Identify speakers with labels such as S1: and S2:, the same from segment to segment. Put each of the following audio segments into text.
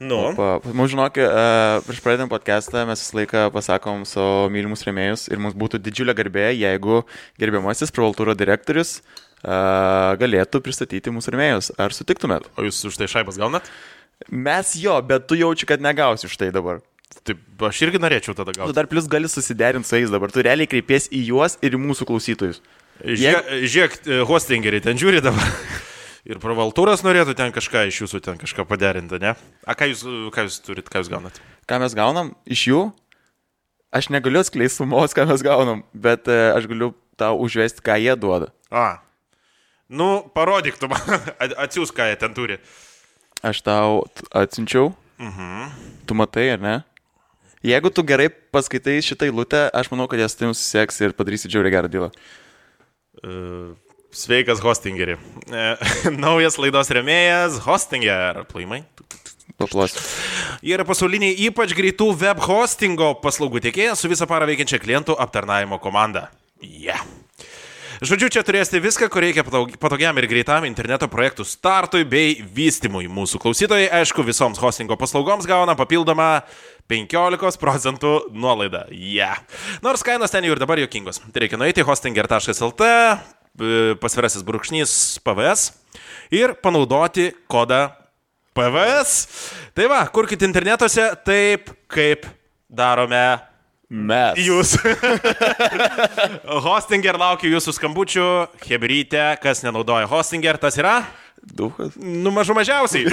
S1: Nu.
S2: Mums žinok, prieš pradedant podcastą mes visą laiką pasakom savo mylimus rėmėjus ir mums būtų didžiulė garbė, jeigu gerbiamasis Pravaltūro direktorius galėtų pristatyti mūsų rėmėjus. Ar sutiktumėt?
S1: O jūs už tai šaibas gaunat?
S2: Mes jo, bet tu jaučiu, kad negausi už tai dabar.
S1: Taip, aš irgi norėčiau tada gauti.
S2: Tu dar plus gali susiderinti su jais dabar. Tu realiai kreipies į juos ir į mūsų klausytojus.
S1: Žiūrėk, hostingeriai ten žiūri dabar. Ir Pravaltūras norėtų ten kažką iš jūsų ten kažką paderinti, ne? A, ką jūs turit, ką jūs gaunat?
S2: Ką mes gaunam iš jų? Aš negaliu atskleisti sumos, ką mes gaunam, bet aš galiu tau užvesti, ką jie duoda.
S1: Nu, parodyk tu man, atsiūs, ką jie ten turi.
S2: Aš tau atsiunčiau. Tu matai, ar ne? Jeigu tu gerai paskaitai šitą eilutę, aš manau, kad jas tai susiseks ir padarysi džiauriai gerą dylą.
S1: Sveikas, hostingeri. Naujas laidos rėmėjas, Hostinger. Plojimai.
S2: Paplosiu.
S1: Jie yra pasauliniai ypač greitų web hostingo paslaugų tiekėjas su visą parą veikiančia klientų aptarnavimo komanda. Žodžiu, čia turėsite viską, ko reikia patogiam ir greitam interneto projektų startui bei vystymui. Mūsų klausytojai, aišku, visoms hostingo paslaugoms gauna papildomą 15% nuolaidą. Nors kainos ten jau ir dabar juokingos. Tai reikia nueiti hostinger.lt, pasvirasis brūkšnys PVS ir panaudoti kodą PVS. Tai va, kurkite internetuose taip, kaip darome
S2: mes.
S1: Jūs. Hostinger laukia jūsų skambučių. Hebrytė, kas nenaudoja Hostinger, tas yra?
S2: Duhas.
S1: Nu, mažiausiai.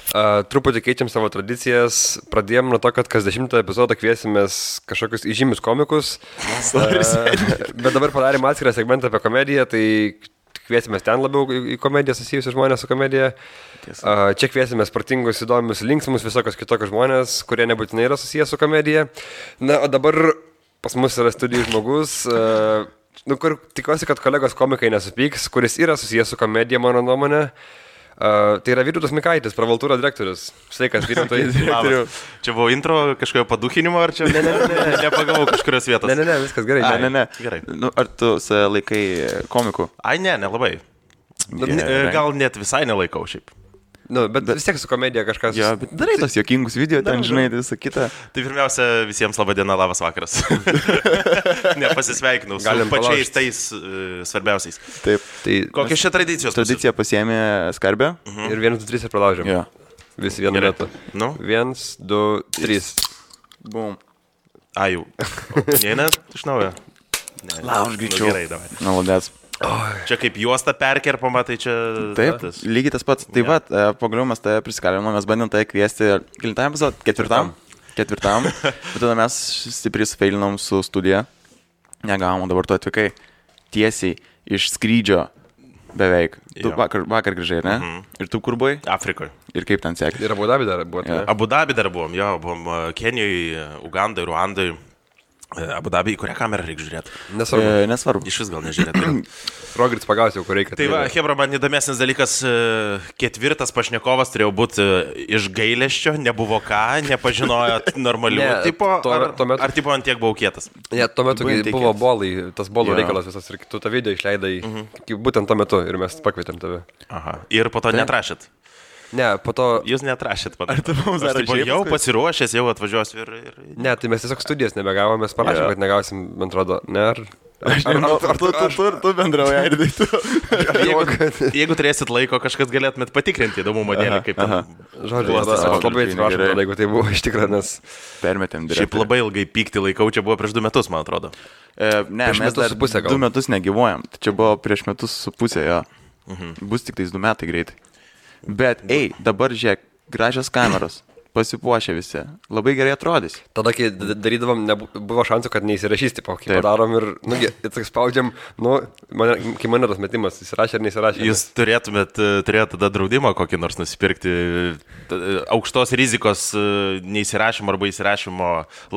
S3: Truputį keičiam savo tradicijas. Pradėjom nuo to, kad kas 10 epizodą kviesimės kažkokius įžymius komikus. Bet dabar padarėm atskirą segmentą apie komediją, tai kviesimės ten labiau į komediją susijusius žmonės su komedija. Čia kviesimės protingus, įdomius, linksmus, visokios kitokios žmonės, kurie nebūtinai yra susijęs su komedija. Na, o dabar pas mus yra studijų žmogus, kur tikiuosi, kad kolegos komikai nesupyks, kuris yra susijęs su komedija, mano nuomonė. Tai yra Vytautas Mikaitis, Pravaltūro direktorius. Sveikas, Vytautai.
S1: Čia buvo intro kažkokio padukinimo, ar čia nepagavau kažkurios vietos?
S3: Ne, viskas gerai.
S2: Ne. Gerai. Nu, ar tu laikai komikų?
S1: Ai, nelabai. Gal net visai nelaikau šiaip.
S3: Nu, bet vis tiek su komedija kažkas...
S2: Jo, bet darai tos juokingus video, ten žinai, visą kitą.
S1: Tai pirmiausia, visiems laba diena, labas vakaras. Nepasisveikinau su pačiais tais svarbiausiais.
S2: Taip.
S1: Tai kokios čia tradicijos?
S2: Tradicija pasiėmė skarbę.
S3: Ir 1, 2, 3 ir pralaužėm.
S2: Jo.
S3: Visi vienu metu.
S1: Nu?
S3: 1, 2, 3.
S2: Bum.
S1: Jau. Neina iš naujo?
S2: Lauž greičiau.
S1: Gerai, davai.
S2: Naudės.
S1: Čia kaip juosta perkerpama, tai čia...
S2: Taip, lygiai tas pats. Taip pat, pagaliau mes tave prisikalinom, mes bandėm tave kviesti kelintam epizodą? Ketvirtam. Bet tada mes stipriai sufeilinom su studija. Negavom, dabar tu atvykai tiesiai iš skrydžio beveik. Tu vakar grįžai, ne? Ir tu kur buvai?
S1: Afrikoje.
S2: Ir kaip ten sekė?
S3: Ir Abu Dabi dar buvo.
S1: Abu Dabi dar buvom, jo, buvom Kenijoje, Ugandai, Ruandai. Abu Dabi, į kurią kamerą reikia žiūrėti?
S2: Nesvarbu.
S1: Iš vis gal nežiūrėti.
S3: Rogiris pagausiu, kur reikia.
S1: Tai va, Hebra, man įdomesnis dalykas, ketvirtas pašnekovas turėjo būti iš gailesčio, nebuvo ką, nepažinojo normalių tipo, ar tipo ant tiek buvau kietas?
S3: Ne, tuo metu buvo bolai, tas bolų reikalas visas ir tu tą video išleidai būtent tuo metu ir mes pakvietėm tave.
S1: Aha, ir po to netrašėt?
S3: Ne, po to...
S1: Jūs netrašėt, man.
S2: Ar tu mums dar rašėjai?
S1: Jau pasiruošęs, jau atvažiuosiu ir...
S3: Ne, tai mes tiesiog studijas nebegavom, mes parašėm, kad negausim, man atrodo, ne,
S2: Ar tu bendrauja, ir tai tu...
S1: Jeigu turėsit laiko, kažkas galėtumėt patikrinti įdomumo dėlį, kaip ten...
S3: Žodžiu, aš labai atsiprašau, jeigu tai buvo iš tikrųjų, nes...
S2: Permetėm direktorių.
S1: Šiaip labai ilgai pykti laikau, čia buvo prieš 2 metus, man atrodo.
S2: Ne, mes dar 2 metus negyvuojam, čia buvo prieš 1.5 metus, jo. Bus tik tais 2 metai greitai. Bet, dabar žiūrėk, gražios kameros, pasipuošę visi, labai gerai atrodys.
S3: Tada, kai darydavom, buvo šansų, kad neįsirašys, tipo, kai padarom ir, spaudžiam, kai mane tas metimas, įsirašė ar neįsirašė.
S1: Jūs turėtumėte tada draudimą kokį nors nusipirkti, aukštos rizikos neįsirašymo arba įsirašymo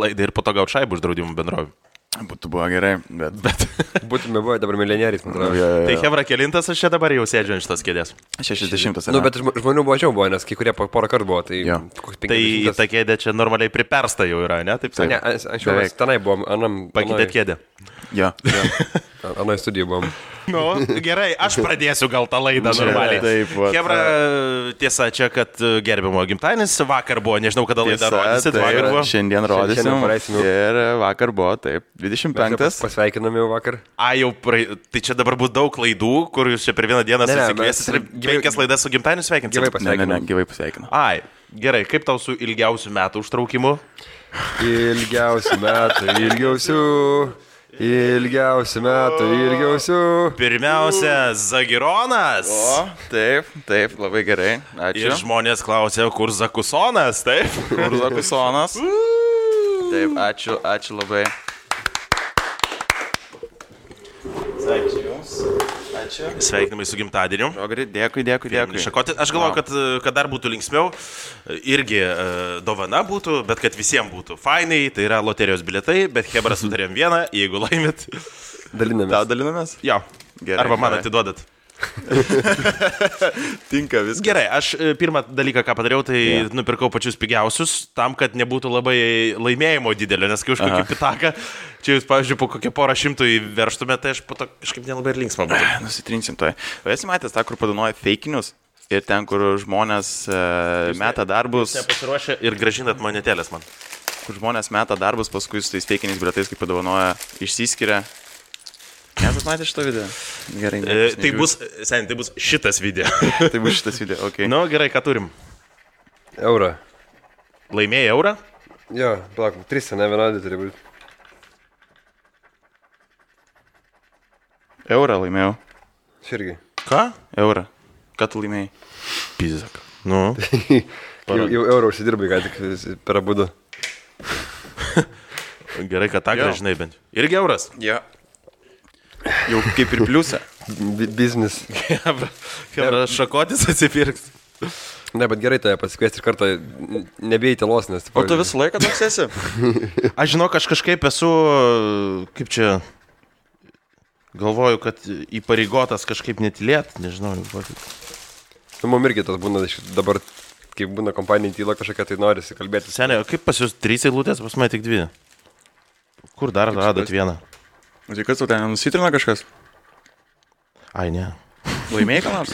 S1: laidą ir po to gauti šaibų už draudimų bendrovių.
S2: Būtų buvo gerai, bet...
S3: Būtume buvę dabar milijonieriais, man atrodo.
S1: Tai Hebra kelintas aš čia dabar jau sėdžiu ant šitos kėdės.
S2: 60.
S3: Nu, bet žmonių mažiau buvo, nes kai kurie porą kartų buvo, tai...
S2: Jo.
S1: Tai ta kėdė čia normaliai pripersta jau yra, ne? Taip
S3: Ne,
S1: sakant.
S3: anksčiau mes tenai buvom,
S1: Pakeitėt kėdę.
S2: Jo.
S3: anoj studijų buvom.
S1: Nu, gerai, aš pradėsiu gal tą laidą normaliai.
S2: Taip, vat.
S1: Hebra, tiesa, čia, kad gerbimo gimtadienis vakar buvo, nežinau, kada laidą rodysit, vakar buvo.
S2: Šiandien rodysim.
S3: Šiandien paleisim jau.
S2: Ir vakar buvo, taip, 25.
S3: Pasveikinam jau vakar.
S1: Tai čia dabar bus daug klaidų, kur jūs čia per vieną dieną
S3: Ne,
S1: susikviesit ir
S3: mes-
S1: 5 laidas su gimtadieniu sveikinsit.
S3: Gyvai
S2: Ne,
S3: pasveikinam.
S2: gyvai pasveikinu.
S1: Ai, gerai, kaip tau su ilgiausiu metų užtraukimu?
S3: Ilgiausių metų, ilgiausių.
S1: Pirmiausia, Zagironas.
S2: O, taip, labai gerai.
S1: Ir
S2: Ačiū.
S1: žmonės klausė, kur Zakusonas, taip?
S2: Urzakusonas. Taip, ačiū labai. Ačiū Jums. Ačiū.
S1: Sveikinimai su gimtadieniu.
S2: Rogari, dėkui.
S1: Šakoti. Aš galvoju, kad dar būtų linksmiau, irgi dovana būtų, bet kad visiems būtų fainai, tai yra loterijos bilietai, bet Hebra sutarėm vieną, jeigu laimit.
S3: Dalinamės.
S2: Tau dalinamės?
S1: Jo.
S2: Gerai,
S1: Arba man
S2: gerai.
S1: atiduodat.
S2: Tinka viskas.
S1: Gerai, aš pirmą dalyką, ką padariau, tai nupirkau pačius pigiausius, tam, kad nebūtų labai laimėjimo didelio, nes kai už kokį pitaką, čia jūs, pavyzdžiui, po kokią porą šimtų įverštumėte, tai aš po to kažkaip nelabai ir linksma būtų.
S2: Nusitrinsim toj. O esi matęs tą, kur padanoja feikinius ir ten, kur žmonės meta darbus,
S1: Nepasiruošę ir gražinat monetėlės man.
S2: kur žmonės meta darbus, paskui su tais feikiniais bilietais, kaip padovanoja, išsiskiria. Nesat matę šitą video? Gerai.
S1: Tai bus šitas video.
S2: Tai bus šitas video, okei.
S1: Nu, gerai, ką turim?
S3: Eurą.
S1: Laimėjai eurą?
S3: Jo, palauk, 3, ne vienodai turi būti.
S2: Eurą laimėjau.
S3: Širgi.
S1: Ką?
S2: Eurą. Ką tu laimėjai?
S1: Pizak. Nu.
S3: Jau eurą užsidirbai, ką tik per abudu.
S1: Gerai, kad tą
S2: Jo.
S1: gražinai bent. Irgi euras.
S2: Jo. Jau kaip ir pliusą.
S3: Biznis.
S1: Hebra, šakotis atsipirks.
S3: Ne, bet gerai tave pasikviesti ir kartą nebijai tylos, nes...
S2: O tu visą laiką toks esi?
S1: Aš žinau, aš kažkaip esu, kaip čia, galvoju, kad įpareigotas kažkaip netilėt, nežinau.
S3: Nu, mum irgi tas būna dabar, kai būna kompanija tyla kažkokia, tai norisi kalbėti.
S1: Seniai, o kaip pas jūs 3 eilutės, pas mane tik 2? Kur dar radot vieną?
S2: Tai kas tu ten nusitrina kažkas?
S1: Ai, ne.
S2: Laimėjai ką nors?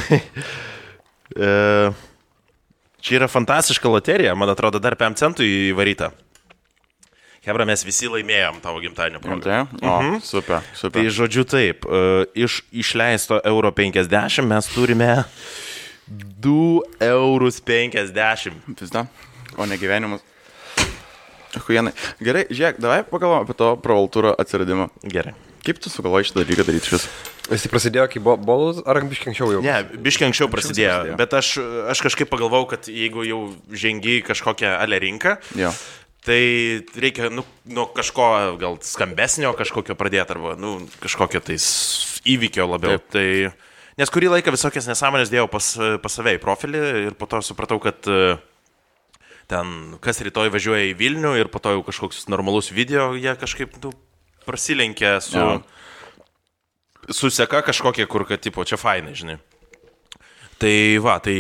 S1: Čia yra fantastiška loterija, man atrodo, dar 5 centų įvaryta. Hebra, mes visi laimėjom tavo gimtadienio progą.
S2: O, super.
S1: Tai žodžiu taip, iš išleisto euro 50 mes turime 2,50 eurus.
S2: Pizda. O ne gyvenimas. Huienai. Gerai, žiūrėk, davai pagalvom apie to provaltūro atsiradimą.
S1: Gerai.
S2: Kaip tu sugalvojai šitą dalyką daryti šis?
S3: Jis prasidėjo, kai buvo bolas, ar biškiai anksčiau jau?
S1: Ne, biškiai anksčiau prasidėjo,
S2: prasidėjo.
S1: bet aš kažkaip pagalvojau, kad jeigu jau žengi į kažkokią ale rinką,
S2: Jo.
S1: tai reikia nuo kažko gal skambesnio kažkokio pradėti, arba kažkokio tais įvykio labiau.
S2: Taip.
S1: Tai, nes kurį laiką visokias nesąmonės dėjau pas save į profilį ir po to supratau, kad ten kas rytoj važiuoja į Vilnių ir po to jau kažkoks normalus video, jie kažkaip prasilenkia su seka kažkokie, kur, kad, tipo, čia fainai, žinai. Tai va, tai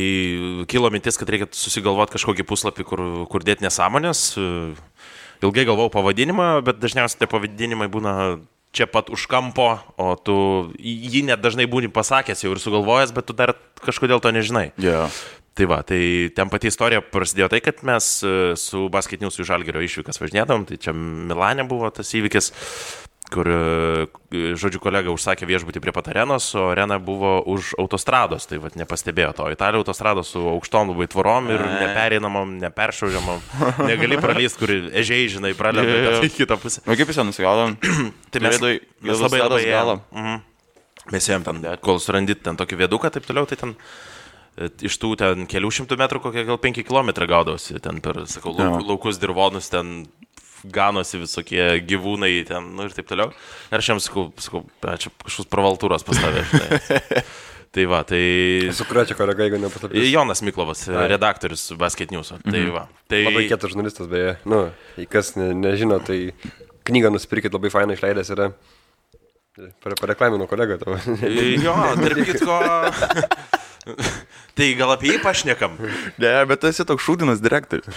S1: kilo mintis, kad reikia susigalvoti kažkokį puslapį, kur dėti nesąmonės. Ilgai galvojau pavadinimą, bet dažniausiai tie pavadinimai būna čia pat už kampo, o tu jį net dažnai būni pasakęs jau ir sugalvojęs, bet tu dar kažkodėl to nežinai.
S2: Jo.
S1: Tai va, tai ten pati istorija prasidėjo tai, kad mes su Basket News į Žalgirio išvykas važinėdavom, tai čia Milane buvo tas įvykis, kur, žodžiu, kolega užsakė viešbutį prie pat arenos, o arena buvo už autostrados, tai va, nepastebėjo to. Italija autostrados su aukštom labai tvorom ir nepereinamom, neperšaužiamom, negali pralyst, kur ežiai, žinai, pralenda į kitą pusę.
S2: O kaip jūs ten nusigaudom?
S1: Tai mes labai labai ėjom. Mes ėjom ten, kol surandit ten tokį vieduką, taip toliau, tai ten iš tų ten kelių šimtų metrų kokie gal 5 kilometrai gaudavosi, ten per, sakau, laukus dirvonus, ten ganosi visokie gyvūnai, ten, ir taip toliau. Ir aš jiems sakau, čia kažkoks provaltūros pastavė, žinai. Tai va, tai...
S3: Su kurio čia kolega, jeigu nepaslaptis?
S1: Jonas Miklovas, redaktorius Basket News. Tai va. Tai...
S3: Labai kietas žurnalistas, beje. Nu, kas nežino, tai knygą nusipirkit, labai fainą išleidęs yra. Pareklamino kolegą tavo.
S1: Jo, tarp kitko. Tai gal apie jį pašnekam?
S2: Ne, bet tu esi toks šūdinas direktorius.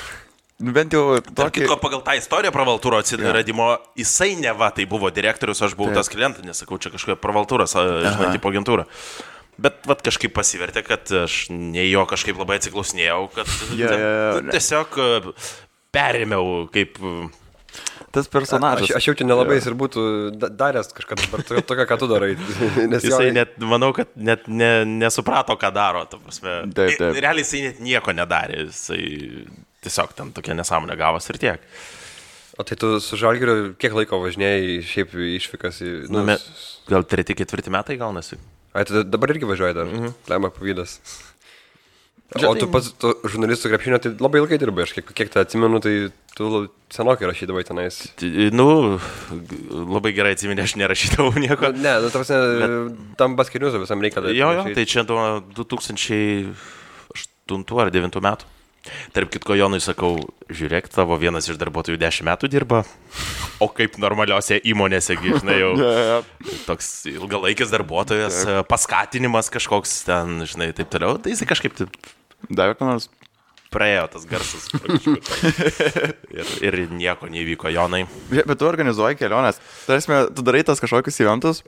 S2: Bent jau
S1: Tarp kitko, pagal tą istoriją pravaltūro atsiradimo, jisai neva tai buvo direktorius, aš buvau tas klientas, nesakau, čia kažkokia pravaltūros, žinai, tipo agentūra. Bet vat kažkaip pasivertė, kad aš ne jo kažkaip labai atsiklausinėjau, kad tiesiog perėmiau kaip...
S2: Tas personažas.
S3: Aš jau čia nelabai jis ir būtų daręs kažką tokia, ką tu darai. Nes
S1: jisai net, manau, kad net nesuprato, ką daro.
S2: Taip.
S1: Realiai jisai net nieko nedarė. Jisai tiesiog ten tokia nesąmonė gavos ir tiek.
S3: O tai tu su Žalgiriu kiek laiko važinėjai šiaip išvykas į...
S1: Gal 3-4 metai gaunasi.
S3: Ai, tai dabar irgi važiuoji dar. Lemba pavydas. O tu pats žurnalistų krepšinio, tai labai ilgai dirbai, aš kiek tai atsimenu, tai tu senokai rašydavai tenais.
S1: Labai gerai atsimeni, aš nerašydavau nieko.
S3: Ne, tam basketiniuzo visam reikia.
S1: Jo, tai čia 2008 ar 2009 metų. Tarp kitko, Jonui sakau, žiūrėk, tavo vienas iš darbuotojų 10 metų dirba, o kaip normaliuose įmonėse, žinai, jau toks ilgalaikis darbuotojas, paskatinimas kažkoks ten, žinai, taip toliau, tai jisai kažkaip taip...
S2: Davė ką nors?
S1: Praėjo tas garsas. ir nieko neįvyko, Jonai.
S2: Bet tu organizuoji keliones. Tarsi, tu darai tas kažkokius eventus,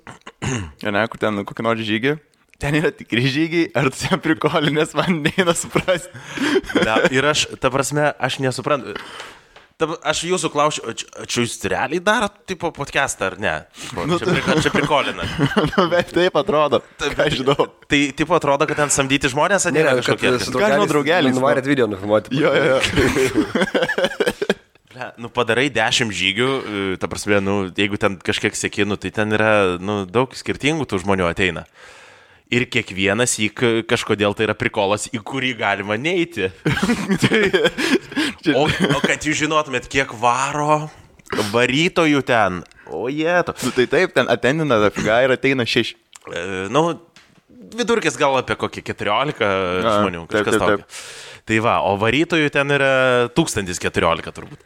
S2: kur ten kokį nors žygį. Ten yra tikri žygiai, ar tu ten prikolinės, man neina suprasti.
S1: Ir aš, ta prasme, aš nesuprantu. Aš jūsų klausiu, čia jūs realiai darot tipo podcastą, ar ne? Čia prikolina.
S2: Bet taip atrodo, aš žinau.
S1: Tai tipo atrodo, kad ten samdyti žmonės, ar ne?
S3: Ką žinau, draugelis. Nuvarėt video nufilmuoti.
S2: Jo.
S1: Padarai 10 žygių, ta prasme, jeigu ten kažkiek seki, tai ten yra, daug skirtingų tų žmonių ateina. Ir kiekvienas kažkodėl tai yra prikolas, į kurį galima neiti. o kad jūs žinotumėt, kiek varo varytojų ten. O jėto.
S2: Tai taip, ten atendina dafiga ir ateina 6.
S1: Vidurkis gal apie kokį 14 žmonių, kažkas tokio. Tai va, o varytojų ten yra 1014 turbūt.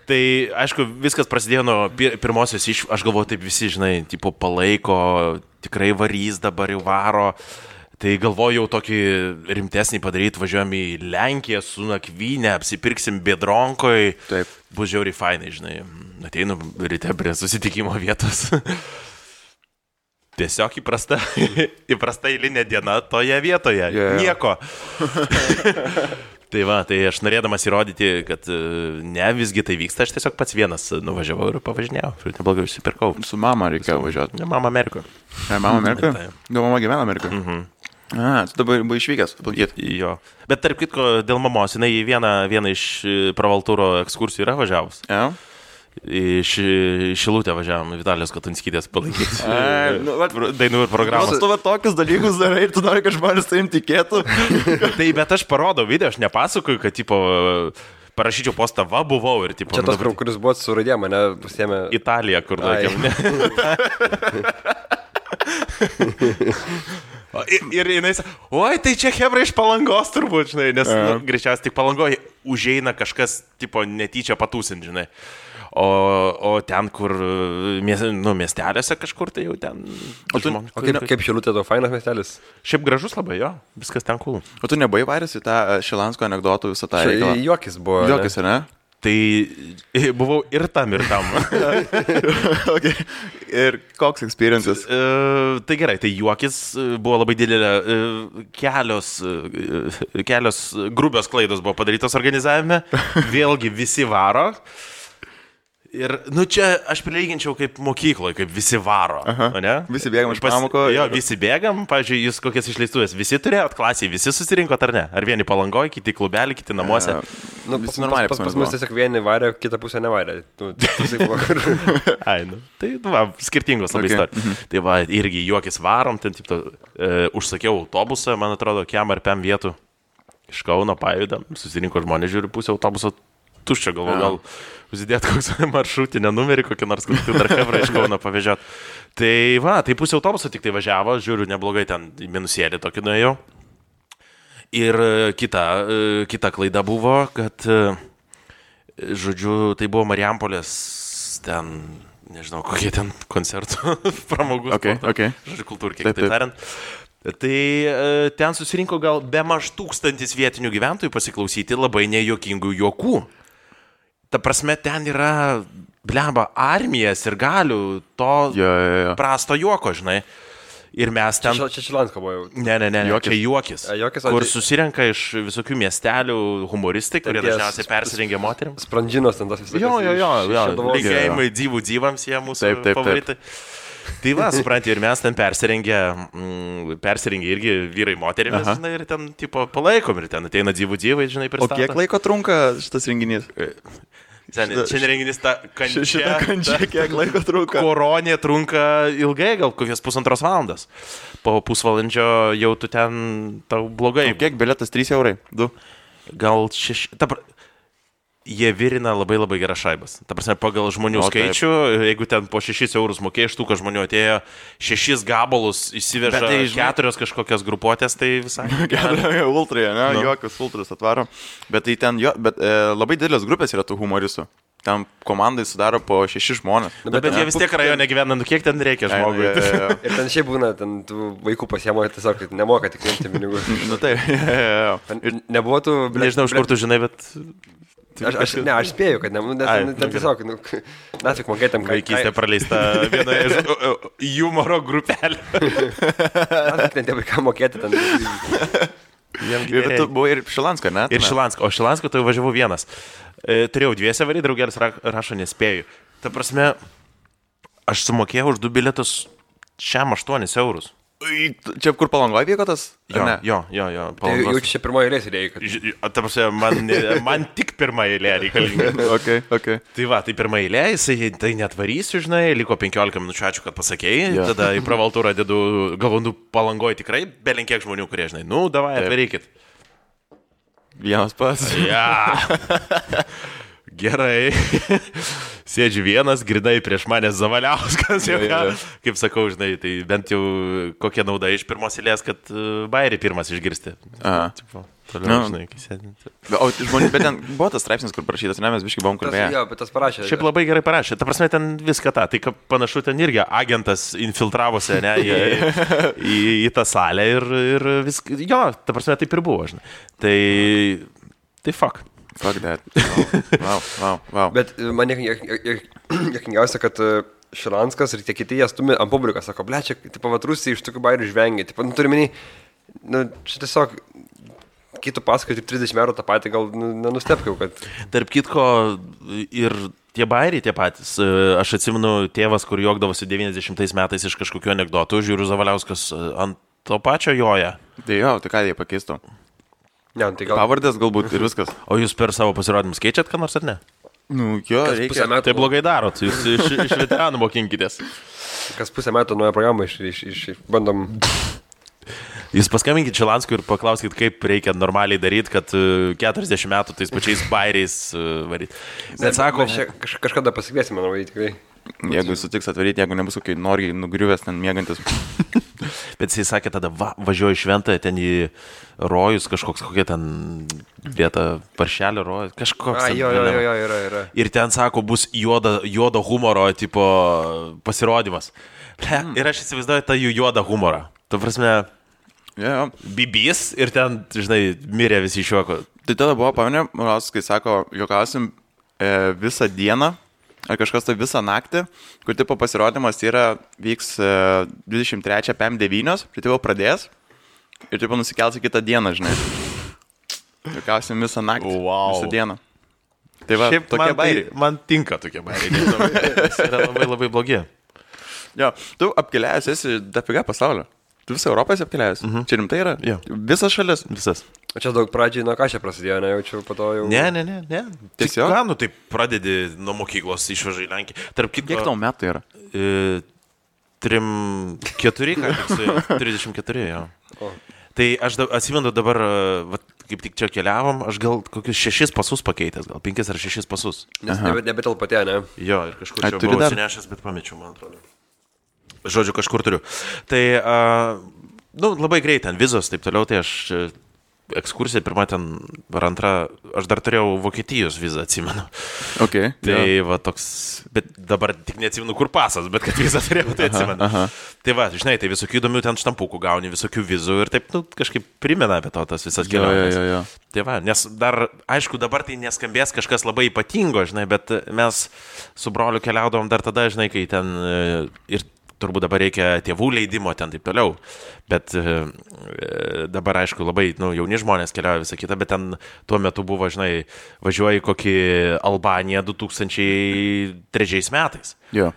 S1: Tai, aišku, viskas prasidėjo nuo pirmosios aš galvoju, taip visi, žinai, tipo palaiko, tikrai varys dabar jau varo. Tai galvoju jau tokį rimtesnį padaryti, važiuojam į Lenkiją su nakvynė, apsipirksim Biedronkoj.
S2: Taip.
S1: Bus žiauriai fainai, žinai. Ateinu ryte prie susitikimo vietos. Tiesiog įprasta eilinė diena toje vietoje. Nieko. Tai va, tai aš norėdamas įrodyti, kad ne, visgi tai vyksta, aš tiesiog pats vienas nuvažiavau ir pavažinėjau. Ir neblogai užsipirkau.
S2: Su mama reikėjo važiuoti.
S1: Ne, mama Amerikoje.
S2: Mama Amerikoje? Gal mama gyvena Amerikoje? Tu dabar buvai išvykęs, aplankyti.
S1: Jo. Bet tarp kitko, dėl mamos, jinai vieną iš pravaltūro ekskursijų yra važiavus. Iš Šilutę važiavom, Vitalijos Katunskytės palaikyti dainų ir programos.
S2: Tu tokius dalykus darai ir tu nori, kad žmonės tai tikėtų.
S1: Tai bet aš parodau video, aš nepasakoju, kad tipo parašyčiau postą, va buvau ir tipo...
S3: Čia tas, kuris buvo su raidė, mane pasiėmė...
S1: Italija, kur laikėm, ne? Ir jinai sako, oi, tai čia hebra iš Palangos turbūt, žinai, nes greičiausiai tik Palangoje užeina kažkas, tipo, netyčia patūsint, žinai. O ten, kur miestelėse kažkur, tai jau ten...
S3: O kaip Šilutė to fainas miestelis?
S1: Šiaip gražus labai, jo, viskas ten cool.
S2: O tu nebuvai varęs į tą Šilansko anekdotų visą tą reikalą?
S3: Juokis buvo.
S2: Juokis, ne?
S1: Tai buvau ir tam.
S2: Okay. Ir koks experiences?
S1: Tai gerai, tai juokis buvo labai didelė, kelios grubios klaidos buvo padarytos organizavime, vėlgi visi varo. Ir, čia aš prilyginčiau kaip mokykloje, kaip visi varo, ne?
S2: Visi bėgam iš pamoko.
S1: Jo, visi bėgam, pavyzdžiui, jūs kokias išleistuvės, visi turėjot klasėje, visi susirinkot ar ne? Ar vieni Palangoje, kiti klubelį, kiti namuose?
S2: Visi normaliai
S3: pas mus tiesiog vieni varė, kitą pusę nevarė.
S1: Tai, skirtingos labai istorijos. Tai va, irgi juokis varom, ten taip, užsakiau autobusą, man atrodo, kiam ar pem vietų iš Kauno pajudam, susirinko žmonės, žiūri, pusę autobuso tuščia, gal užsidėt koks maršrutinę numerį, kokį nors dar hebrą iš Kauno pavežiot. Tai va, tai pusė autobuso tik tai važiavo, žiūriu, neblogai ten minusėlį tokį nuėjau. Ir kita klaida buvo, kad, žodžiu, tai buvo Marijampolės ten, nežinau, kokie ten koncertų, pramogų.
S2: Okay.
S1: Žodžiu, kultūrkiai, taip tariant. Tai ten susirinko gal be maž 1000 vietinių gyventojų pasiklausyti labai nejuokingų juokų. Ta prasme, ten yra, bleba, armijas ir galių to prasto juoko, žinai. Ir mes ten...
S3: Čia Šilansko buvo jau.
S1: Ne, čia juokis. Kur susirenka iš visokių miestelių humoristai, kurie dažniausiai persirengia moterim.
S3: Sprandžinos ten tas visokios.
S1: Jo. Linkėjimai dzivams jie mūsų favoritai. Tai va, supranti, ir mes ten persirengė irgi vyrai moterimis, žinai, ir ten, tipo, palaikom, ir ten ateina dzivai, žinai, pristato.
S2: O kiek laiko trunka šitas renginys?
S1: Šiandien renginys ta kančia.
S2: Šitą kančią, kiek laiko trunka?
S1: Koronė trunka ilgai, gal kokias 1,5 valandos. Po pusvalandžio jau tu ten, tau blogai.
S2: O kiek bilietas? 3 eurai? 2?
S1: Gal 6... Jie virina labai geras šaibas. Ta prasme, pagal žmonių skaičių, jeigu ten po 6 eurus mokėjai, štuka žmonių atėjo, 6 gabalus įsiveža 4 kažkokias grupuotės, tai visai.
S2: Ultra, ne? Jokius ultras atvaro. Bet tai ten, labai didelės grupės yra tų humoristų. Ten komandai sudaro po 6 žmonės.
S1: Bet jie vis tiek rajone gyvena, kiek ten reikia žmogui.
S3: Ir ten šiaip būna, ten tų vaikų pasiemo, tiesiog nemoka tik imti pinigų. Nebuvo tų...
S1: Nežinau, iš kur tu žinai, bet...
S3: Aš spėju, kad ten tiesiog, nafik mokėtėm, kad...
S1: Vaikystė praleista vienoje iš humoro grupelė.
S3: Nafik ten tie vaiką mokėti ten.
S2: Bet tu buvai ir Šilansko, ne?
S1: Ir Šilansko, o Šilansko tai važiavau vienas. Turėjau 2 varį, draugelis rašo nespėju. Ta prasme, aš sumokėjau už 2 bilietus šiam 8 eurus.
S2: Čia kur Palangoje vyko tas?
S1: Jo.
S3: Tai jau čia pirmoji eilė reikia.
S1: Ta prasme, man tik pirma eilė reikalinga.
S2: Okay.
S1: Tai va, tai pirma eilė, jisai tai netvarysiu, žinai, liko 15 minučių, ačiū, kad pasakėjai. Tada į pravaltūrą dedu, galvonu, Palangoje tikrai belenkiek žmonių, kurie, žinai, davai, atvarykit.
S2: Vienas pats.
S1: Gerai. Sėdžiu vienas, grinai prieš mane Zavaliauskas. Kaip sakau, žinai, tai bent jau kokia nauda iš pirmos eilės, kad bairį pirmas išgirsti. Toliau, žinai, kai sėdinti.
S2: O žmonės, bet ten buvo tas straipsnis, kur parašytas, ne, mes biškai buvom kalbėję.
S3: Jo, bet tas parašė.
S1: Šiaip labai gerai parašė. Ta prasme, ten viską tą. Tai panašu, ten irgi agentas infiltravosi, ne, į tą salę ir viską. Jo, ta prasme, taip ir buvo, žinai. Tai fuck.
S2: Fuck that. Wow.
S3: Bet man juokingiausia, kad Šilanskas ir tie kiti jie stumi ant publiką, sako, ble, čia, tipo, Rusija iš tokių bairių žvengia. Tipo, turi menį, čia tiesiog, kai tu pasakai tik 30 eurų tą patį, gal nenustepkiau, kad...
S1: Tarp kitko ir tie bairiai tie patys. Aš atsimenu tėvas, kur juokdavosi 90 metais iš kažkokių anekdotų, žiūriu Zavaliauskas ant to pačio joja.
S2: Tai jo, tai ką jie pakeistų?
S3: Ne, tai gal...
S2: Pavardės galbūt ir viskas.
S1: O jūs per savo pasirodymus keičiat ką nors ar ne?
S2: Jo, reikia.
S1: Tai blogai darot, jūs iš veteranų mokinkitės.
S3: Kas pusę metų naują programą bandom...
S1: Jūs paskambinkit Šilanskui ir paklauskit, kaip reikia normaliai daryti, kad 40 metų tais pačiais bairiais varyti.
S3: Bet sako... Kažkada pasikviesime, manau, tikrai.
S2: Jeigu sutiks atvaryti, jeigu nebus kokiai noriai nugriuvęs ten mėgantis.
S1: Bet jisai sakė, tada važiuoju į šventą, ten į rojus, kokia ten vieta, paršelio rojus, kažkoks.
S3: Yra.
S1: Ir ten, sako, bus juodo humoro tipo pasirodymas. Ir aš įsivaizduoju tą jų juodą humorą. Tu prasme, bibys ir ten, žinai, mirė visi iš juoko.
S2: Tai tada buvo, paminė, kai sako, juokausim visą dieną, ar kažkas tai visą naktį, kur tipo pasirodymas vyks 23 PM9, tai tipo pradės ir tipo nusikels į kitą dieną, žinai. Juokausim visą naktį, visą dieną. Tai va,
S1: šiaip
S2: tokie bairiai.
S1: Man tinka tokie bairiai, nes yra labai blogi.
S2: Jo, tu apkeliavęs esi dafiga pasaulio. Tu visą Europą esi apkeliavęs. Čia rimtai yra?
S1: Jo.
S2: Visas šalis?
S1: Visas.
S3: O čia daug pradžiai nuo ką čia prasidėjo, nejaučiu, po to jau...
S1: Ne.
S2: Tiesiog?
S1: Ką, tai pradedi nuo mokyklos, išvažiai į Lenkiją.
S2: Kiek tau metų yra?
S1: 34, ką tik su 34, jo. Tai aš atsimenu dabar, kaip tik čia keliavom, aš gal kokius 6 pasus pakeitęs, gal 5 ar 6 pasus.
S3: Nes nebetelpatė, ne?
S1: Jo, ir kažkur čia buvau atsinešęs, bet pamečiau, man atrodo. Žodžiu, kažkur turiu. Tai, labai greit ten vizos, taip toliau, tai aš ekskursija, pirma ten, ar antra, aš dar turėjau Vokietijos vizą, atsimenu.
S2: Okay,
S1: tai va toks, bet dabar tik neatsimenu, kur pasas, bet kad vizą turėjau, tai atsimenu. Tai va, žinai, tai visokių įdomių ten štampukų gauni, visokių vizų ir taip, kažkaip primena apie tas visas keliones. Tai va, nes dar, aišku, dabar tai neskambės kažkas labai ypatingo, žinai, bet mes su broliu keliaudavom dar tada, žinai, kai ten ir turbūt dabar reikia tėvų leidimo ten taip toliau, bet dabar, aišku, labai jauni žmonės keliauja visą kitą, bet ten tuo metu buvo, žinai, važiuoji kokį Albaniją 2003 metais.
S2: Jo.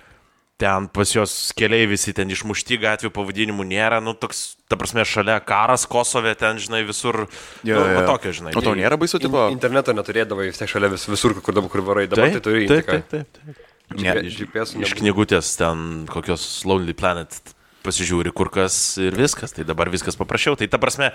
S1: Ten pas jos keliai visi ten išmušti, gatvių pavadinimų nėra, toks, ta prasme, šalia karas Kosove, ten, žinai, visur, tokio, žinai.
S2: O tau nėra baisu, tipo?
S3: Interneto neturėdavai, vis tiek šalia visur, kur varai, dabar tai turi.
S1: Taip. Iš knygutės ten kokios Lonely Planet pasižiūri kur kas ir viskas, tai dabar viskas paprasčiau. Tai ta prasme,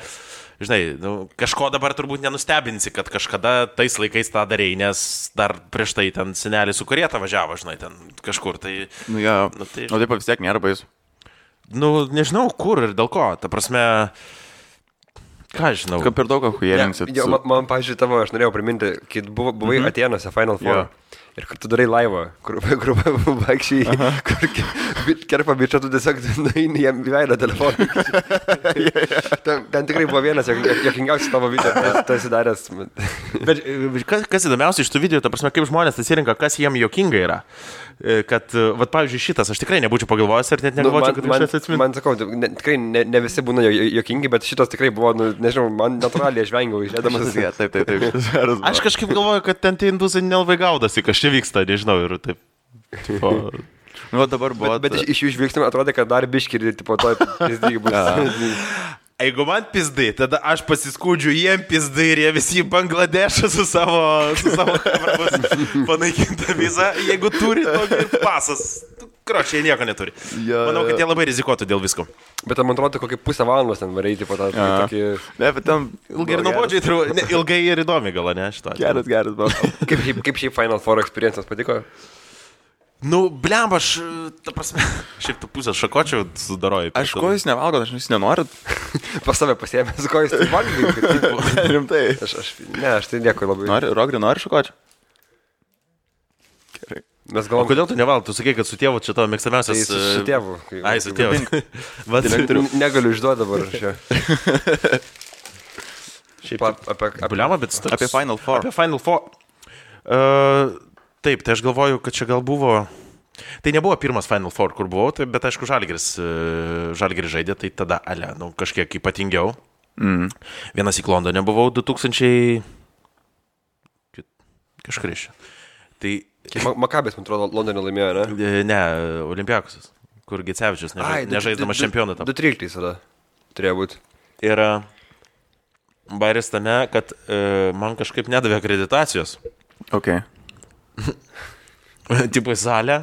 S1: žinai, kažko dabar turbūt nenustebinsi, kad kažkada tais laikais tą darei, nes dar prieš tai ten senelis su karieta važiavo, žinai, ten kažkur. Tai,
S2: tai... O taip vis tiek nėra baisu.
S1: Nežinau kur ir dėl ko, ta prasme... Ką žinau?
S2: Kaip per daug achujelinsit.
S3: Man, pavyzdžiui, tavo, aš norėjau priminti, kai buvai Atėnuose Final Four. Ir kur tu darai laivą, kur vaikščiai, kur kerpa bičia, tu tiesiog nueini jam į veidą telefoną. Ten tikrai buvo vienas jokingiausias tavo video, tu esi daręs.
S1: Bet kas įdomiausia iš tų video, ta prasme, kaip žmonės atsirinka, kas jiem jokinga yra. Kad, pavyzdžiui, šitas, aš tikrai nebūčiau pagalvojęs ir net negalvočiau, kad aš atsiminti.
S3: Man sakau, tikrai ne visi būna jokingi, bet šitas tikrai buvo, nežinau, man natūraliai aš vengiau išėdamas.
S2: Taip.
S1: Aš kažkaip galvoju, kad ten tie indusai nelabai gaudasi, kas čia vyksta, nežinau, ir taip.
S2: Dabar buvo.
S3: Bet iš jų žvilgsnių atrodė, kad dar biškį ir tipo to pizdygi bus.
S1: Jeigu man pizdai, tada aš pasiskūdžiu jiem pizdai ir jie visi į Bangladešą su savo panaikinta vizą, jeigu turi tokį pasas. Kročiai, jie nieko neturi. Manau, kad jie labai rizikuotų dėl visko.
S3: Bet man atrodo, kokį pusę valandos ten varyti po tą tokį...
S2: Ne, bet ten...
S1: Ilgai ir nuobodžiai, ilgai ir įdomi gal, ne, šito.
S2: Geras, buvo.
S3: Kaip šiaip Final Four experiences patiko?
S1: Blemba, aš, ta prasme, šiaip tu pusę šakočių sudaroju.
S2: Aš ko jūs nevalgot, aš jūs nenorit.
S3: Pas save pasiėmęs, ko jūs tai valgai.
S2: Rimtai.
S3: Aš tai nieko labai.
S2: Rogri nori šakočių? Gerai.
S3: Mes galvom...
S1: O kodėl tu nevalgai? Tu sakai, kad su tėvu čia tavo mėgstamiausias...
S3: Tai su tėvu.
S1: Ai, su tėvu.
S3: Negaliu išduoti dabar čia.
S1: Šiaip Blemba, bet...
S2: Apie Final Four.
S1: Apie Final Four. Taip, tai aš galvoju, kad čia gal buvo... Tai nebuvo pirmas Final Four, kur buvau, tai, bet aišku, Žalgiris žaidė, tai tada, kažkiek ypatingiau. Vienas į Londone buvau 2000... Kažkur iš. Tai...
S3: Makabės, man atrodo, Londone laimėjo, ne?
S1: Ne, Olimpiakosas, kur Gecevičius nežaisdamas čempioną tam.
S3: 2013 tada turėjo būti.
S1: Ir bairis tame, kad man kažkaip nedavė akreditacijos.
S2: Okay.
S1: Tipo į salę.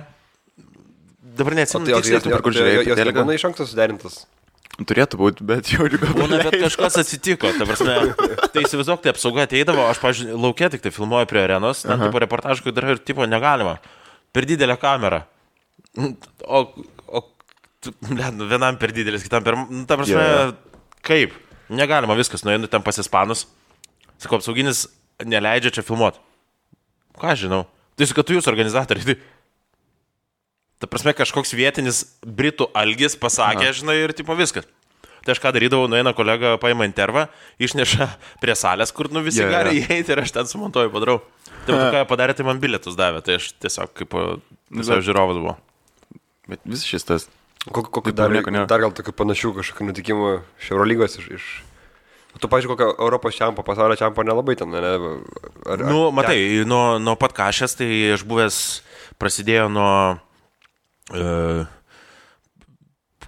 S1: Dabar neatsimenu tiksliai,
S3: tu per kur žiūrėjai. Jos nebūna iš anksto suderintas.
S2: Turėtų būti, bet jau ir
S1: būna, bet kažkas atsitiko. Ta prasme, tai įsivaizduok, tai apsauga ateidavo, aš, pavyzdžiui, lauke tik tai filmuoju prie arenos, ten tipo reportažų, kad ir tipo negalima. Per didelę kamerą. Vienam per didelis, kitam per... Ta prasme, kaip? Negalima viskas, nueinu ten pas ispanus. Sakau, apsauginis neleidžia čia filmuoti. Ką žinau? Tai kad tu jūs organizatoriai. Ta prasme, kažkoks vietinis britų algis pasakė, žinai, ir tipo viskas. Tai aš ką darydavau, nueina kolega, paima intervą, išneša prie salės, kur visi gali įeiti ir aš ten sumontuoju, padarau. Tai ką padarė, tai man bilietus davė, tai aš tiesiog kaip visai žiūrovas buvo.
S2: Bet vis šis tas.
S3: Kokiu dar gal tokių panašių kažkokių nutikimų iš Eurolygos iš... Tu, pavyzdžiui, kokio Europos čempo, pasaulio čempo nelabai ten, ne?
S1: Matai, nuo pat Kašės, tai aš buvęs, prasidėjo nuo,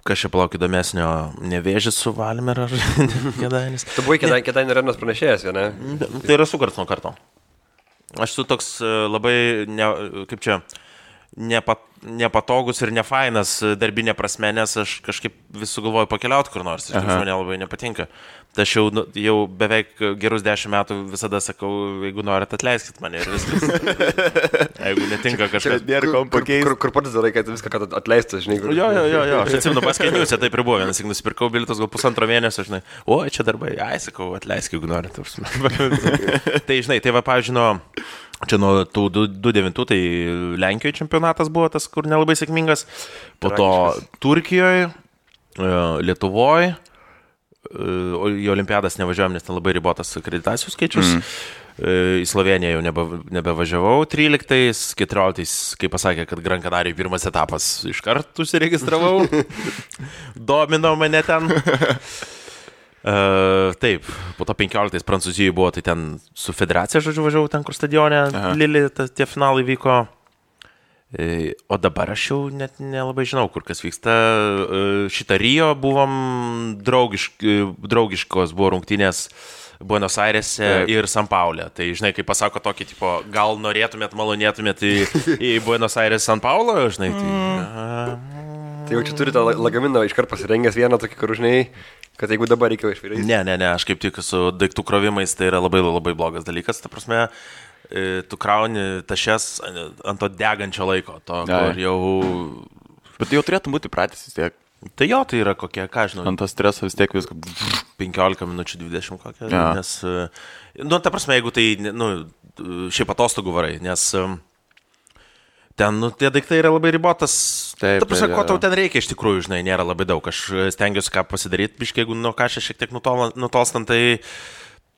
S1: kas čia palauk įdomesnio, Nevėžis su Valmier ar Kėdainis.
S3: Tu buvai Kėdainių arenos pranešėjas, ne?
S1: Tai yra su karts nuo karto. Aš su toks labai, nepatogus ir nefainas darbinė prasme, nes aš kažkaip vis sugalvoju pakeliauti kur nors, iš tikrųjų man labai nepatinka. Tai aš jau beveik gerus 10 metų visada sakau, jeigu norit, atleiskit mane ir viskas. Jeigu netinka kažkas.
S2: Nėra kom pakeisti.
S3: Kur pats darai, kad viską atleistas, žinai.
S1: Jo. Aš atsimenu, paskeniuose taip ir buvo. Vienas, jeigu nusipirkau bilietus gal 1,5 mėnesio, žinai. O, čia darbai. Ai, sakau, atleisk, jeigu norit. Tai, žinai, tai va, pavyzdžiui, čia nuo tų 2-9, tai Lenkijoje čempionatas buvo tas, kur nelabai sėkmingas. Po to Turkijoje, Lietuvoje. Į olimpiadas nevažiuojam, nes ten labai ribotas akreditacijų skaičius. Į Sloveniją jau nebevažiavau 13, 14, kai pasakė, kad Gran Canarijai pirmas etapas iškart užsiregistravau. Domino mane ten. Taip, po to 15 Prancūzijoje buvo, tai ten su federacija, žodžiu, važiavau ten, kur stadione Lili, tie finalai vyko. O dabar aš jau net nelabai žinau, kur kas vyksta. Šitą Rio buvom draugiškos, buvo rungtynės Buenos Airėse ir San Paule. Tai žinai, kai pasako tokį, tipo, gal norėtumėt, malonėtumėt į Buenos Aires, San Paulo, žinai, tai...
S3: Tai jau čia turite lagaminą iškart pasirengęs vieną tokį, kur žinai, kad jeigu dabar reikia išvirti.
S1: Ne, aš kaip tik su daiktų krovimais, tai yra labai, labai blogas dalykas, ta prasme... Tu krauni tašes ant to degančio laiko, to, kur jau...
S2: Bet jau turėtų būti pratęs vis tiek.
S1: Tai jo, tai yra kokie, ką žinau.
S2: Ant to streso vis tiek viską...
S1: 15 minučių, 20 kokią, nes... Nu, ta prasme, jeigu tai, šiaip atostogų varai, nes... Ten, tie daiktai yra labai ribotas.
S2: Taip,
S1: ta prasme, ko tau ten reikia iš tikrųjų, žinai, nėra labai daug. Aš stengiuosi ką pasidaryti, biškai, jeigu nuo kažką šiek tiek nutolstant, tai...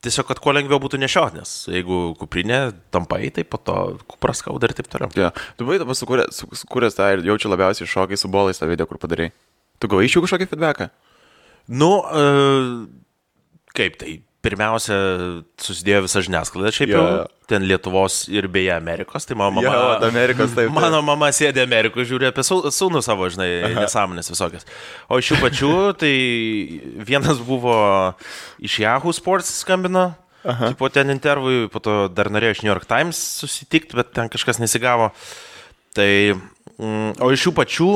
S1: Tiesiog, kad kuo lengviau būtų nešiot, nes jeigu kuprinė tampai, tai po to kupras skauda ir taip toliau.
S2: Ja. Tu buvai dabar sukūręs tą ir jaučiu labiausiai šokai su bolais tą video, kur padarai. Tu gavai iš jų kažkokį feedbacką?
S1: Kaip tai? Pirmiausia, susidėjo visa žiniasklaida, šiaip jau ten Lietuvos ir beje Amerikos, tai mano mama...
S2: Amerikos, taip.
S1: Mano mama sėdė Amerikos, žiūri apie sūnų savo, žinai, nesąmonės visokias. O iš jų pačių, tai vienas buvo iš Yahoo Sports skambino, tipo ten intervui, po to dar norėjo iš New York Times susitikti, bet ten kažkas nesigavo. Tai, o iš jų pačių,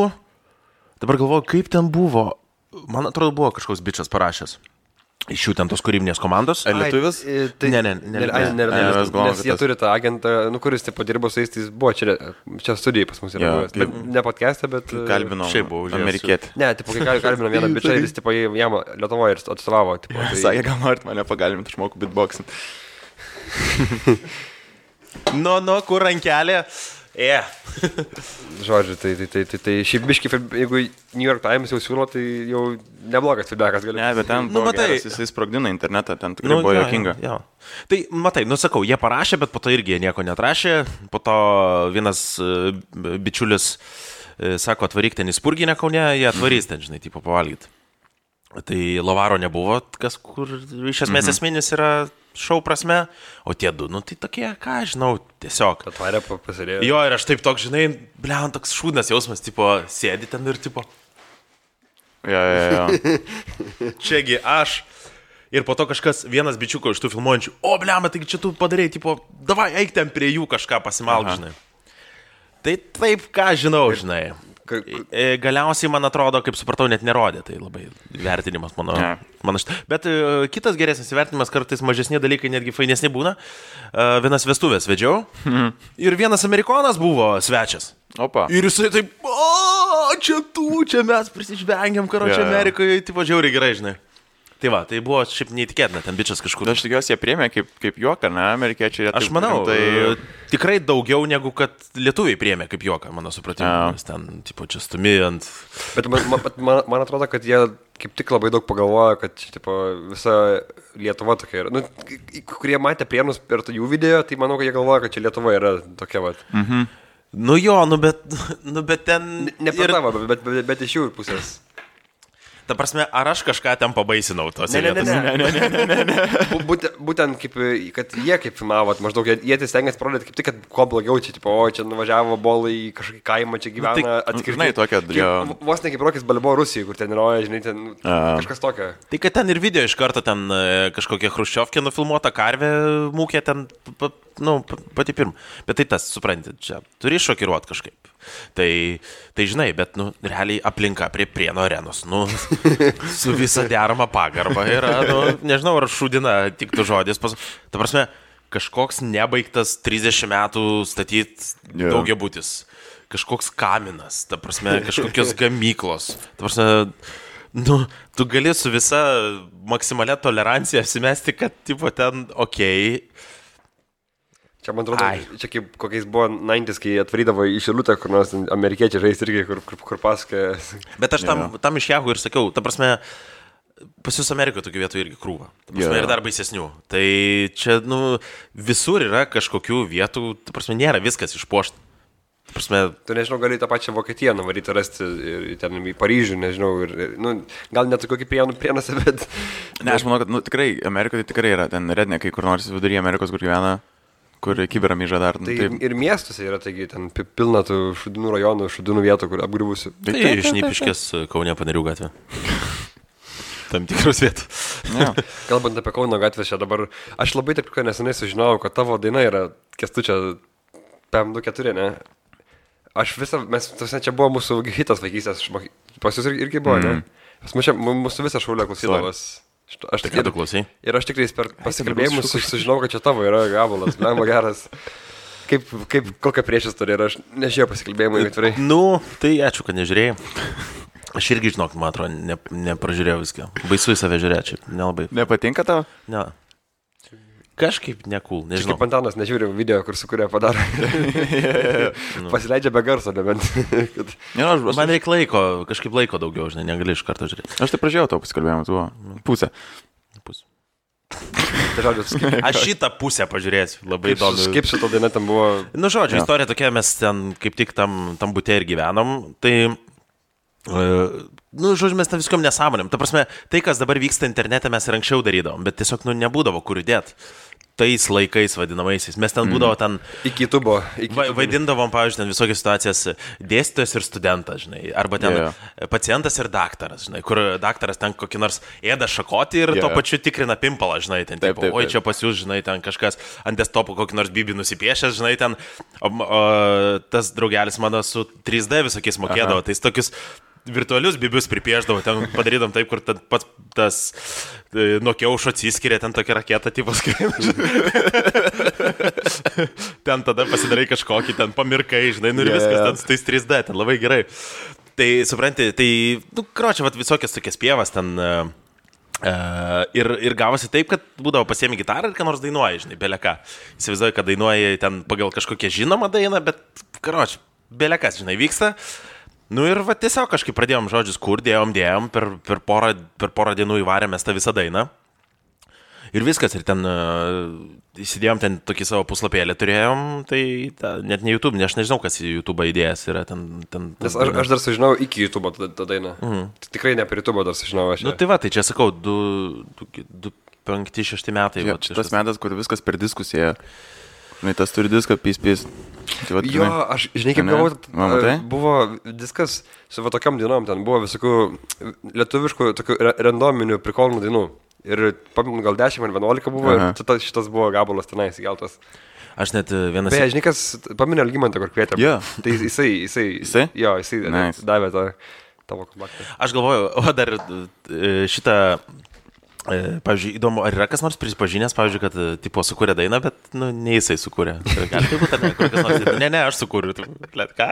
S1: dabar galvoju, kaip ten buvo, man atrodo, buvo kažkoks bičas parašęs. Iš jų ten tos kūrybinės komandos.
S2: Ar lietuvis?
S1: Ne.
S3: Nes jie turi tą agentą, kuris tipo dirbo su jais, tai buvo čia studijai pas mus yra buvęs. Ne podcast'e, bet...
S2: Kalbinau amerikietį.
S3: Ne, tipo, kai kalbinau vieną bičą, jis tipo jam Lietuvoje ir atstovavo.
S2: Sakė, gal norit mane pagalbinti, aš moku beatboxint.
S1: Kur rankelė?
S3: Žodžiu, tai šiaip biškai, jeigu New York Times jau siūlo, tai jau neblogas feedbackas gali.
S2: Ne, bet ten buvo geras, jisai sprogdina internetą, ten tikrai buvo juokinga.
S1: Tai, matai, sakau, jie parašė, bet po to irgi jie nieko netrašė. Po to vienas bičiulis sako, atvaryk ten į Spurginę Kaune, jie atvarys ten, žinai, tipo pavalgyti. Tai Lavaro nebuvo, kas kur iš esmės esminis yra šou prasme, o tie du, tai tokie, ką žinau, tiesiog.
S3: Atvarė pasirėjo.
S1: Jo, ir aš taip toks, žinai, toks šūdnas jausmas, tipo, sėdi ten ir tipo.
S2: Jo.
S1: Čiagi aš. Ir po to kažkas, vienas bičiuko iš tų filmuojančių, taigi čia tu padarei, tipo, davai, eik ten prie jų kažką pasimalk, žinai. Tai taip, ką žinau, žinai. Galiausiai, man atrodo, kaip supratau, net nerodė, tai labai vertinimas mano šitą. Bet kitas geresnis vertinimas, kartais mažesni dalykai netgi fainesni būna. Vienas vestuvės vedžiau ir vienas amerikonas buvo svečias.
S2: Opa.
S1: Ir jisai taip, čia mes prisižvengiam, karočią Amerikoje, tipo žiauriai gerai, žinai. Tai va, tai buvo šiaip neįtikėtina, ten bičas kažkur.
S2: Aš tikiuosi, jie priėmė kaip juoką, ne, amerikiečiai.
S1: Aš manau, tikrai daugiau negu kad lietuviai priėmė kaip juoką, mano supratimu. Nes ten, tipo, čia stumi ant...
S3: Bet man atrodo, kad jie kaip tik labai daug pagalvojo, kad tipo, visa Lietuva tokia yra. Kurie matė Prienus per jų video, tai manau, kad jie galvoja, kad čia Lietuva yra tokia, va.
S1: Bet ten...
S3: Ne per tavo, bet iš jų pusės.
S1: Ta prasme, ar aš kažką ten pabaisinau tos vietos?
S3: Ne. Būtent kaip, kad jie kaip filmavo, maždaug jie stengiasi parodyti kaip tik, kad kuo blogiau čia, tipo, čia nuvažiavo bolai į kažkokį kaimą, čia gyvena atskirtai. Vos ne kaip Rokis Balboa Rusijai, kur ten yra, žinai, ten kažkas tokio.
S1: Tai kad ten ir video iš karto ten kažkokia chruščiovkė nufilmuota, karvė mūkė ten pati pirma. Bet tai tas, supranti, čia turi šokiruoti kažkaip. Tai žinai, bet, realiai aplinka prie Prienų arenos, su visa derama pagarba yra, nežinau, ar šūdina tiktų žodis. Ta prasme, kažkoks nebaigtas 30 metų statyti daugiabutis. Kažkoks kaminas, ta prasme, kažkokios gamyklos. Ta prasme, tu gali su visa maksimalia tolerancija apsimesti, kad, tipo, ten okei.
S3: Čia, man atrodo, čia kaip kokiais buvo 90s, kai atvarydavo į Šilutę, kur nors amerikiečiai žais irgi, kur pasakoja.
S1: Bet aš tam iš Yahoo ir sakiau, ta prasme, pas jūs Amerikoje tokių vietų irgi krūva. Ta prasme, ir dar baisesnių. Tai čia, visur yra kažkokių vietų, ta prasme, nėra viskas išpuošta. Prasme,
S3: tu nežinau, gali tą pačią Vokietiją nuvaryti rasti ir ten į Paryžių, nežinau, gal net kokį Prienuose, bet...
S2: Ne, aš manau, kad tikrai, Amerikoje tai tikrai yra ten rednekai, kur nors viduryje Amerikos, kur gyvena, kur kiberamyža dar.
S3: Tai ir miestuose yra, taigi, ten pilna tų šudinų rajonų, šudinų vietų, kur apgriuvusi.
S1: Tai Šnipiškės Kaune Panerių gatvė. Tam tikros vietos.
S3: Kalbant apie Kauno gatvę, čia dabar, aš labai taip nesenai sužinojau, kad tavo daina yra Kęstučio PM24, ne? Mes čia buvo mūsų hitas vaikystės, pas jūs irgi buvo, ne? Mūsų visą šaulę klausydavas.
S1: Tai ką tu klausai?
S3: Ir aš tikrai per pasikalbėjimus sužinau, kad čia tavo yra gabalas, lemba geras. Kokia priešistorija yra, aš nežiūrėjau pasikalbėjimų atvirai.
S1: Tai ačiū, kad nežiūrėjai. Aš irgi žinok, man atrodo, nepražiūrėjau viską. Baisu į save žiūrėčiau, nelabai.
S2: Nepatinka tau?
S1: Ne. Kažkaip nekul, nežinau.
S3: Kaip Antanas nežiūrė video, kur sukūrė padaro. Pasileidžia be garso, nebent.
S1: Man reikia laiko, kažkaip laiko daugiau, žinai, negali iš karto žiūrėti.
S2: Aš tai pražiūrėjau tavo pasikalbėjimą, tu pusę.
S1: Aš šitą pusę pažiūrėsiu, labai įdomu.
S3: Kaip šitą dainą tam buvo?
S1: Žodžiu, istorija tokia, mes ten kaip tik tam bute ir gyvenom, tai... žodžiu, mes tam viskom nesąmonėm. Ta prasme, tai, kas dabar vyksta internete, mes ir anksčiau darydavom, bet tiesiog, nebūdavo kur įdėti. Tais laikais vadinamaisiais. Mes ten būdavo ten...
S3: Iki tubo.
S1: Vaidindavom, pavyzdžiui, ten visokias situacijas dėstytojas ir studentas, žinai. Arba ten pacientas ir daktaras, žinai. Kur daktaras ten kokį nors ėda šakotį ir tuo pačiu tikrina pimpalą, žinai. Ten, taip. Oi, čia pas jūs, žinai, ten kažkas ant desktopo kokį nors bibį nusipiešęs, žinai, ten. Tas draugelis mano su 3D visokiais mokėdavo. Tai tokius virtualius bibius pripieždavo, ten padarydom taip, kur pats tas nuo kiaušo atsiskiria, ten tokia raketa tipas skrieina. Ten tada pasidarai kažkokį, ten pamirkai, žinai, ir viskas ten su tais 3D, ten labai gerai. Tai, supranti, tai, kročia, visokias tokias pievas ten ir gavosi taip, kad būdavo pasiemi gitarą ir ką nors dainuoji, žinai, beleką. Įsivaizduoju, kad dainuoji ten pagal kažkokią žinomą dainą, bet, kročia, belekas, žinai, vyksta. Ir tiesiog kažkaip pradėjom žodžius kur, dėjom, per porą dienų įvarėmės tą visą dainą. Ir viskas, ir ten įsidėjom ten tokį savo puslapėlį turėjom, tai net ne YouTube, aš nežinau, kas į YouTube įdėjęs yra ten.
S3: Nes aš dar sužinau iki YouTube tą dainą. Tikrai ne per YouTube dar sužinau aš.
S1: Tai va, tai čia sakau, 5-6 metai.
S2: Tas metas, kur viskas per diskusiją. Tas turi diską, pys.
S3: Jo, aš, žinai, kaip galvoju, buvo diskas su tokiam dainom, ten buvo visokių lietuviškų, tokių randominių prikolnų dainų. Ir gal 10 ar 11 buvo, ir šitas buvo gabalas tenais įgeltas.
S1: Aš net vienas...
S3: Beje, žinai, kas paminė Algimantą, kur kvietėm. Tai jisai davė tą tavo kompaktą.
S1: Aš galvoju, dar šitą... Pavyzdžiui, įdomu, ar yra kas nors prisipažinęs, pavyzdžiui, kad tipo sukūrė dainą, bet ne jisai sukūrė. Gali tai būti, ne, aš sukūriu. Ką?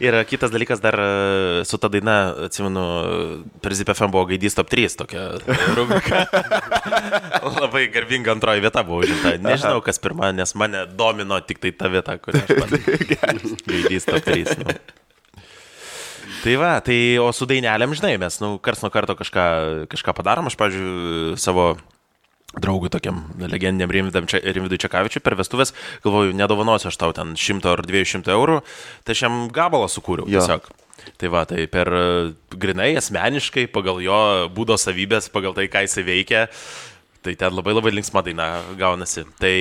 S1: Ir kitas dalykas dar su ta daina, atsimenu, per ZipFM buvo Gaidys Top 3 tokia rubrika. Labai garbinga antroji vieta buvo užimta. Nežinau, kas pirma, nes mane domino tik tai ta vieta, kurią aš man Gaidys Top 3. Tai va, o su dainelėm, žinai, mes, kars nuo karto kažką padarom. Aš, pavyzdžiui, savo draugui tokiam legendiniam Rimvidui Čekavičiui per vestuvės, galvoju, nedovanosiu aš tau ten 100 ar 200 eurų, tai aš jam gabalą sukūriau tiesiog. Tai va, tai per grinai, asmeniškai, pagal jo būdo savybės, pagal tai, ką jisai veikia, tai ten labai labai linksma daina gaunasi. Tai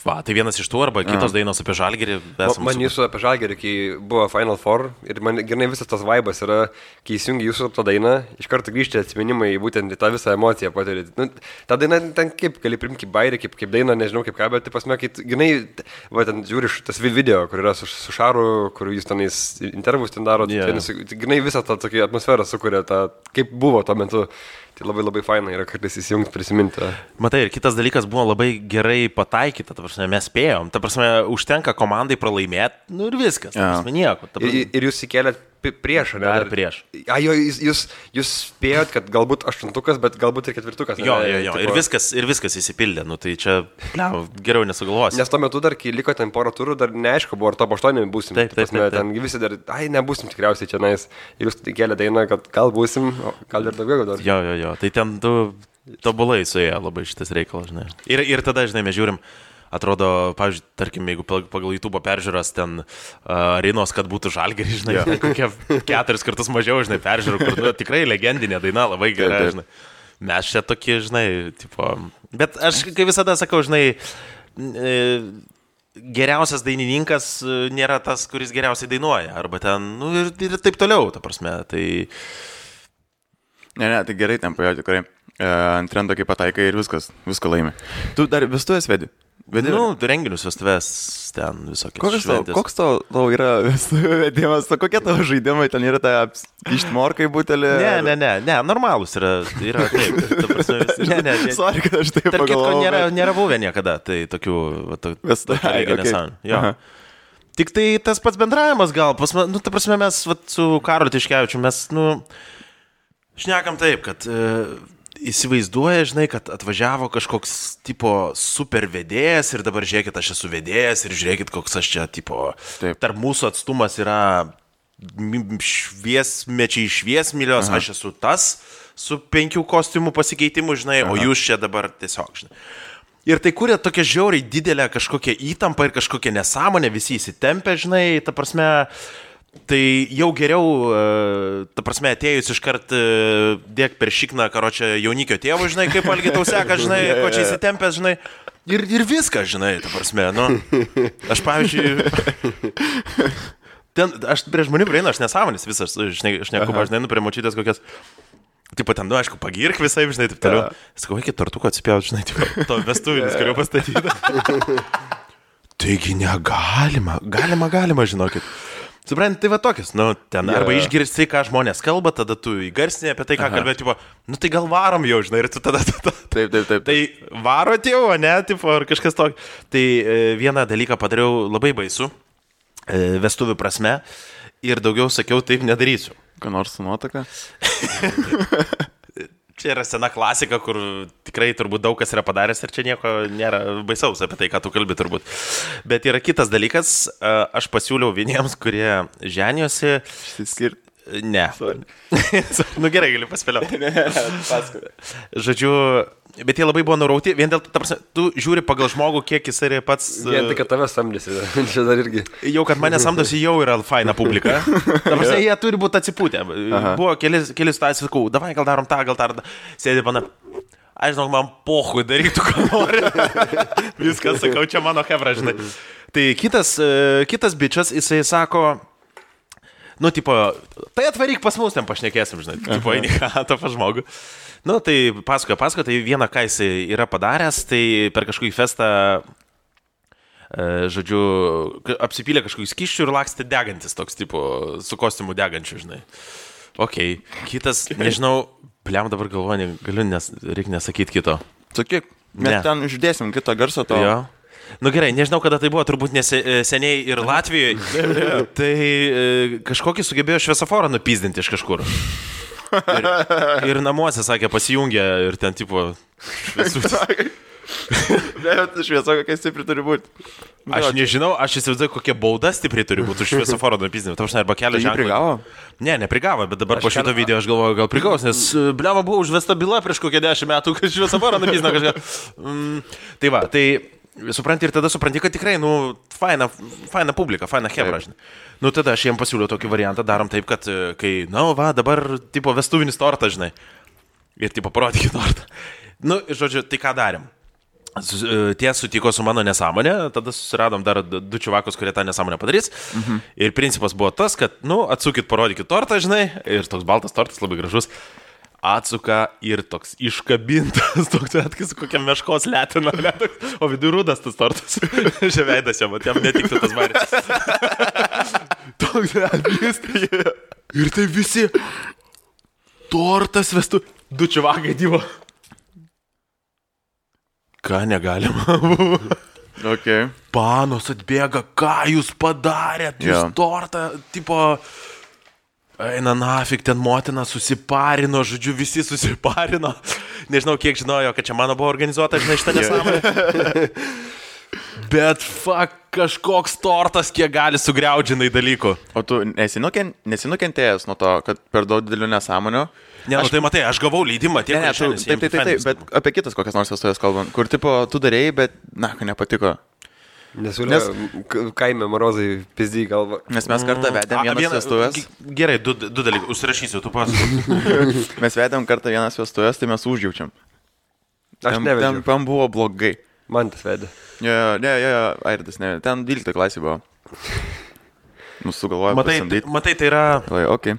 S1: Va, tai vienas iš tų arba kitos dainos apie Žalgirį.
S3: Man jūsų apie Žalgirį, kai buvo Final Four ir man gerai visas tas vaibas yra, kai įsijungi jūsų tą dainą, iš karto grįžti atsiminimai būtent į tą visą emociją patirti. Nu, ta daina ten kaip, gali primti kaip bairį, kaip dainą, nežinau kaip ką, bet pasme, kai gerai, va, ten žiūri tas video, kur yra su Šaru, kur jūs tenais intervus ten daro, gerai visą tą tokią atmosferą sukuria, kaip buvo tuo metu. Tai labai labai faina yra kartais įsijungti, prisiminti.
S1: Matai, ir kitas dalykas buvo labai gerai pataikyta, ta prasme, mes spėjom, ta prasme, užtenka komandai pralaimėti, nu ir viskas, ta prasme, nieko. Ta prasme.
S3: Ir jūs įkėlėt prieš, ne?
S1: Dar prieš.
S3: Jūs spėjot, kad galbūt 8, bet galbūt ir 4.
S1: Jo, ir viskas įsipildė, nu tai čia, geriau nesugalvosi.
S3: Nes tuo metu dar, kai liko ten porą turų, dar neaišku, buvo ar top 8 būsim.
S1: Taip.
S3: Ten visi dar, nebūsim tikriausiai čia nais. Ir jūs įkėlė dainą, kad gal būsim, gal ir daugiau dar.
S1: Jo, tai ten tobulai suėjo labai šitas reikalas, žinai. Ir tada, žinai, mes žiūrim. Atrodo, pavyzdžiui, tarkim, jeigu pagal YouTube peržiūras ten Rinos, kad būtų Žalgirį, žinai, kokie 4 kartus mažiau, žinai, peržiūrų, kur tikrai legendinė daina, labai gera, žinai. Mes čia tokie, žinai, tipo... Bet aš, kaip visada sakau, žinai, geriausias dainininkas nėra tas, kuris geriausiai dainuoja, arba ten, nu, ir taip toliau, ta prasme, tai...
S2: Ne, tai gerai ten pajo, tikrai. Ant trendo kaip pataikai ir viską laimi. Tu dar vestuvės vedi?
S1: Nu, renginius, vestuvės, ten visokios šventės.
S2: Koks tau yra vedimas, kokie tavo žaidimai, ten yra ta ištmorkai butelė?
S1: Ne, normalus yra taip. Ta prasme, ne.
S2: Sorry, kad aš taip pagalvojau.
S1: Tarp kitko nėra buvę niekada, tai tokių nesąmonė. Jo. Tik tai tas pats bendravimas gal, nu, ta prasme, mes su Karoliu Tiškevičiu, mes, nu, šnekam taip, kad... Įsivaizduoja, žinai, kad atvažiavo kažkoks tipo super vedėjas ir dabar žiūrėkit, aš esu vedėjas ir žiūrėkit, koks aš čia tipo, tarp mūsų atstumas yra šviesmilios, aš esu tas su 5 kostiumų pasikeitimu, žinai, o jūs čia dabar tiesiog, žinai. Ir tai kuria tokia žiauriai didelė kažkokia įtampa ir kažkokia nesąmonė, visi įsitempia, žinai, ta prasme... Tai jau geriau, ta prasme, atėjus iškart dėk per šikną, karočią jaunikio tėvų, žinai, kaip Algi tau seka, žinai, ko čia įsitempęs, žinai, ir viskas, žinai, ta prasme, nu, aš pavyzdžiui, aš prie žmonių prieinu, aš nesąmonės visas, aš neku, žinai, nu, prie močiutės kokias, tipo, ten, nu, aišku, pagirk visai, žinai, taip toliau, sakau, iki tortuko atsipjaut, žinai, tipo, to vestuvinis, kurio pastatyti. Taigi galima, žinokit. Supranti, tai va tokius, nu, ten arba išgirsti, ką žmonės kalba, tada tu įgarsinė apie tai, ką kalbėti, tipo, nu, tai gal varom jau, žinai, ir tu tada.
S2: Taip.
S1: Tai varot jau, ne, tipo, ar kažkas tokio. Tai vieną dalyką padariau labai baisu, vestuvių prasme, ir daugiau sakiau, taip nedarysiu.
S2: Ką nors su nuotaka?
S1: Čia yra sena klasika, kur tikrai turbūt daug kas yra padaręs ir čia nieko nėra baisaus apie tai, ką tu kalbi turbūt. Bet yra kitas dalykas, aš pasiūliau vieniems, kurie ženiosi.
S2: Išsiskirti?
S1: Ne. Nu gerai, galiu paspėlioti.
S2: Paskui.
S1: Žodžiu, bet jie labai buvo nurauti, vien dėl to, tu žiūri pagal žmogų, kiek jis yra pats...
S3: Vien tai, kad tave samdėsi, čia dar irgi.
S1: Jau, kad mane samdosi, jau yra faina publika. Dabar jie turi būti atsipūtę. Buvo keli situacijos, sakau, davai, gal darom tą. Sėdė pana, aš žinau, man pohui darytų, ką nori. Viskas, sakau, čia mano hebra, žinai. Tai kitas bičias, jisai sako... Nu, tipo, tai atvaryk pas mus, ten pašnekėsim, žinai, tipo, eini ką, to pažmogų. Nu, tai pasakoja, tai vieną, ką jis yra padaręs, tai per kažkokį festą, žodžiu, apsipylė kažkokį skyščių ir lakstė degantis toks, tipo, su kostiumu degančiu, žinai. Okei, kitas, nežinau, pliam dabar galvoju, reikia nesakyti kito.
S2: Sakyk, mes ten uždėsim kitą garsą to.
S1: Jo. Nu gerai, nežinau, kada tai buvo, turbūt seniai ir Latvijoje. Tai kažkokį sugebėjo šviesoforą nupizdinti iš kažkur. Ir namuose, sakė, pasijungė ir ten, tipo,
S2: šviesa kokia stipri turi būti.
S1: Aš nežinau, aš įsivaizduoju, kokia bauda stipri turi būti už šviesoforo nupizdinimą. Tau arba kelio ženklą.
S2: Prigavo?
S1: Ne, neprigavo, bet dabar po šito video aš galvoju, gal prigaus, nes bliava buvo užvesta byla prieš kokią 10 metų, kad šviesoforo nupizdino kažką. Tai va, tai... Supranti ir tada supranti, kad tikrai, nu, faina publika, faina hebra, žinai. Nu, tada aš jiem pasiūliau tokį variantą, darom taip, kad kai, na, va, dabar, tipo, vestuvinis tortas, žinai. Ir, tipo, parodykit tortą. Nu, žodžiu, tai ką darėm? Tie sutiko su mano nesąmonė, tada susiradom dar 2 čiuvakus, kurie tą nesąmonę padarys. Ir principas buvo tas, kad, atsukit, parodykit tortą, žinai, ir toks baltas tortas labai gražus. Atsuka ir toks iškabintas, toks atkis kokia meškos letina, o vidų rūdas tas tortas. Ževeidas jam, jam netiktų tas baris. Toks atkis. Ir tai visi tortas vestų, 2 čiuvakai dyvo. Ką negalima?
S2: Okay.
S1: Panos atbėga, ką jūs padarėt, jūs tortą, tipo... Eina nafik, ten motina susiparino, žodžiu, visi susiparino. Nežinau, kiek žinojo, kad čia mano buvo organizuota, žinai, šitą nesąmonę. Bet, kažkoks tortas, kiek gali sugriaudžinai dalykų.
S2: O tu nesinukentėjęs nuo to, kad per daug didelių nesąmonių?
S1: Ne, tai matai, aš gavau leidimą tiek,
S2: taip, bet apie kitas kokias nors vestuvės kalbant, kur, tipo, tu darėjai, bet, nepatiko.
S3: Nes kaime Marozai pizdį galva.
S2: Nes mes kartą vedėm vienas vestuvės.
S1: Gerai, 2 dalykus, užsirašysiu, tu pasakok.
S2: Mes vedėm kartą vienas vestuvės, tai mes užjaučiam.
S3: Aš nevedžiau.
S2: Ten buvo blogai.
S3: Man tas vedė.
S2: Ne, Airdas, ne. Ten 12 klasė buvo. Sugalvojau pasamdyti.
S1: Matai, tai yra...
S2: Okay.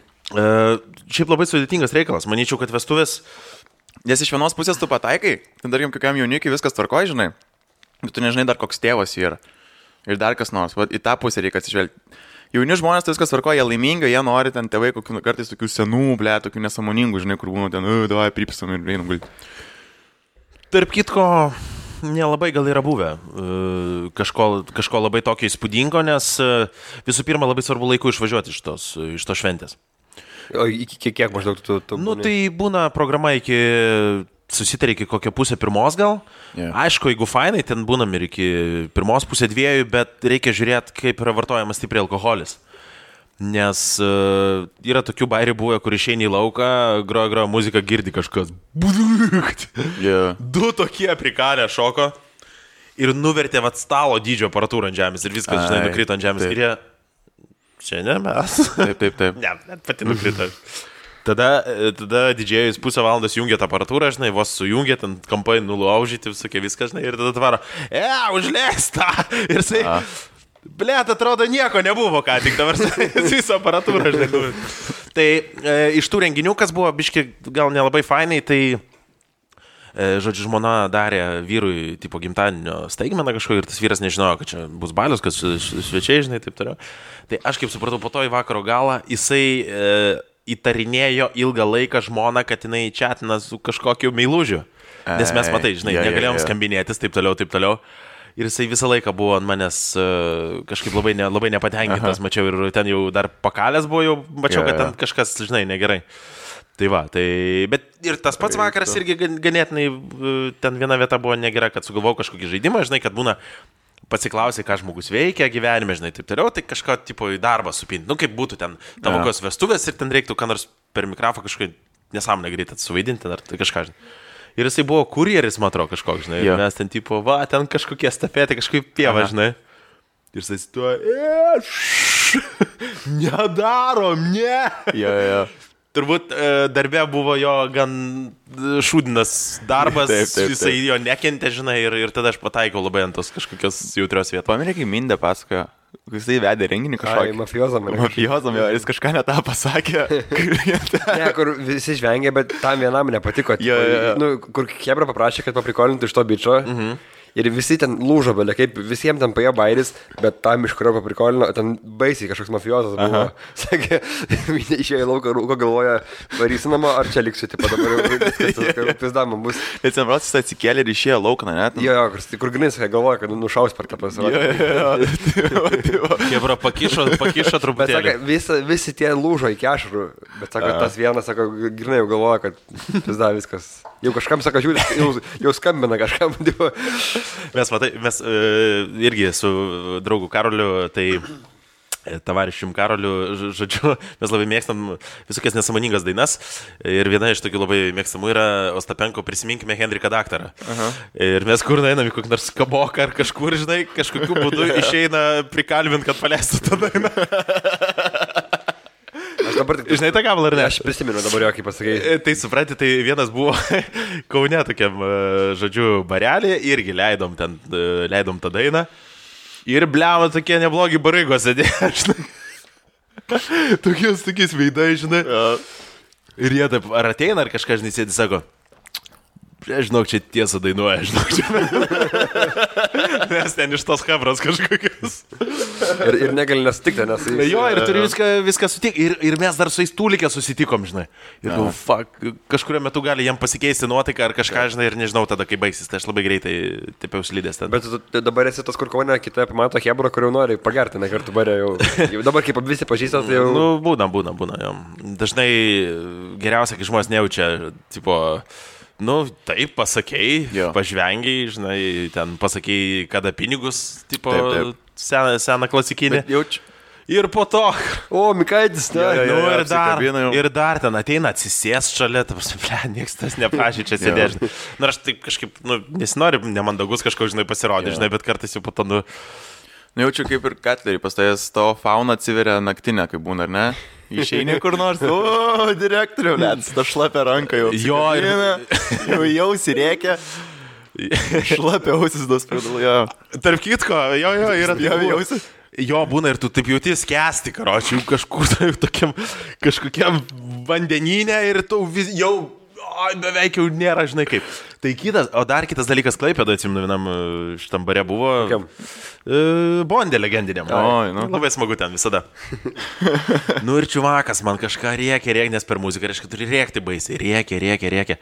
S1: Šiaip labai sudėtingas reikalas. Manyčiau, kad vestuvės...
S2: Nes iš vienos pusės tu pataikai, ten darkim kokiam jaunikiui viskas tvarkoja, žinai. Bet tu nežinai dar koks tėvas yra. Ir dar kas nors. Vat į tą pusę reikia atsižvelgti. Jauni žmonės tai viskas tvarkoja, jie laimingi, jie nori ten tėvai kokių kartais tokių senų, tokių nesąmoningų, žinai, kur būna ten, davai, pripisam ir einam gulti.
S1: Tarp kitko, nelabai gal yra buvę kažko labai tokio įspūdingo, nes visų pirma labai svarbu laiku išvažiuoti iš tos šventės.
S3: O iki kiek maždaug tu būni?
S1: Tai būna programa susitarė iki kokią 1:30 gal.
S2: Yeah.
S1: Aišku, jeigu fainai, ten būnam ir iki 1:30, bet reikia žiūrėti, kaip yra vartojamas stipriai alkoholis. Nes yra tokių bairių buvę, kur išeini į lauką, groja muziką, girdi kažkas.
S2: Yeah.
S1: 2 tokie prikalę šoko ir nuvertė stalo dydžio aparatūrą ant žemės ir viskas, žinai, nukrito ant žemės. Taip. Ir jie, čia ne mes.
S2: Taip.
S1: Ne, net pati nukrito. Tada didžėjus pusę valandos jungia tą aparatūrą, žinai, vos sujungia, ten kampai nulaužyti, visokie viskas, žinai, ir tada tvaro, užleista. Ir jisai, blėt, atrodo, nieko nebuvo, ką tik dabar visą aparatūrą, žinai. Tai iš tų renginių, kas buvo biški gal nelabai fainai, tai, žodžiu, žmona darė vyrui, tipo, gimtadienio staigmeną kažko ir tas vyras nežinojo, kad čia bus balius, kad svečiai, žinai, taip toliau. Tai aš kaip supratau, po to į vakaro galą jisai įtarinėjo ilgą laiką žmoną, kad jinai chatina su kažkokiu meilužiu. Nes mes, matai, žinai, negalėjom skambinėtis, taip toliau. Ir jisai visą laiką buvo ant manęs kažkaip labai nepatenkintas, mačiau, ir ten jau dar pakalės buvo, jau mačiau, kad ten kažkas, žinai, negerai. Tai va, bet ir tas pats vakaras irgi ganėtinai, ten viena vieta buvo negera, kad sugalvojau kažkokį žaidimą, žinai, kad būna pasiklausai, ką žmogus veikia gyvenime, žinai, taip toliau, tai kažką tipo į darbą supinti. Kaip būtų ten tavo kokios vestuvės ir ten reiktų ką nors per mikrofą kažkokį nesąmonę greitai suvaidinti, ar tai kažką, žinai. Ir jisai buvo kurjeris, man atrodo, kažkoks, žinai. Mes ten tipo, ten kažkokie stafėtai, kažkaip pieva, žinai. Ir jisai tuo, nedarom, ne. Turbūt darbė buvo jo gan šūdinas darbas, jisai jo nekentė, žinai, ir tada aš pataikiau labai ant tos kažkokios jautrios vietos.
S2: Paminė, kai Mindė pasakojo, jisai vedė renginį kažkokį.
S3: Mafijozam,
S2: jis kažką ne tą pasakė.
S3: Ne, kur visi žvengė, bet tam vienam nepatiko. Kur Hebra paprašė, kad paprikolintų iš to bičo. Ir visi ten lūžo, belė, kaip visiems ten paėjo bairis, bet tam iš kurio paprikolino, ten baisiai kažkoks mafijozas buvo. Sakė, išėjo į lauką, rūko galvoja, varysi namo, ar čia liksiu, tipo dabar jau viskas, pizdama bus.
S2: Ir ten prasis atsikėlė ir išėjo lauką, ne?
S3: Jo, kur grinais, galvoja, kad nušaus per tą pasirodį.
S1: Hebra pakišo truputėlį.
S3: Bet sako, visi tie lūžo iki ašarų, bet sako, tas vienas, sako, grinai jau galvoja, kad pizda viskas. Jau kažkam, sako, jau skambina kažkam.
S1: Mes irgi su draugu Karoliu, tai tavariščium Karoliu, žodžiu, mes labai mėgstam visokias nesąmoningas dainas ir viena iš tokių labai mėgstamų yra Ostapenko Prisiminkime Henriką daktarą. Ir mes kur einam į kokį nors kaboką ar kažkur, žinai, kažkokiu būdu išeina prikalbint, kad paleistų tą dainą.
S3: dabar tik...
S1: Žinai tą gabalą ar ne?
S3: Aš prisimenu dabar jo, kaip pasakėjai.
S1: Tai supranti, tai vienas buvo Kaune tokiam, žodžiu, barelį, irgi leidom tą dainą. Ir bliavo tokie neblogi barygos sėdėjo, žinai. Tokiais veidai, žinai. Ir jie taip, ar ateina, ar kažką, žinai, sėdi, sako, žinok, čia tiesą dainuoja, žinok, čia. Nes ten iš tos hebros kažkokios.
S3: Ir negali nesutikti, nes...
S1: Jo, ir turi viską sutikti. Ir mes dar su jais tūlikė susitikom, žinai. Ir kažkurio metu gali jam pasikeisti nuotaiką ar kažką, žinai, ir nežinau tada, kai baigsis. Tai aš labai greitai taip jau slydęs ten.
S3: Bet tu dabar esi tas, kur Kaune, kitą pamato hebrą, kur jau nori pagerti, ne kartu barė jau. Dabar kaip visi pažįstat, tai jau...
S1: Nu, būna, jo. Dažnai geriausia, kai žmonės nejaučia, tipo... Nu, taip, pasakei, pažvengiai, žinai, ten pasakei, kada pinigus, tipo, taip. Seną klasikinį. Ir po to...
S3: O, Mikaitis, ne?
S1: Ir dar ten ateina, atsisės šalia, nieks tas neprašė čia sėdėti. Na, aš taip kažkaip, nesinori nemandagus kažko, žinai, pasirodyti, žinai, bet kartais jau po to,
S2: Jaučiu kaip ir Katlerį, pastojęs tavo fauna atsiveria naktinę, kaip būna, ar ne? Išeini kur nors, direktoriau, net, ta šlapia ranka jau.
S1: Jo,
S2: jau sirėkia. Šlapia ausis dos pradalų, jo.
S1: Tarp kitko, jo, yra
S2: jausi.
S1: Jo, būna ir tu taip jauti skęsti, karočiui, kažkur tai kažkokiam vandenyne ir tu jau beveik jau nėra, žinai kaip. Tai dar kitas dalykas Klaipėdoje, atsimenu, vienam šitam bare buvo. Bondė legendiniam. Labai smagu ten visada. Nu ir čiuvakas man kažką rėkia, nes per muziką reiškia turi rėkti baisiai. Rėkia.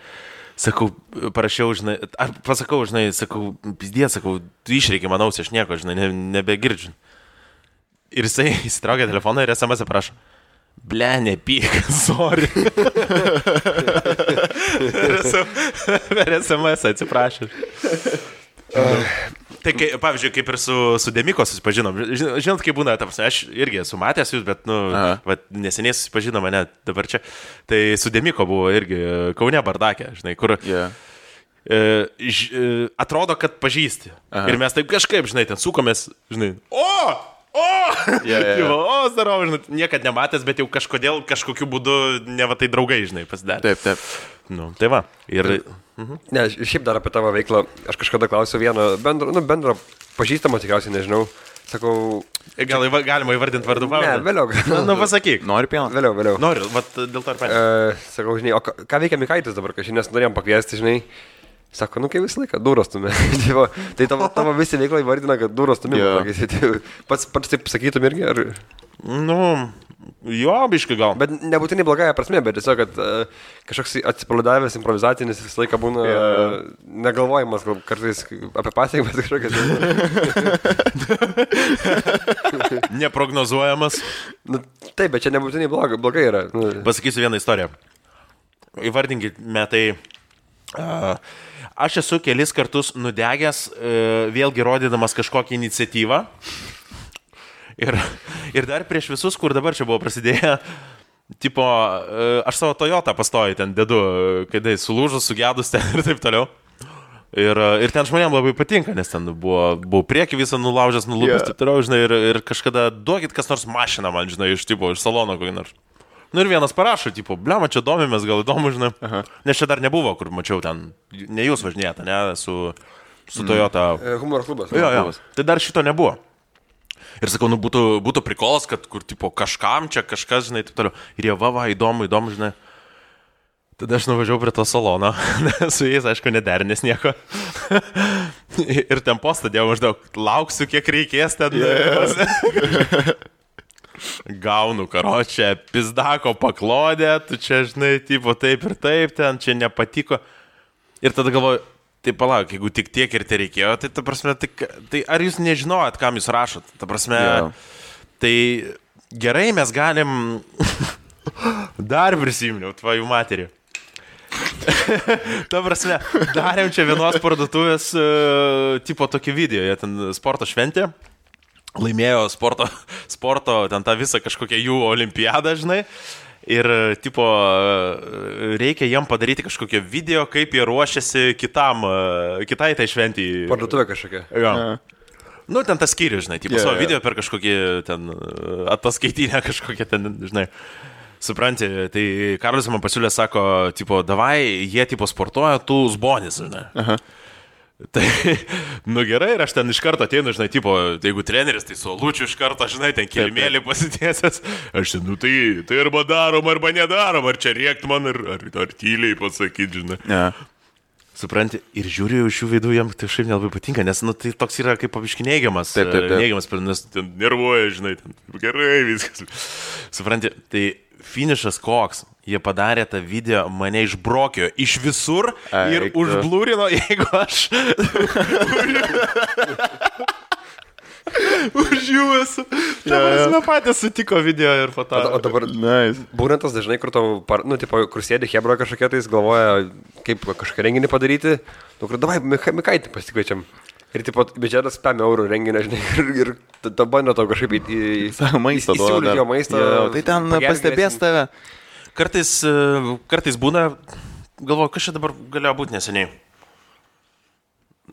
S1: Sakau, parašiau, žinai, ar pasakau, žinai, sakau, pizdė, sakau, tu išreikia man ausį, aš nieko, žinai, nebegirdžiu. Ir jisai įsitraukia telefoną ir SMS prašo. Ble, nepyk, sorry. Per SMS atsiprašau. Tai, pavyzdžiui, kaip ir su Demiko susipažinom. Žinot, kaip būna, aš irgi esu matęs jūs, bet, neseniai susipažinome, ne, dabar čia. Tai su Demiko buvo irgi Kaune bardakė, žinai, kur atrodo, kad pažįsti. Ir mes taip kažkaip, žinai, ten sukomės, žinai, zdarau, žinai, niekad nematęs, bet jau kažkodėl, kažkokiu būdu, ne va tai draugai, žinai, pasidarė.
S2: Taip.
S1: Nu, tai va. Ir...
S3: Ne, šiaip dar apie tavo veiklą, aš kažkada klausiau vieną bendro pažįstamą, tikriausiai nežinau, sakau...
S1: Gal galima įvardinti vardu pavardę?
S3: Ne, vėliau.
S1: Nu, pasakyk.
S2: Nori pieną?
S3: Vėliau.
S1: Noriu, vat dėl to ir paėmė.
S3: Sakau, žinai, o ką veikia Mikaitis dabar, kažkaip nes norėjom pakviesti, žinai. Sako, kaip visą laiką, duros stumė. Tai tavo visi veiklą įvardina, kad duros stumė. Pats taip sakytum irgi, ar...
S1: Nu, jo, biškai gal.
S3: Bet nebūtinai blogąją prasme, bet tiesiog, kad kažkoks atsipalaidavęs, improvizacinis visą laiką būna negalvojimas, gal kartais apie pasiekmes kažkokias.
S1: Neprognozuojamas.
S3: Nu, taip, bet čia nebūtinai blogai yra.
S1: Pasakysiu vieną istoriją. Įvardinkime tai... Aš esu kelis kartus nudegęs, vėlgi rodydamas kažkokią iniciatyvą. Ir dar prieš visus, kur dabar čia buvo prasidėję, tipo, aš savo Toyota pastoju ten dedu, kai sulūžus, sugedus ten ir taip toliau. Ir ten žmonėms labai patinka, nes ten buvo prieki visą nulaužęs, nulūpęs, taip toliau, žinai, ir kažkada duokit kas nors mašiną man, žinai, iš salono kokį nors. Nu ir vienas parašo, tipo, blema, čia domimės, gal įdomu, žinai. Nes čia dar nebuvo, kur mačiau ten, ne jūs važinėjate, ne, su Toyota.
S3: Humoro klubas.
S1: Jo. Tai dar šito nebuvo. Ir sakau, nu būtų prikolas, kad kur, tipo, kažkam čia kažkas, žinai, taip toliau. Ir jie, va, įdomu, žinai. Tada aš nuvažiavau prie to salono, su jais, aišku, nederinės nieko. Ir ten postą dėjau maždaug, lauksiu, kiek reikės ten. Gaunu, karočią, pizdako paklodę, tu čia, žinai, tipo, taip ir taip, ten čia nepatiko. Ir tada galvoju, tai palauk, jeigu tik tiek ir tai reikėjo, tai ta prasme, tai ar jūs nežinojat, kam jūs rašot? Ta prasme, tai gerai mes galim, dar prisiminiau, tvojų materiją. Ta prasme, darėm čia vienos parduotuvės, tipo, tokį video, jie ten sporto šventė. Laimėjo sporto, ten tą visą kažkokią jų olimpiadą, žinai, ir, tipo, reikia jiem padaryti kažkokią video, kaip jie ruošiasi kitai tai šventijai.
S3: Parduotuvė kažkokia.
S1: Jo. Nu, ten tas skyrius, žinai, tipo, savo video per kažkokį ten ataskaitinę kažkokią ten, žinai. Supranti, tai Karolis man pasiūlė, sako, tipo, davai, jie tipo sportuoja, tu zbonis, žinai.
S2: Aha.
S1: Tai, nu gerai, ir aš ten iš karto ateinu, žinai, tipo, jeigu treneris, tai su Lučiu iš karto, žinai, ten kilimėlį pasitiesęs, aš ten, nu tai arba darom, arba nedarom, ar čia rėkt man, ar tyliai pasakyti, žinai.
S2: Ja.
S1: Supranti, ir žiūriu iš jų veidų, jam tai šiaip nelabai patinka, nes, nu, tai toks yra kaip paviški neigiamas, neigiamas, nes ten nervuoja, žinai, ten gerai viskas. Supranti, tai finišas koks. Jie padarė tą video, mane išbrokio iš visur ir užblūrino, jeigu aš už jų esu. Mes patys sutiko video ir foto.
S3: O dabar būna tas dažnai, kur tau, nu, tipo, kur sėdi hebra kažkokia, tai jis galvoja, kaip kažką renginį padaryti. Nu, kur davai, Mikaitį pasikviečiam. Ir tipo, biudžetas 5 eurų renginio, žinai, ir tada bando tau kažkaip įsiūlyti jo maistą.
S2: Tai ten pastebės tave.
S1: Kartais būna, galvoju, kas čia dabar galėjo būti neseniai.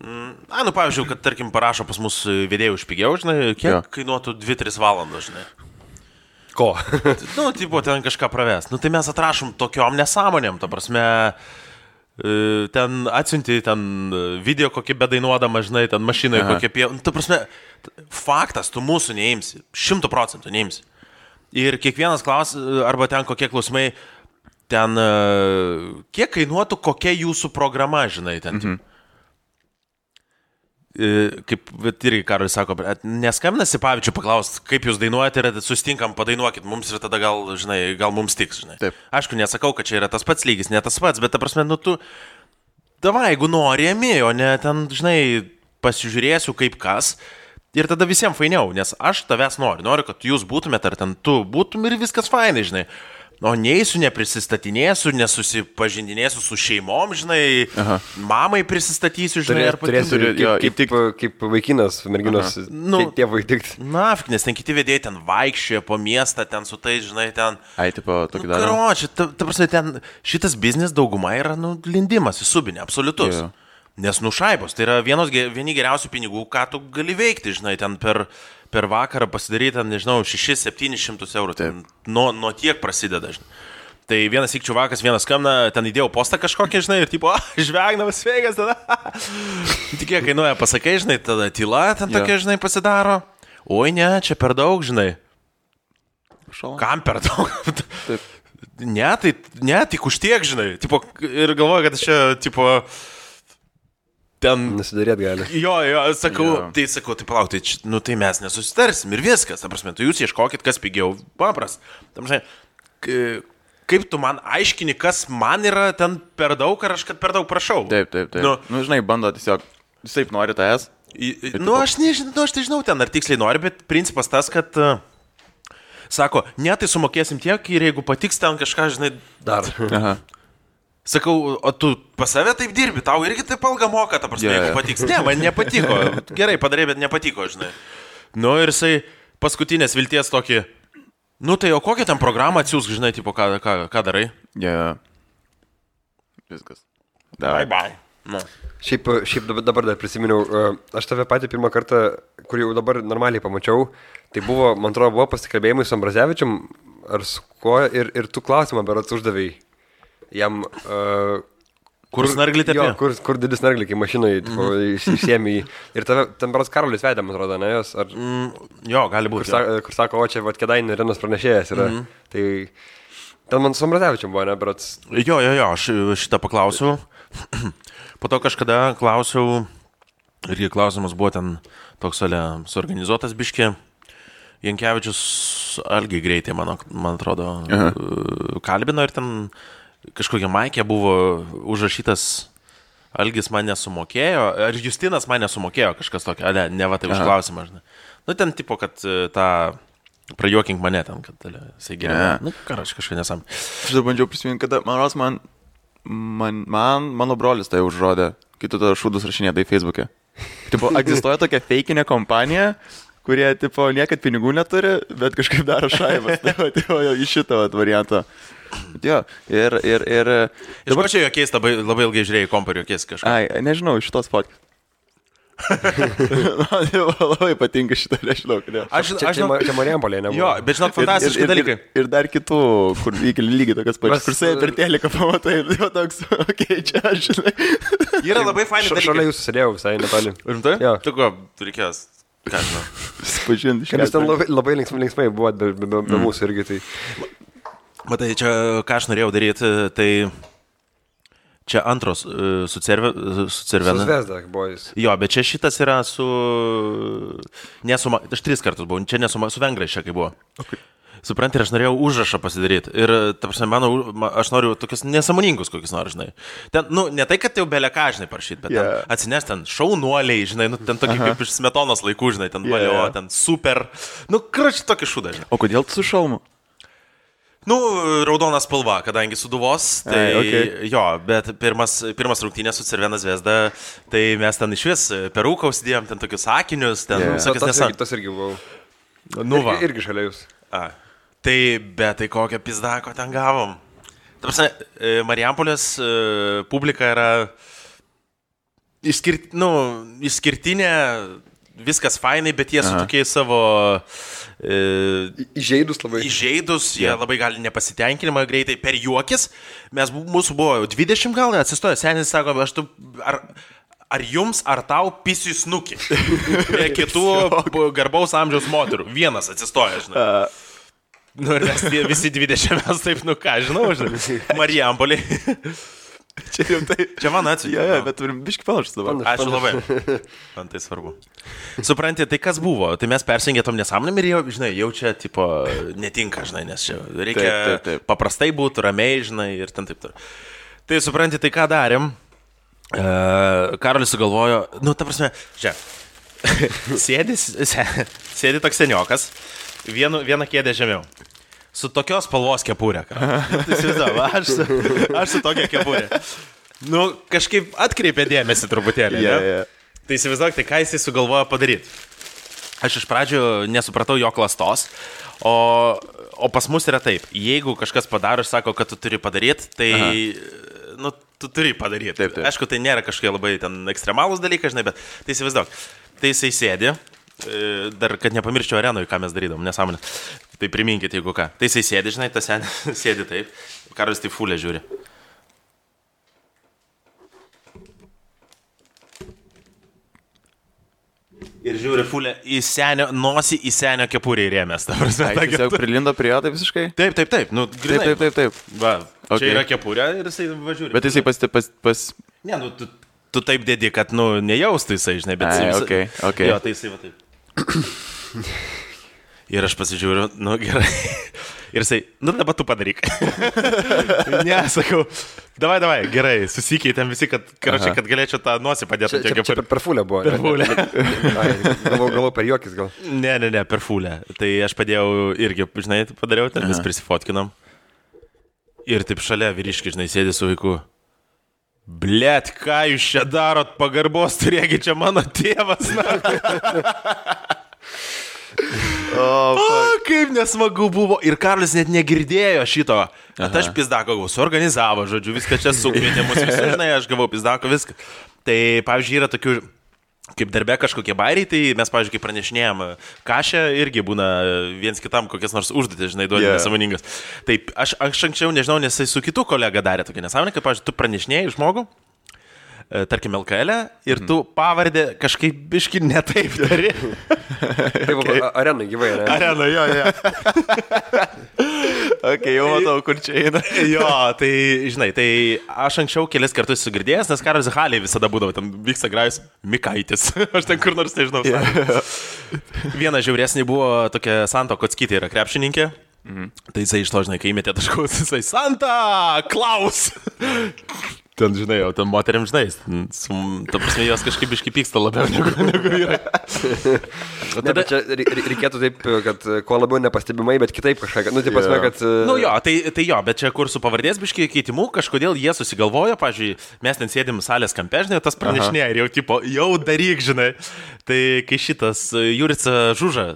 S1: Nu, pavyzdžiui, kad, tarkim, parašo pas mus vedėjų už pigiau, žinai, kiek kainuotų 2-3 valandos, žinai.
S3: Ko?
S1: Nu, tipo, ten kažką pravest. Nu, tai mes atrašom tokiom nesąmonėm, ta prasme, ten atsiunti, ten video kokį bedainuodama, žinai, ten mašinoje kokie pie... Nu, ta prasme, faktas, tu mūsų neimsi, 100% neimsi. Ir kiekvienas arba ten kokie klausimai, ten kiek kainuotų kokia jūsų programa, žinai, ten. Kaip irgi Karolis sako, neskambina Sipavičių paklausti, kaip jūs dainuojate ir sustinkam, padainuokit mums ir tada gal, žinai, gal mums tiks, žinai.
S2: Taip.
S1: Aišku, nesakau, kad čia yra tas pats lygis, ne tas pats, bet ta prasme, nu tu, davai, jeigu nori, o ne ten, žinai, pasižiūrėsiu kaip kas. Ir tada visiems fainiau, nes aš tavęs noriu, kad jūs būtumėt, ar ten tu būtum ir viskas fainai, žinai. O neįsiu, neprisistatinėsiu, nesusipažindinėsiu su šeimom, žinai, mamai prisistatysiu, žinai, ar
S3: kaip vaikinas, merginos, tėvui tikti.
S1: Na, nes ten kiti vedėjai ten vaikščioja po miestą, ten su tais, žinai, ten.
S2: Ai, tipo, tokį darą.
S1: Karoči, ta prasme, ten šitas biznis dauguma yra, nu, lindimas į subinę, absoliutus. Yeah. Nes nušaibos, tai yra vieni geriausių pinigų, ką tu gali veikti, žinai, ten per vakarą pasidaryti, ten, nežinau, 600-700 eurų, ten nuo tiek prasideda, žinai. Tai vienas ikčiuvakas, vienas skambina, ten įdėjau postą kažkokį, žinai, ir tipo, žvegnamas sveikas, tada. Tik kiek kainuoja, pasakai, žinai, tada tyla ten tokia, žinai, pasidaro. Oi, ne, čia per daug, žinai. Kam per daug?
S2: Taip.
S1: Ne, tik už tiek, žinai. Tipo, ir galvoju, kad čia, tipo... Ten...
S3: Nesidarėt gali.
S1: Jo, sakau, tai palauk, tai mes nesusitarsim ir viskas, ta prasme, tu jūs ieškokit, kas pigiau, papras. Tam, žinai, kaip tu man aiškini, kas man yra ten per daug, ar aš kad per daug prašau.
S2: Taip. Nu, žinai, bando tiesiog, jis taip nori tavęs.
S1: Nu, aš tai žinau ten, ar tiksliai nori, bet principas tas, kad... Sako, ne, tai sumokėsim tiek ir jeigu patiks ten kažką, žinai, dar.
S2: Aha.
S1: Sakau, o tu pas save taip dirbi, tau irgi taip algą moka, ta prasme, jeigu patiks. Ne, man nepatiko. Gerai padarė, bet nepatiko, žinai. Nu ir jisai paskutinės vilties tokį, nu tai o kokią ten programą atsiūsk, žinai, tipo, ką darai?
S2: Viskas.
S1: Bye. Nu.
S3: Šiaip dabar dar prisiminiau, aš tave patį pirmą kartą, kur jau dabar normaliai pamačiau, tai buvo, man atrodo, buvo pasikalbėjimai su Ambrazevičium, ar su kuo, ir tu klausimą berods uždavėjai. Jam...
S1: Kur snarglį tepė?
S3: Jo, kur didis snarglį, kai mašinoje išsiemi jį. Ir tave, ten berods Karolis vedė, man atrodo, ne jos? Ar...
S1: Jo, gali būti.
S3: Kur sako, o čia Kėdainių Renos pranešėjas yra. Tai ten man su Ambrazevičium buvo, ne, berods?
S1: Jo, aš šitą paklausiau. Po to kažkada klausiau, irgi klausimas buvo ten toks suorganizuotas biškė. Jankevičius Algiai greitai, man atrodo, kalbino ir ten kažkokia maikė buvo užrašytas, Algis man nesumokėjo, ar Justinas man nesumokėjo kažkas tokio, ne va tai už klausimą, žinai. Nu ten tipo, kad tą prajuokink mane ten, kad jisai geriau. Nu, aš kažką nesam.
S2: Aš dar bandžiau prisiminti, kada, mano brolis tai užrodė, kai tu tada šūdus rašinėdai Facebook'e. Tipo, egzistuoja tokia feikinė kompanija, kurie, tipo, niekad pinigų neturi, bet kažkaip daro šaibas. Tai iš šitą variantą. Jo, ir...
S1: Dabar čia jokiais labai ilgai žiūrėjai kompą ir jokiais kažką.
S2: Ai, nežinau, iš šitos fotkės. Man labai patinka šitą, nežinau, kodėl.
S3: Čia Marijampolė, ne?
S1: Jo, bet žinok, fantastiški dalykai.
S2: Ir dar kitų, kur lygiai tokias pačias, kur sai per teliką pamatai, jau toks, čia aš žinai.
S1: Yra labai faini dalykai.
S3: Šalia jūsų sėdėjau visai netoli.
S1: Rimtai?
S3: Jo.
S1: Tu ko, reikės, ką žinau.
S2: Spažinti iš
S3: Nes ten labai linksmai buvo, be mūsų irgi tai.
S1: Matai, čia ką aš norėjau daryti, tai čia antros su Cervena.
S3: Su Zvezda buvo jis.
S1: Jo, bet čia šitas yra su... Aš 3 kartus buvau, čia su Vengrais čia kai buvo.
S2: Okay.
S1: Supranti, ir aš norėjau užrašą pasidaryti. Ir, ta prasme, aš noriu tokius nesąmoningus kokius nors, žinai. Ten, ne tai, kad jau beleka, žinai, parašyti, bet ten atsineš ten šaunuoliai, žinai, ten tokie kaip iš Smetonos laikų, žinai, ten valio, ten super. Kračiai tokį šūdą, žinai.
S2: O kodėl tu su šalmu?
S1: Raudona spalva, kadangi suduvos, tai jo, bet pirmas rungtynės su Cervena Zvezda, tai mes ten iš vis perūką užsidėjom, ten tokius sakinius, ten visokius nesąmonės.
S3: Tas irgi buvau. Irgi šalia jūs.
S1: Tai, bet tai kokią pizdako ten gavom. Ta prasme, Marijampolės publika yra išskirtinė, viskas fainai, bet jie su tokiais savo...
S3: Įžeidus labai.
S1: Įžeidus, jie labai gali nepasitenkinimą greitai per juokis. Mūsų buvo 20 gal, atsistojo, senis sako, ar jums, ar tau pisiu snukį? Prie kitų garbaus amžiaus moterų. Vienas atsistoja, žinai. Ir mes visi 20 mes taip, ką, žinau, Marijampolė. Čia man atsiūdė.
S2: Jo, bet turim biškį panašus dabar.
S1: Ačiū labai. Man tai svarbu. Supranti, tai kas buvo? Tai mes persingėtom nesąmonėm ir jau čia, tipo, netinka, žinai, nes čia reikia taip. Paprastai būti, ramiai, žinai, ir ten taip. Tai supranti, tai ką darėm? Karolis sugalvojo, ta prasme, čia, sėdi toks seniokas, vieną kėdę žemiau. Su tokios spalvos kepurė. Aš su tokia kepurė. Kažkaip atkreipė dėmesį truputėlį. Tai įsivaizduok, tai ką jisai sugalvojo padaryti. Aš iš pradžių nesupratau jo klastos, o pas mus yra taip. Jeigu kažkas padaro ir sako, kad tu turi padaryti, tai tu turi padaryti. Taip. Aišku, tai nėra kažkokie labai ten ekstremalūs dalykai, žinai, bet tai įsivaizduok. Tai jisai sėdi. Dar, kad nepamirščiau arenui, ką mes darydom, nesąmonė. Tai priminkite, jeigu ką. Tai jisai sėdi, žinai, tas sėdi taip. Karolis tai fulė žiūri. Ir žiūri fulė į senio, nosį į senio kepurį įrėmės.
S2: Jis jau prilindo prie jo, tai visiškai?
S1: Taip. Grinai.
S2: Taip.
S1: Va, čia yra kepurė ir jisai važiuoja.
S2: Bet jisai pas...
S1: Ne, tu taip dedi, kad, nejaustų jisai, žinai, bet...
S2: Okay.
S1: Jo, tai jisai va taip. Ir aš pasižiūriu, gerai. Ir jisai, dabar tu padaryk. Ne, sakau, davai, gerai, susikeitėm visi, kad galėčiau tą nosį padėti.
S3: Čia per fulę buvo.
S1: Per fulę.
S3: Galvoju per juokis gal.
S1: Ne, per fulę. Tai aš padėjau irgi, žinai, padariau, ten vis prisifotkinom. Ir taip šalia vyriški, žinai, sėdi su vaiku. Blet, ką jūs čia darot, pagarbos turėgi čia mano tėvas. Kaip nesmagu buvo. Ir Karolis net negirdėjo šito. Aš pizdako gavau, suorganizavo, žodžiu, viską čia sukvietė mus visi, žinai, aš gavau pizdako viską. Tai, pavyzdžiui, yra tokių, kaip darbe kažkokie bairiai, tai mes, pavyzdžiui, kai pranešinėjom kašę, irgi būna viens kitam kokias nors užduotis, žinai, duodi nesąmoningas. Taip, aš anksčiau nežinau, nes jis su kitu kolega darė tokia nesąmonė, kaip, pavyzdžiui, tu pranešinėjai žmogų, tarkim, LKL ir tu pavardę kažkaip biški netaip dari.
S3: Taip, arenai gyvai, ne?
S1: Arenai, jo.
S2: Jau matau, kur čia eina.
S1: Jo, tai, žinai, tai aš anksčiau kelis kartus sugirdėjęs, nes Karolis Halėje visada būdavo, ten vyksta grajus Mikaitis. Aš ten kur nors nežinau. Viena žiauresnė buvo tokia Santa Kockytė, yra krepšininkė. Tai jisai iš to, žinai, kai įmetė taškus, jisai Santa Klaus. Ten, žinai, jau ten moteriam, žinai, ta prasme, jos kažkaip iškipyksta labiau negu vyrai.
S3: Tada čia reikėtų taip, kad kuo labiau nepastebimai, bet kitaip kažką, tai prasme, kad...
S1: Jo, tai jo, bet čia kur su pavardės biški keitimu, kažkodėl jie susigalvojo, pavyzdžiui, mes ten sėdim salės kampe, žinai, tas pranešinėja ir jau tipo, jau daryk, žinai. Tai kai šitas Jurica Žuža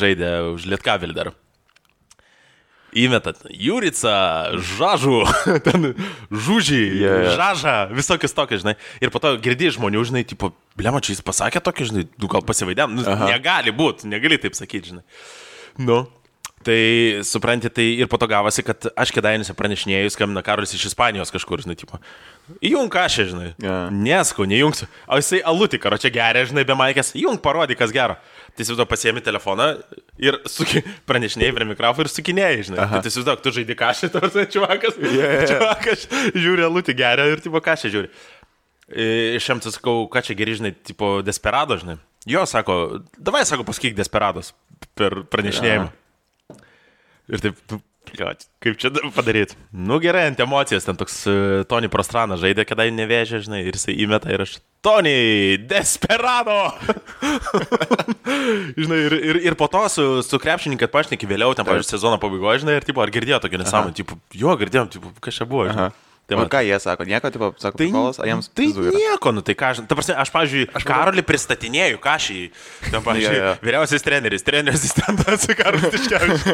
S1: žaidė už Lietkavilį dar. įmetat Jurica, Žažų, ten Žužį, Žažą, visokius tokius, žinai. Ir po to girdi žmonių, žinai, tipo, blema, čia jis pasakė tokį, žinai, gal pasivaidėm, negali būti, negali taip sakyti, žinai. Nu. Tai, supranti, tai ir po to gavosi, kad aš Kėdainiuose pranešinėjus, skambina Karolis iš Ispanijos kažkur, žinai, tipo, įjung kažką, žinai, nesku, nejungsiu, o jisai alutį karo čia geria, žinai, be maikės, įjung parodyk, kas gero. Tai įsivaizduok, pasiemi telefoną ir pranešinėjai prie mikrofono ir sukinėjai, žinai. Tai įsivaizduok, tu žaidži kažką, tarsi čiuvakas žiūri alutį geria ir tipo kažką žiūri. Šiam tai sakau, ką čia geri, žinai, tipo Desperado, žinai. Jo, sako, davai, sako, pasakyk Desperados per pranešinėjimą. Ir taip, kaip čia padaryti? Nu gerai, ant emocijos, ten toks Tony Prostranas žaidė, kada jį nevėžė, žinai, ir jisai įmeta ir aš, Tony, Desperado! Žinai, ir po to su krepšininkai pašneki vėliau, ten, pavyzdžiui, sezono pabaigoje, žinai, ir tipo, ar girdėjo tokį nesąmonę, tipo, jo, girdėjom, tipo, kas čia buvo, žinai.
S2: O ką jie sako? Nieko, tipo, sako,
S1: tai,
S2: prikolas, ar jiems
S1: tai nieko, nu tai ką, ta prasme, aš, pavyzdžiui, Karolį pristatinėjau, kažį, ten, pavyzdžiui, vyriausias treneris asistentas, Karolis Tiškevičius.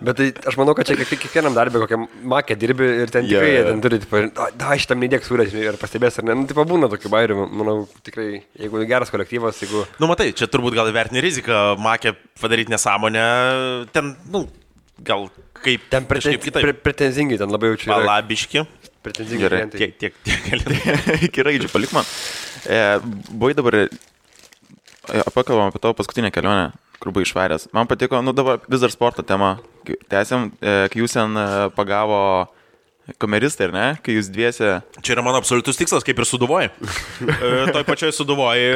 S3: Bet tai aš manau, kad čia kiekvienam darbė kokiam makė dirbi ir ten tikrai jie ten turi, tipo, šitam neįdėk surės ir pastebės ar ne, nu, tipo, būna tokių bairių, manau, tikrai, jeigu geras kolektyvas, jeigu...
S1: Nu, matai, čia turbūt gal vertini riziką, makė padaryti nesąmonę, ten, nu, gal kaip...
S3: Ten pretenzingai, ten labai jaučiu.
S1: Palabiški.
S3: Pretenzingai.
S1: Gerai, tiek gali.
S2: Iki raidžių, palik man. Buvai dabar, pakalbam apie tavo paskutinę kelionę, kur buvai išvaręs. Man patiko, nu dabar vis dar sporto tema. Tęsiam, kai jūs ten pagavo kameristai, ar ne? Kai jūs dviese...
S1: Čia yra mano absoliutus tikslas, kaip ir Sūduvoj. Toj pačioj Sūduvoj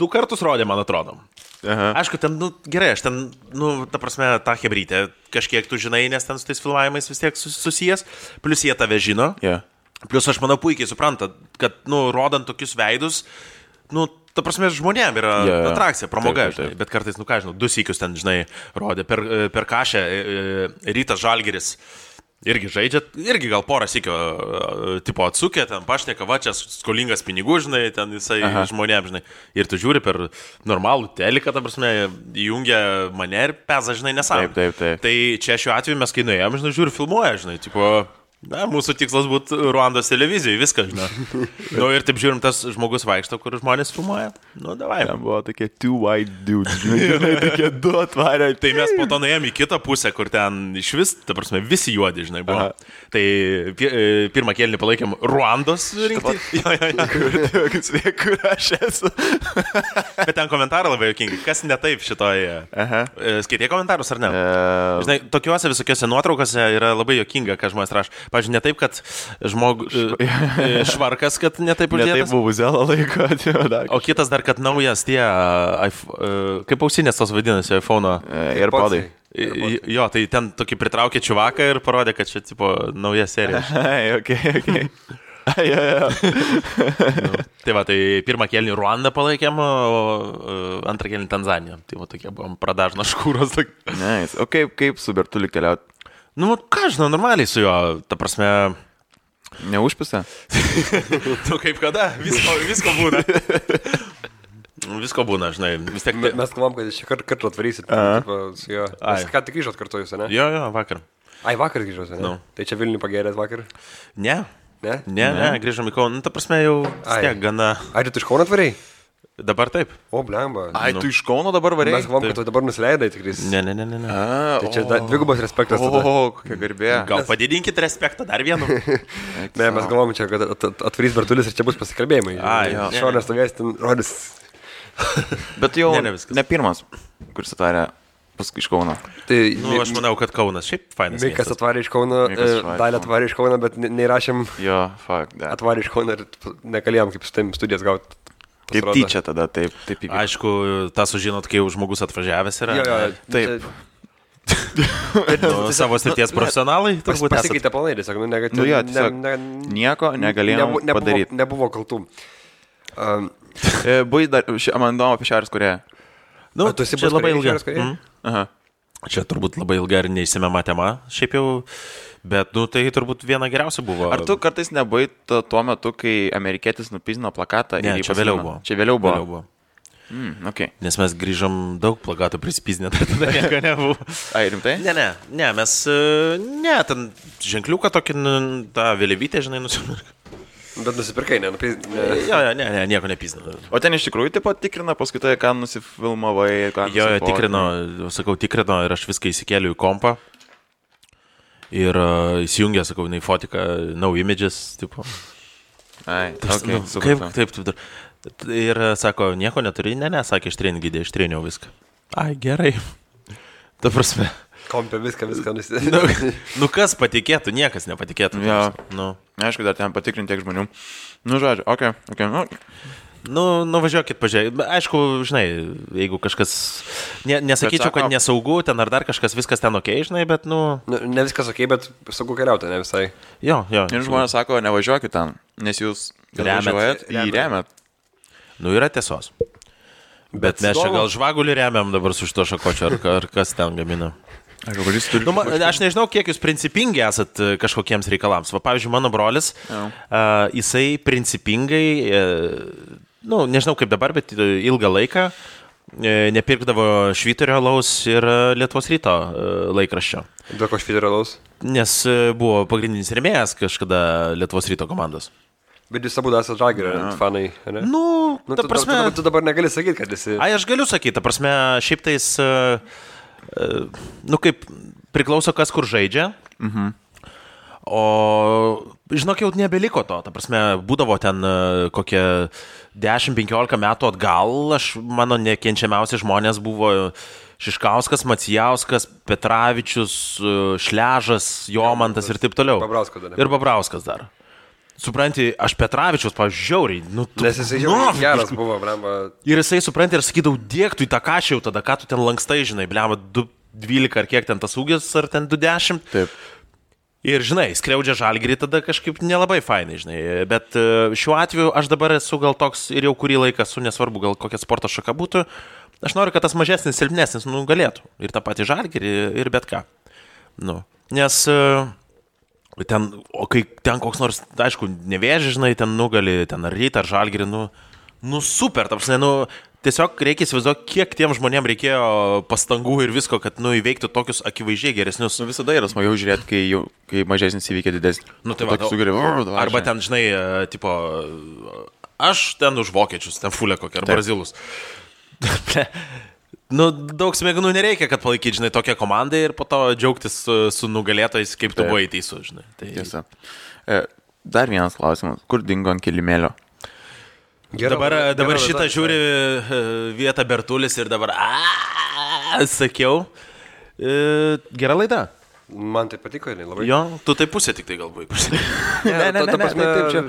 S1: 2 kartus rodė, man atrodo. Aišku, ten, nu, gerai, aš ten, nu, ta prasme, tą hebrytę kažkiek tu žinai, nes ten su tais filmavimais vis tiek susijęs, plus jie tave žino. Plus aš manau puikiai supranta, kad, nu, rodant tokius veidus, nu, ta prasme, žmonėm yra atrakcija, pramoga, žinai, bet kartais, nu ką žinau, 2 sykius ten, žinai, rodė per Kašę, Rytas Žalgiris, irgi žaidžia, irgi gal porą sykio, tipo atsukė, ten pašneka, va, čia skolingas pinigų, žinai, ten jisai žmonėm, žinai, ir tu žiūri per normalų teliką, ta prasme, įjungia mane ir peza, žinai, nesąmonė.
S2: Taip.
S1: Tai čia šiuo atveju mes, kai nuėjom, žinai, žiūri, filmuoja, žinai, tipo... Na, mūsų tikslas būtų Ruandos televizijai, viskas, žinai. Nu, ir taip žiūrim, tas žmogus vaikšto, kur žmonės filmuoja. Nu, davai.
S2: Ten buvo tokie 2 white dudes, žinai, tokie 2 atvarė.
S1: Tai mes po to nuėjom į kitą pusę, kur ten iš vis, ta prasme, visi juodi, žinai, buvo. Tai pirmą kėlinį palaikėm Ruandos rinkti.
S2: Kur aš esu.
S1: Bet ten komentarai labai juokingi. Kas ne taip šitoje? Skaitė komentarus ar ne? Žinai, tokiuose visokiuose nuotraukose yra labai juokinga, ką žmonės rašo. Pavyzdžiui, ne taip, kad švarkas, kad ne taip uždėtas.
S2: Ne taip buvo zelą laiko.
S1: O kitas dar, kad naujas tie, kaip ausinės tos vadinasi, iPhone'o.
S2: AirPodai.
S1: Jo, tai ten tokį pritraukė čiuvaką ir parodė, kad čia, tipo, nauja serija.
S2: Okay.
S1: Tai va, tai pirmą kėlinį Ruandą palaikėm, o antrą kėlinį Tanzaniją. Tai va, tokie buvom pradažno škūros.
S2: Nice. O kaip su Bertuliu keliaut?
S1: Nu, ką žinau, normaliai su juo, ta prasme...
S2: Neužpisa?
S1: Tu kaip kada? Visko būna. Visko būna, žinai. Vis tiek...
S3: Mes kalbam, kad šį kartą atvarysit su juo. Mes ką tik grįžot kartu jūs, ne?
S1: Jo, vakar.
S3: Vakar grįžot, ne? Tai čia Vilnių pagerėt vakar?
S1: Ne, grįžom į Kauną. Nu, ta prasme, jau vis tiek gana...
S3: Ai, tu iš Kauno atvarei?
S1: Dabar taip.
S3: O, blemba.
S2: Ai, tu iš Kauno dabar varėjai?
S3: Mes galvom, kad tu dabar nusileidai tikrai.
S1: Ne.
S3: Tai čia dvigubas respektas.
S2: Kokia garbė.
S1: Gal padidinkit respektą dar vienu.
S3: Ne, mes galvom čia, kad atvarys Bertulis ir čia bus pasikalbėjimai. Šonės stovės ten rodys.
S2: Bet jau ne pirmas, kuris atvarė iš Kauno.
S1: Nu, aš manau, kad Kaunas šiaip fainas.
S3: Mikas atvarė iš Kauno, Dalė atvarė iš Kauno, bet neįrašėm atvarė iš Kauno ir nekalėjom kaip su taim studijas gauti.
S2: Kaip tyčia tada, taip įvyko.
S1: Aišku, tą sužinot, kai jau žmogus atvažiavęs yra.
S3: Jo,
S2: taip.
S1: Savo srities profesionalai turbūt
S3: pasikeitė planai, tiesiog,
S2: nieko negalėjom padaryti.
S3: Nebuvo kaltų.
S2: Buvai dar, man įdomu apie Šiaurės Korėją.
S1: Nu,
S3: tu esi
S1: čia labai ilga.
S2: Čia
S1: turbūt labai ilga ir neįsimema tema, šiaip jau. Bet, nu, tai turbūt viena geriausia buvo.
S2: Ar tu kartais nebuvai tuo metu, kai amerikietis nupizino plakatą?
S1: Ne, čia vėliau buvo.
S2: Čia vėliau buvo. Okay.
S1: Nes mes grįžom daug plakatų prispiznę, tai tada nieko nebuvo.
S2: Ai, rimtai?
S1: Ne, mes, ten ženkliuką tokį, tą vėliavytę, žinai, nusipirkome.
S3: Bet nusipirkai, ne?
S1: Jo, nieko nepizna.
S2: O ten iš tikrųjų taip pat tikrina, paskui tai, ką nusifilmavai, ką
S1: tikrino ir aš viską įsikėliu į kompą. Ir įsijungė, sakau, į fotiką, no images, tipo.
S2: Ai, okay,
S1: kaip, taip. Ir sako, nieko neturi, sakė, ištrėniau viską. Ai, gerai. Ta prasme.
S3: Kompė viską nusidėjo.
S1: Nu kas patikėtų, niekas nepatikėtų.
S2: Jo.
S1: Nu.
S2: Aišku, dar ten patikrinti tiek žmonių. Nu, žodžiu, okei.
S1: Nu, važiuokit, pažiūrėkit. Aišku, žinai, jeigu kažkas, nesakyčiau, kad nesaugu, ten ar dar kažkas, viskas ten okei, žinai, bet,
S3: Ne viskas okei, bet saugu keliauti, ne visai.
S1: Jo.
S2: Ir žmonės sako, nevažiuokit ten, nes jūs važiuojat į remiat.
S1: Nu, yra tiesos. Bet mes čia gal žvagulį remiam dabar su šito šakočio, ar kas ten gamina. Aš nežinau, kiek jūs principingi esat kažkokiems reikalams. Va, pavyzdžiui, mano brolis, jisai principingai, nežinau kaip dabar, bet ilgą laiką nepirkdavo Švyturio alaus ir Lietuvos Ryto laikraščio.
S3: Dėl ko Švyturio alaus?
S1: Nes buvo pagrindinis rėmėjas kažkada Lietuvos Ryto komandos.
S3: Bet jūs abu esate Žalgirio fanai, ne?
S1: Ta prasme...
S3: Tu dabar negali sakyti, kad esi...
S1: Ai, aš galiu sakyti, ta prasme, šiaip tais... kaip priklauso kas kur žaidžia. O žinok, jau nebeliko to. Ta prasme, būdavo ten kokie 10-15 metų atgal. Mano nekenčiamiausi žmonės buvo Šiškauskas, Macijauskas, Petravičius, Šležas, Jomantas ir taip toliau. Ir Babrauskas dar. Supranti, aš Petravičius, pažiūriai,
S3: nes jisai jau geras buvo, blemba.
S1: Ir jisai, supranti, ir sakydavau, dėk tu į tą kašį jau tada, ką tu ten lankstai, žinai, blemba, 2.12 ar kiek ten tas ūgis, ar ten 2.10.
S2: Taip.
S1: Ir, žinai, skriaudžia Žalgirį tada kažkaip nelabai fainai, žinai. Bet šiuo atveju aš dabar esu gal toks ir jau kurį laiką esu, nesvarbu, gal kokia sporto šaka būtų. Aš noriu, kad tas mažesnis, silpnesnis, galėtų. Ir tą patį Žalgirį, ir bet ką. Nes... O kai ten koks nors, aišku, Nevėžis, žinai, ten nugali, ten ar Rytą, ar Žalgirį, super, ta prasme, tiesiog reikia įsivaizduoti, kiek tiem žmonėm reikėjo pastangų ir visko, kad, įveiktų tokius akivaizdžiai geresnius.
S2: Visada yra smagiau žiūrėti, kai mažesnis įveikia didesnį.
S1: Tai va, arba ten, žinai, tipo, aš ten už vokiečius, ten fulė kokia, ar brazilus. Daug smegenų nereikia, kad palaikyt, žinai, tokią komandą ir po to džiaugtis su nugalėtojais, kaip tu buvai teisus, žinai.
S2: Tiesa. Dar vienas klausimas. Kur dingo ant kilimėlio?
S1: Dabar šitą žiūri vietą Bertulis ir dabar sakiau. Gera laida.
S3: Man tai patiko, labai.
S1: Jo, tu tai pusė tik tai galbūt.
S3: Taip čia.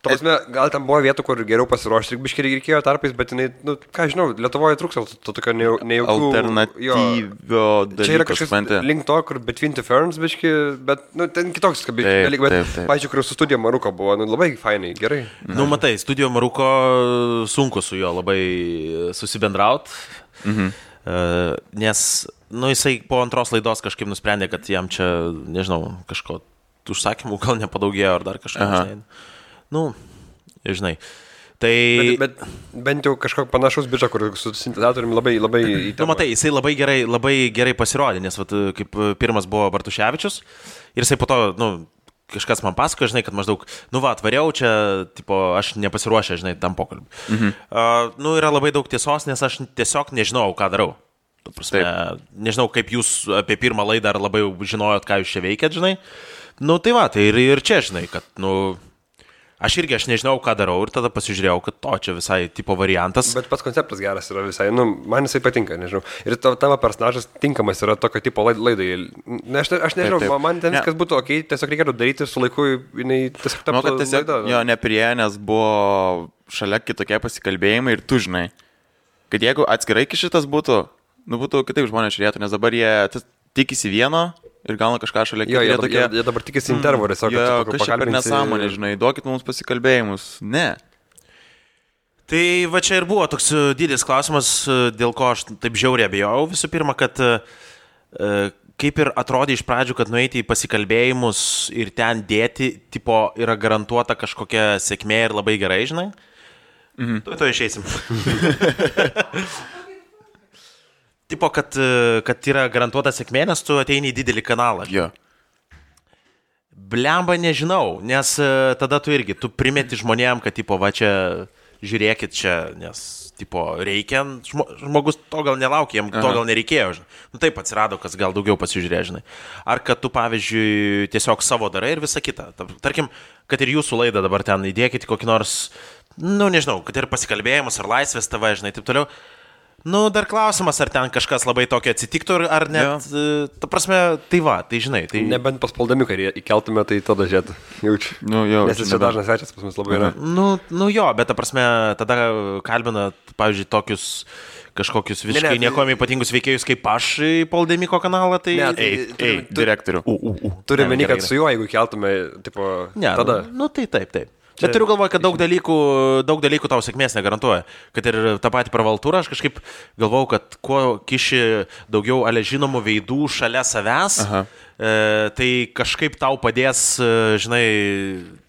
S3: Prasme, gal tam buvo vietų, kur geriau pasiruošti, biškai reikėjo tarpais, bet jinai, ką žinau, Lietuvoje trūksta to tokio nejaukių...
S2: Alternatyvio dalyko.
S3: Čia yra kažkas link to, kur Between the Ferns, biškai, bet, ten kitoks dalykas, bet, pažiūrėjau, kur su Studio Maruko buvo, labai fainai, gerai.
S1: Matai, Studio Maruko sunku su juo labai susibendraut, nes, jisai po antros laidos kažkaip nusprendė, kad jam čia, nežinau, kažko užsakymų gal nepadaugėjo ar dar kažką, žinai. Tai...
S3: Bet bent jau kažkok panašus bičą, kur su sintetizatoriumi labai įtema.
S1: Matai, jisai labai gerai pasirodė, nes kaip pirmas buvo Bartuševičius ir jisai po to, kažkas man pasako, žinai, kad maždaug, atvariau čia, tipo, aš nepasiruošę, žinai, tam pokalbį. Yra labai daug tiesos, nes aš tiesiog nežinau, ką darau. Prasme, nežinau, kaip jūs apie pirmą laidą ar labai žinojot, ką jūs čia veikėt, žinai. Tai va, tai ir čia, žinai, kad, aš nežinau, ką darau ir tada pasižiūrėjau, kad čia visai tipo variantas.
S3: Bet pats konceptas geras yra visai, man jisai patinka, nežinau. Ir tavo personažas tinkamas yra tokio tipo laidai. Aš nežinau, man ten viskas būtų okei, tiesiog reikėtų daryti su laiku, jinai tiesiog taptų laida.
S2: Jo, neprieė, nes buvo šalia kitokie pasikalbėjimai ir tu žinai, kad jeigu atskirai šitas būtų, būtų kitaip žmonės žiūrėtų, nes dabar jie tikisi vieno. Ir gauna kažką šalia
S3: kito. Jie dabar tikisi intervų, tiesiog.
S2: Kažkaip per nesąmonę, žinai, duokit mums pasikalbėjimus. Ne.
S1: Tai va čia ir buvo toks didelis klausimas, dėl ko aš taip žiauriai abejojau. Visų pirma, kad kaip ir atrodė iš pradžių, kad nueiti į pasikalbėjimus ir ten dėti, tipo, yra garantuota kažkokia sėkmė ir labai gerai, žinai. To išeisim. Tipo, kad yra garantuota sėkmė, nes tu ateini į didelį kanalą.
S2: Jo.
S1: Blemba nežinau, nes tada tu primeti žmonėm, kad, tipo, va čia, žiūrėkit čia, nes, tipo, reikia, žmogus to gal nelaukia, jam to gal nereikėjo, žinai. Nu taip atsirado, kas gal daugiau pasižiūrė, žinai. Ar kad tu, pavyzdžiui, tiesiog savo darai ir visa kita. Tarkim, kad ir jūsų laidą dabar ten įdėkit kokį nors, nu nežinau, kad ir pasikalbėjimus, ar Laisvės TV, žinai, taip toliau. Nu, dar klausimas, ar ten kažkas labai tokio atsitiktų, ar net, ta prasme, tai va, tai žinai. Tai...
S3: Nebent paspaudami, kai įkeltume, tai tada žiūrėt, jaučiu.
S2: Nu, jau.
S3: Nes jis čia dažnas svečias pas mus labai yra.
S1: Nu jo, bet ta prasme, tada kalbina, pavyzdžiui, tokius kažkokius visiškai nieko ypatingus veikėjus kaip aš į Poldemiko kanalą, tai...
S2: Direktorių.
S3: Turime meni, kad su juo, jeigu keltume, tipo, tada...
S1: Nu, tai taip. Bet turiu galvoje, kad daug dalykų tau sėkmės negarantuoja. Kad ir tą patį pravaltūrą, aš kažkaip galvau, kad kuo kiši daugiau žinomų veidų šalia savęs, tai kažkaip tau padės, žinai,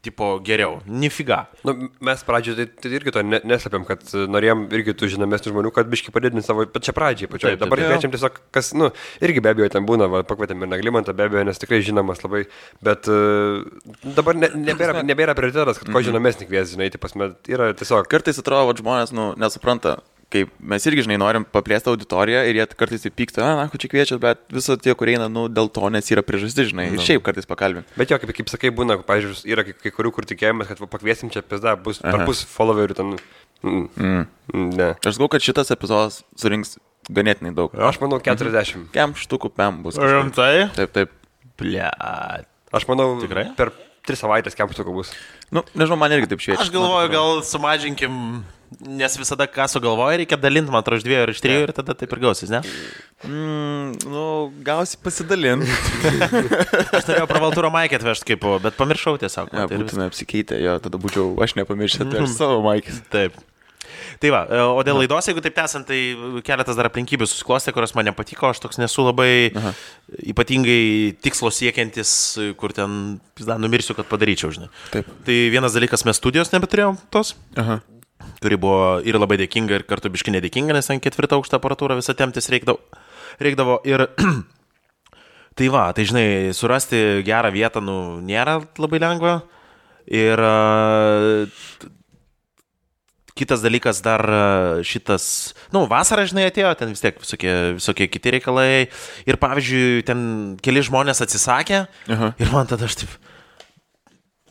S1: tipo geriau. Nifiga.
S3: Nu, mes pradžioje tai irgi to neslėpėm, kad norėjom irgi tų žinomesnių žmonių, kad biškai padidinti savo pačią pradžią. Dabar kviečiam tiesiog, kas, nu, irgi be abejo ten būna, pakvietėm ir Naglimantą, be abejo, nes tikrai žinomas labai, bet dabar nebėra prioritetas, kad ko žinomesnį kvies, žinai, tai pasme, yra tiesiog.
S2: Kartais atrodo, kad žmonės, nu, nesupranta. Kaip mes irgi, žinai, norim paplėsti auditoriją ir jie kartais įpyksta, ko čia kviečia, bet viso tie, kurie eina, nu, dėl to, nes yra priežastis, žinai, ir šiaip kartais pakalbim.
S3: Bet jo, kaip sakai, būna, pavyzdžiui, yra kai kurių, kur tikėjomės, kad pakviesim čia pizda, bus per pus followerių ten. Ne.
S2: Aš galvoju, kad šitas epizodas surinks ganėtinai daug.
S3: Aš manau, 40.
S2: Kem štukų pem bus.
S1: Rimtai?
S2: Taip.
S1: Blet.
S3: Aš manau,
S1: tikrai?
S3: Per 3 savaitės kem štukų bus.
S2: Nu, nežinau, man irgi taip šviečia.
S1: Aš galvoju, gal sumažinkim, nes visada ką sugalvoja, reikia dalinti, man atrodo, iš 2 ir iš 3 ir tada taip ir gausis, ne?
S2: Nu, gausi pasidalinti.
S1: Aš norėjau pravaltūro maikę atvežti kaip, bet pamiršau tiesiog.
S2: Ja, būtume apsikeitę, jo, tada būčiau, aš nepamiršęs atvežti savo maikės.
S1: Taip. Tai va, o dėl laidos, jeigu taip tęsant, tai keletas dar aplinkybių susiklostė, kurios man nepatiko, aš toks nesu labai ypatingai tikslo siekiantis, kur ten, numirsiu, kad padaryčiau, žinai. Taip. Tai vienas dalykas, mes studijos nebeturėjom tos, kuri buvo ir labai dėkinga, ir kartu biški nedėkinga, nes ten 4 aukštą aparatūrą visą temptis reikdavo. Ir tai va, tai žinai, surasti gerą vietą, nu, nėra labai lengva. Ir kitas dalykas dar šitas, nu, vasarą, žinai, atėjo, ten vis tiek visokie kiti reikalai. Ir pavyzdžiui, ten keli žmonės atsisakė. Ir man tada aš taip,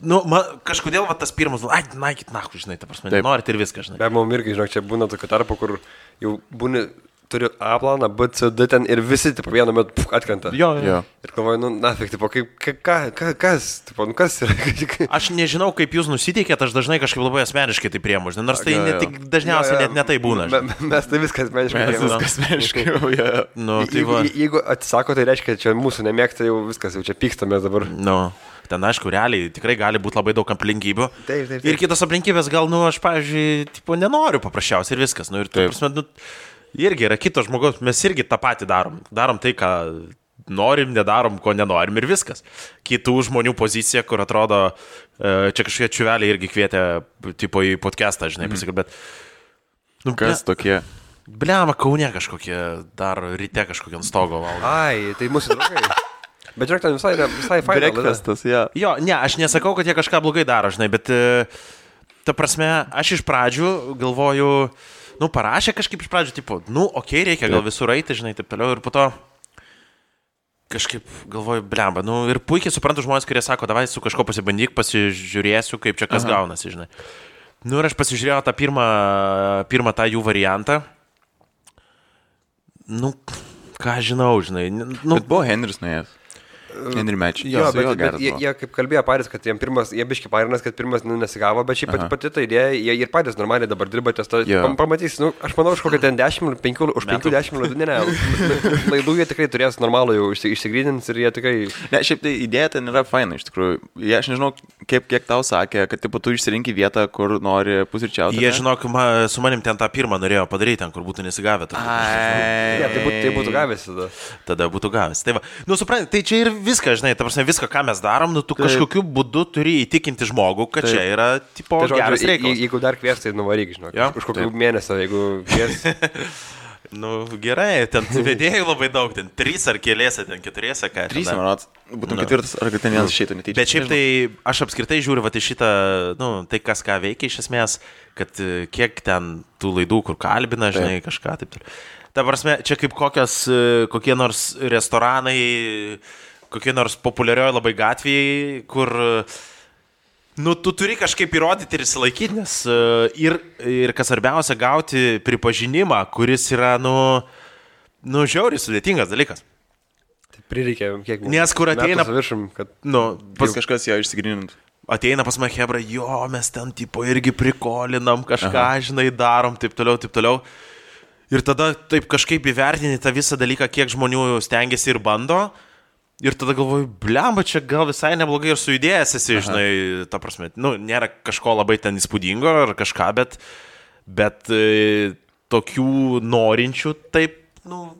S1: nu, kažkodėl va tas pirmas, naikit nahu, žinai, ta prasme, norit ir viską, žinai.
S3: Be mum irgi, žinok, čia būna tokių tarpų, kur jau būni, turiu A planą, B, C, D ten ir visi, tipo, vienu metu atkrenta.
S1: Jo.
S3: Ir galvoju, nu, nafik, tipo, kas, tipo, nu, kas yra?
S1: Aš nežinau, kaip jūs nusiteikėt, aš dažnai kažkaip labai asmeniškai tai priemu, žinai, nors tai tik dažniausiai net netai būna.
S3: Mes tai viskas asmeniškai priemu.
S2: Viskas asmeniškai,
S1: nu, tai va.
S3: Jeigu atsisako, tai reiškia, čia mūsų nemėgsta, jau viskas, jau čia pykstamės dabar.
S1: Nu. Ten, aišku, realiai tikrai gali būti labai daug aplinkybių.
S3: Taip.
S1: Ir kitos aplinkybės gal, nu, aš, pavyzdžiui, tipo, nenoriu paprasčiausiai ir viskas. Nu, ir taip, prasme, nu, irgi yra kito žmogaus, mes irgi tą patį darom. Darom tai, ką norim, nedarom, ko nenorim ir viskas. Kitų žmonių pozicija, kur atrodo, čia kažkokie čiuveliai irgi kvietė, tipo, į podcastą, žinai, pasikalbėt.
S2: Nu, kas tokie?
S1: Bliama, Kaune kažkokie, dar ryte kažkokie ant stogo valgo.
S3: Ai, tai mūsų draugai. Bet žiūrėk, ten visai faina.
S2: Breakfastas, jo.
S1: Jo, ne, aš nesakau, kad jie kažką blogai daro, žinai, bet ta prasme, aš iš pradžių galvoju, nu, parašė kažkaip iš pradžių, tipo, nu, okei, reikia gal visur eiti, žinai, taip toliau, ir po to kažkaip galvoju, blemba, nu, ir puikiai suprantu žmonės, kurie sako, davai su kažko pasibandyk, pasižiūrėsiu, kaip čia kas gaunasi, žinai. Nu, ir aš pasižiūrėjau tą pirmą tą jų variantą. Nu, ką žinau, žinai. Nu,
S2: bet buvo Henris nuėjęs. Henry Match.
S3: Jo, bet jie kaip kalbėjo patys, kad jie biški parinas, kad pirmas nesigavo, bet šiaip pati ta idėja, jie ir patys normaliai dabar dirba ties to. Pamatys, nu, aš manau, už kokią ten 10, 5-10 laidų, ne, laidų jie tikrai turės normalų jau išsigrynins ir jie tikrai...
S2: Ne, šiaip tai idėja ten yra faina, iš tikrųjų. Aš nežinau, kiek tau sakė, kad tipo, tu išsirinki vietą, kur nori pusryčiauti?
S1: Jie, žinok, su manim ten tą pirmą norėjo padaryti, ten, kur būtų nesigavę.
S3: Ja, tai būtų gavęs tada.
S1: Tada būtų gavęs. Tai, nu, supranti, tai čia ir viską, žinai, ta prasme, viską, ką mes darom, nu, tu kažkokiu būdu turi įtikinti žmogų, kad čia yra, tipo, geras reikalas.
S3: Jeigu dar kvies, tai nuvaryk, žinok. Už kokių mėnesio, jeigu kvies.
S1: Nu, gerai, ten vedėjų labai daug, ten 3 ar keliese, ten 4, ką.
S2: 3, manot, būtum 4, ar kad ten vienas išeitų netyčia.
S1: Bet šiaip tai aš apskritai žiūriu, va, į šitą, nu, tai kas ką veikia iš esmės, kad kiek ten tų laidų, kur kalbina, žinai, kažką taip. Ta prasme, čia kaip kokie nors restoranai, kokie nors populiarioji labai gatvėjai, kur... Nu, tu turi kažkaip įrodyti ir įsilaikyti, nes ir kas svarbiausia, gauti pripažinimą, kuris yra, nu žiauriai sudėtingas dalykas.
S3: Tai prireikia kiek...
S1: Nes kur ateina...
S3: Viršim, kad...
S1: Nu,
S2: pas kažkas jo išsigrinint.
S1: Ateina pas mane hebra, jo, mes ten tipo irgi prikolinam, kažką, žinai, darom, taip toliau. Ir tada taip kažkaip įvertini tą visą dalyką, kiek žmonių stengiasi ir bando. Ir tada galvoju, blemba, čia gal visai neblogai ir sujudėjęs esi, žinai, ta prasme, nu, nėra kažko labai ten įspūdingo ar kažką, bet tokių norinčių taip, nu,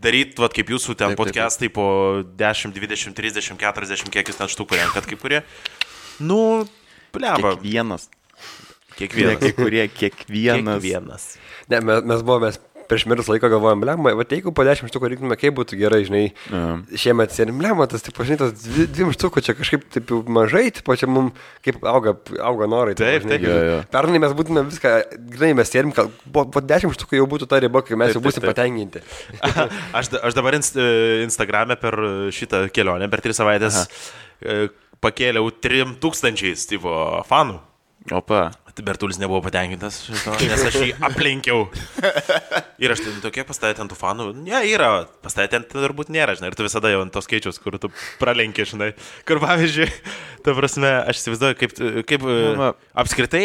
S1: daryti, vat, kaip jūsų ten podcastai po 10, 20, 30, 40, kiek jūs ten štukų renkat, kaip kurie, nu, blemba.
S2: Kiekvienas.
S3: Ne, mes buvome prieš mirus laiko galvojom, blemba, va jeigu po 10 štukų reiktume, kaip būtų gerai, žinai, šiemet sėdim, blemba, tas, tipo, žinai, tas 2 štukų čia kažkaip taip mažai, tipo, čia mums kaip auga norai.
S1: Taip.
S3: Pernai mes būtume viską, žinai, mes sėdim, po 10 štukų jau būtų ta riba, kai mes jau būsim patenkinti.
S1: Aš dabar Instagrame per šitą kelionę, per 3 savaitės pakėliau 3000 tipo fanų.
S2: Opa.
S1: Bertulis nebuvo patenkintas, nes aš jį aplenkiau. Ir aš ten tokie pastatė ant tų fanų. Ne, yra, pastatė ant turbūt nėra, žinai. Ir tu visada jau ant tos skaičius, kur tu pralenki, žinai. Kur pavyzdžiui, ta prasme, aš įsivaizduoju, kaip apskritai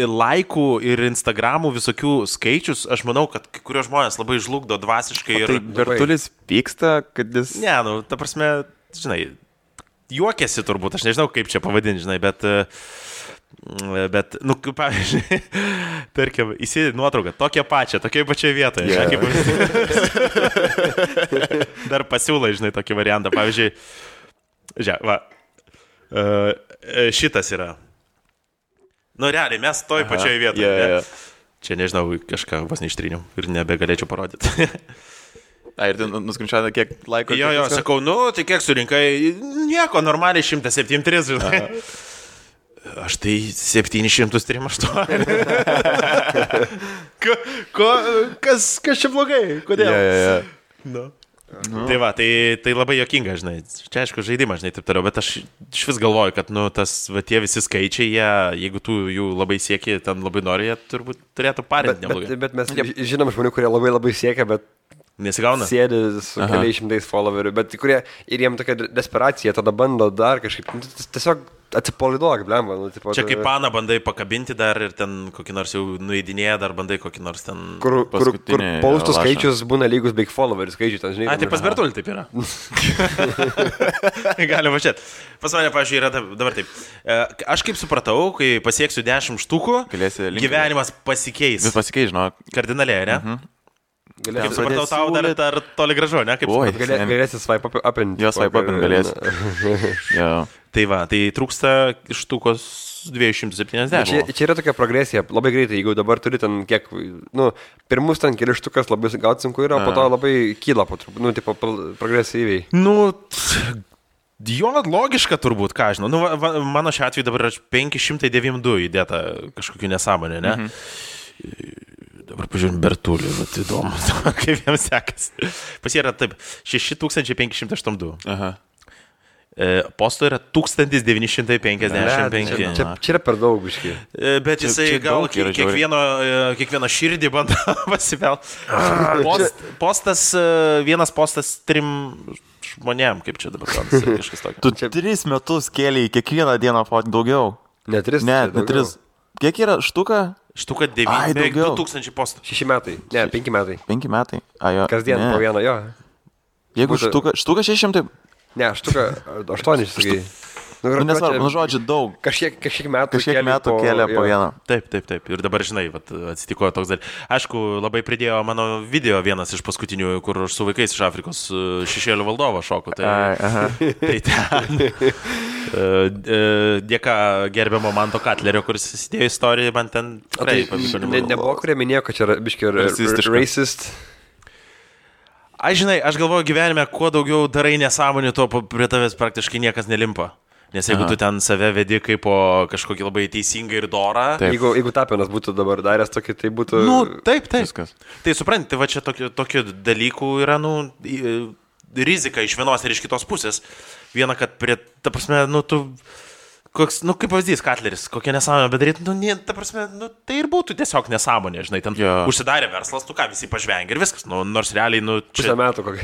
S1: laikų ir Instagramų visokių skaičius, aš manau, kad kai kurios žmonės labai žlugdo dvasiškai.
S2: Tai Bertulis pyksta, kad jis...
S1: Ne, nu, ta prasme, žinai, juokiasi turbūt, aš nežinau, kaip čia pavadinti, žinai, bet, nu, pavyzdžiui, tarkim, įsidė nuotrauką, tokią pačią vietoje. Yeah. Dar pasiūlai, žinai, tokį variantą. Pavyzdžiui, šitas yra. Nu, realiai, mes toj pačioje vietoje.
S2: Yeah.
S1: Čia, nežinau, kažką vos neištryniau ir nebegalėčiau parodyti.
S2: Ir tu nuskrinčiavai, kiek laiko?
S1: Jo, sakau, nu, tai kiek surinkai? Nieko, normaliai 173, žinai. Aš tai 738. Kas čia blogai? Kodėl?
S2: Yeah.
S1: No. Tai va, tai labai juokinga, žinai. Čia aišku žaidimas, žinai, taip toliau, bet aš iš vis galvoju, kad, nu, tie visi skaičiai, jeigu tu jų labai sieki, ten labai nori, jie turbūt turėtų parinti neblogai.
S3: Bet mes žinom žmonių, kurie labai siekia, bet
S1: nesigauna.
S3: Sėdi su keliais šimtais followerių, bet kurie ir jiem tokia desperacija, tada bando dar kažkaip, tiesiog atsipalaiduok, blemba. Nu,
S1: čia kaip paną bandai pakabinti dar ir ten kokį nors jau nueidinėję, dar bandai kokį nors ten...
S3: Kur paustų skaičius būna lygus beig followerių skaičių, ten žinai.
S1: Tai pas Bertulį taip yra. Gali važiuoti. Pas mane, pavyzdžiui, yra dabar taip. Aš kaip supratau, kai pasieksiu 10 štukų, gyvenimas pasikeis.
S2: Vis pasikeis, žinok.
S1: Kardinaliai, ne? Kaip supratau, tau dar toli gražu, ne?
S3: Galėsi swipe upinti.
S2: Jo, swipe upinti galėsi.
S1: Tai va, tai trūksta štukos 270.
S3: Čia yra tokia progresija, labai greitai, jeigu dabar turi ten kiek, nu, pirmus ten keli štukas labai gauti sunku yra, po to labai kyla po truputį, nu, tipo, progresyviai.
S1: Nu, jo, logiška turbūt, ką žinau. Nu, mano šiuo atveju dabar yra 592 įdėta kažkokiu nesąmonė, ne? Dabar pažiūrėjom Bertulį, bet įdomu, kaip jiems sekas. Pas jie yra taip, 6582.
S2: Aha.
S1: Posto yra 1955.
S3: Čia yra per daug biškai.
S1: Bet jisai gal kiekvieno širdį bando pasivelt. Vienas postas 3 žmonėm, kaip čia dabar kažkas tokio.
S2: Tu 3 metus kėlei kiekvieną dieną daugiau.
S3: Ne 3.
S2: Ne 3. Kiek yra štuka?
S1: Štuka 2000 postų.
S3: 6 metai. Ne, 5 metai.
S2: 5 metai.
S3: Kasdien po vieną, jo.
S2: Jeigu štuka 600...
S3: Ne, štuka 8, sakai.
S2: Nesvarbu, žodžiu, daug.
S3: Kažkiek metų
S2: kėlė po vieną.
S1: Taip. Ir dabar, žinai, atsitiko toks dalykas. Aišku, labai pridėjo mano video vienas iš paskutinių, kur aš su vaikais iš Afrikos šešėlių valdovo šoku. Tai ten. Dėka gerbiamo Manto Katlerio, kuris įsidėjo istoriją, man ten tikrai pavyko.
S3: Nebuvo, kurie minėjo, kad čia yra biški racist.
S1: Aš galvoju gyvenime, kuo daugiau darai nesąmonių, tuo prie tavęs praktiškai niekas nelimpa. Nes jeigu tu ten save vedi kaip po kažkokį labai teisingą ir dorą.
S3: Jeigu Tapinas būtų dabar daręs tokį, tai būtų...
S1: Taip. Viskas. Tai supranti, va čia tokių dalykų yra, rizika iš vienos ir iš kitos pusės. Viena, kad ta prasme, kaip pavyzdys, Katleris, kokia nesąmonė bedaryti, ta prasme, tai ir būtų tiesiog nesąmonė, žinai, ten užsidarė verslas, visi pažvengia ir viskas, nors realiai,
S3: čia... Pusę metų kokia.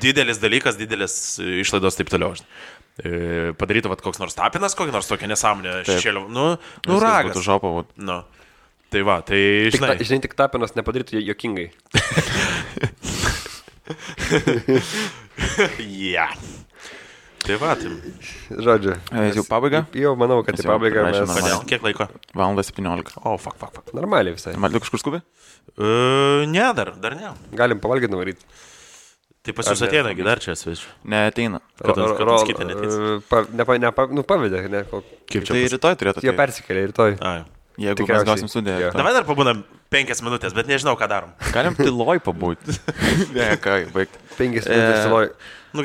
S1: Didelis dalykas, didelis išlaidos taip toliau, žinai. Padarytų koks nors Tapinas, kokia nors tokia nesąmonė šešėlių. Ragas.
S2: Būtų žopavo.
S1: Tai va, tai žinai.
S3: Žinai, tik Tapinas nepadarytų jokingai.
S1: Tai va, tai.
S3: Žodžiu.
S2: Jau pabaiga?
S3: Jau manau, kad tai pabaiga.
S1: Kodėl? Kiek laiko?
S2: 1:17.
S1: O, fuck.
S3: Normaliai visai.
S2: Tu kažkur skubi?
S1: Ne, dar ne.
S3: Galim pavalgyti nuvaryti.
S1: Tai pas jūs ateina, dar čia svečiu.
S2: Neateina.
S1: Kad kitą neteis.
S3: Pavedė, ne?
S2: Kaip čia? Tai rytoj turėtų.
S3: Jie persikėlė rytoj.
S2: Jeigu mes gausim sudėję.
S1: Davai dar pabūnam 5 minutės, bet nežinau, ką darom.
S2: Galim tyloj pabūti. Ne, ką, baigti.
S3: 5 minutės tyloj.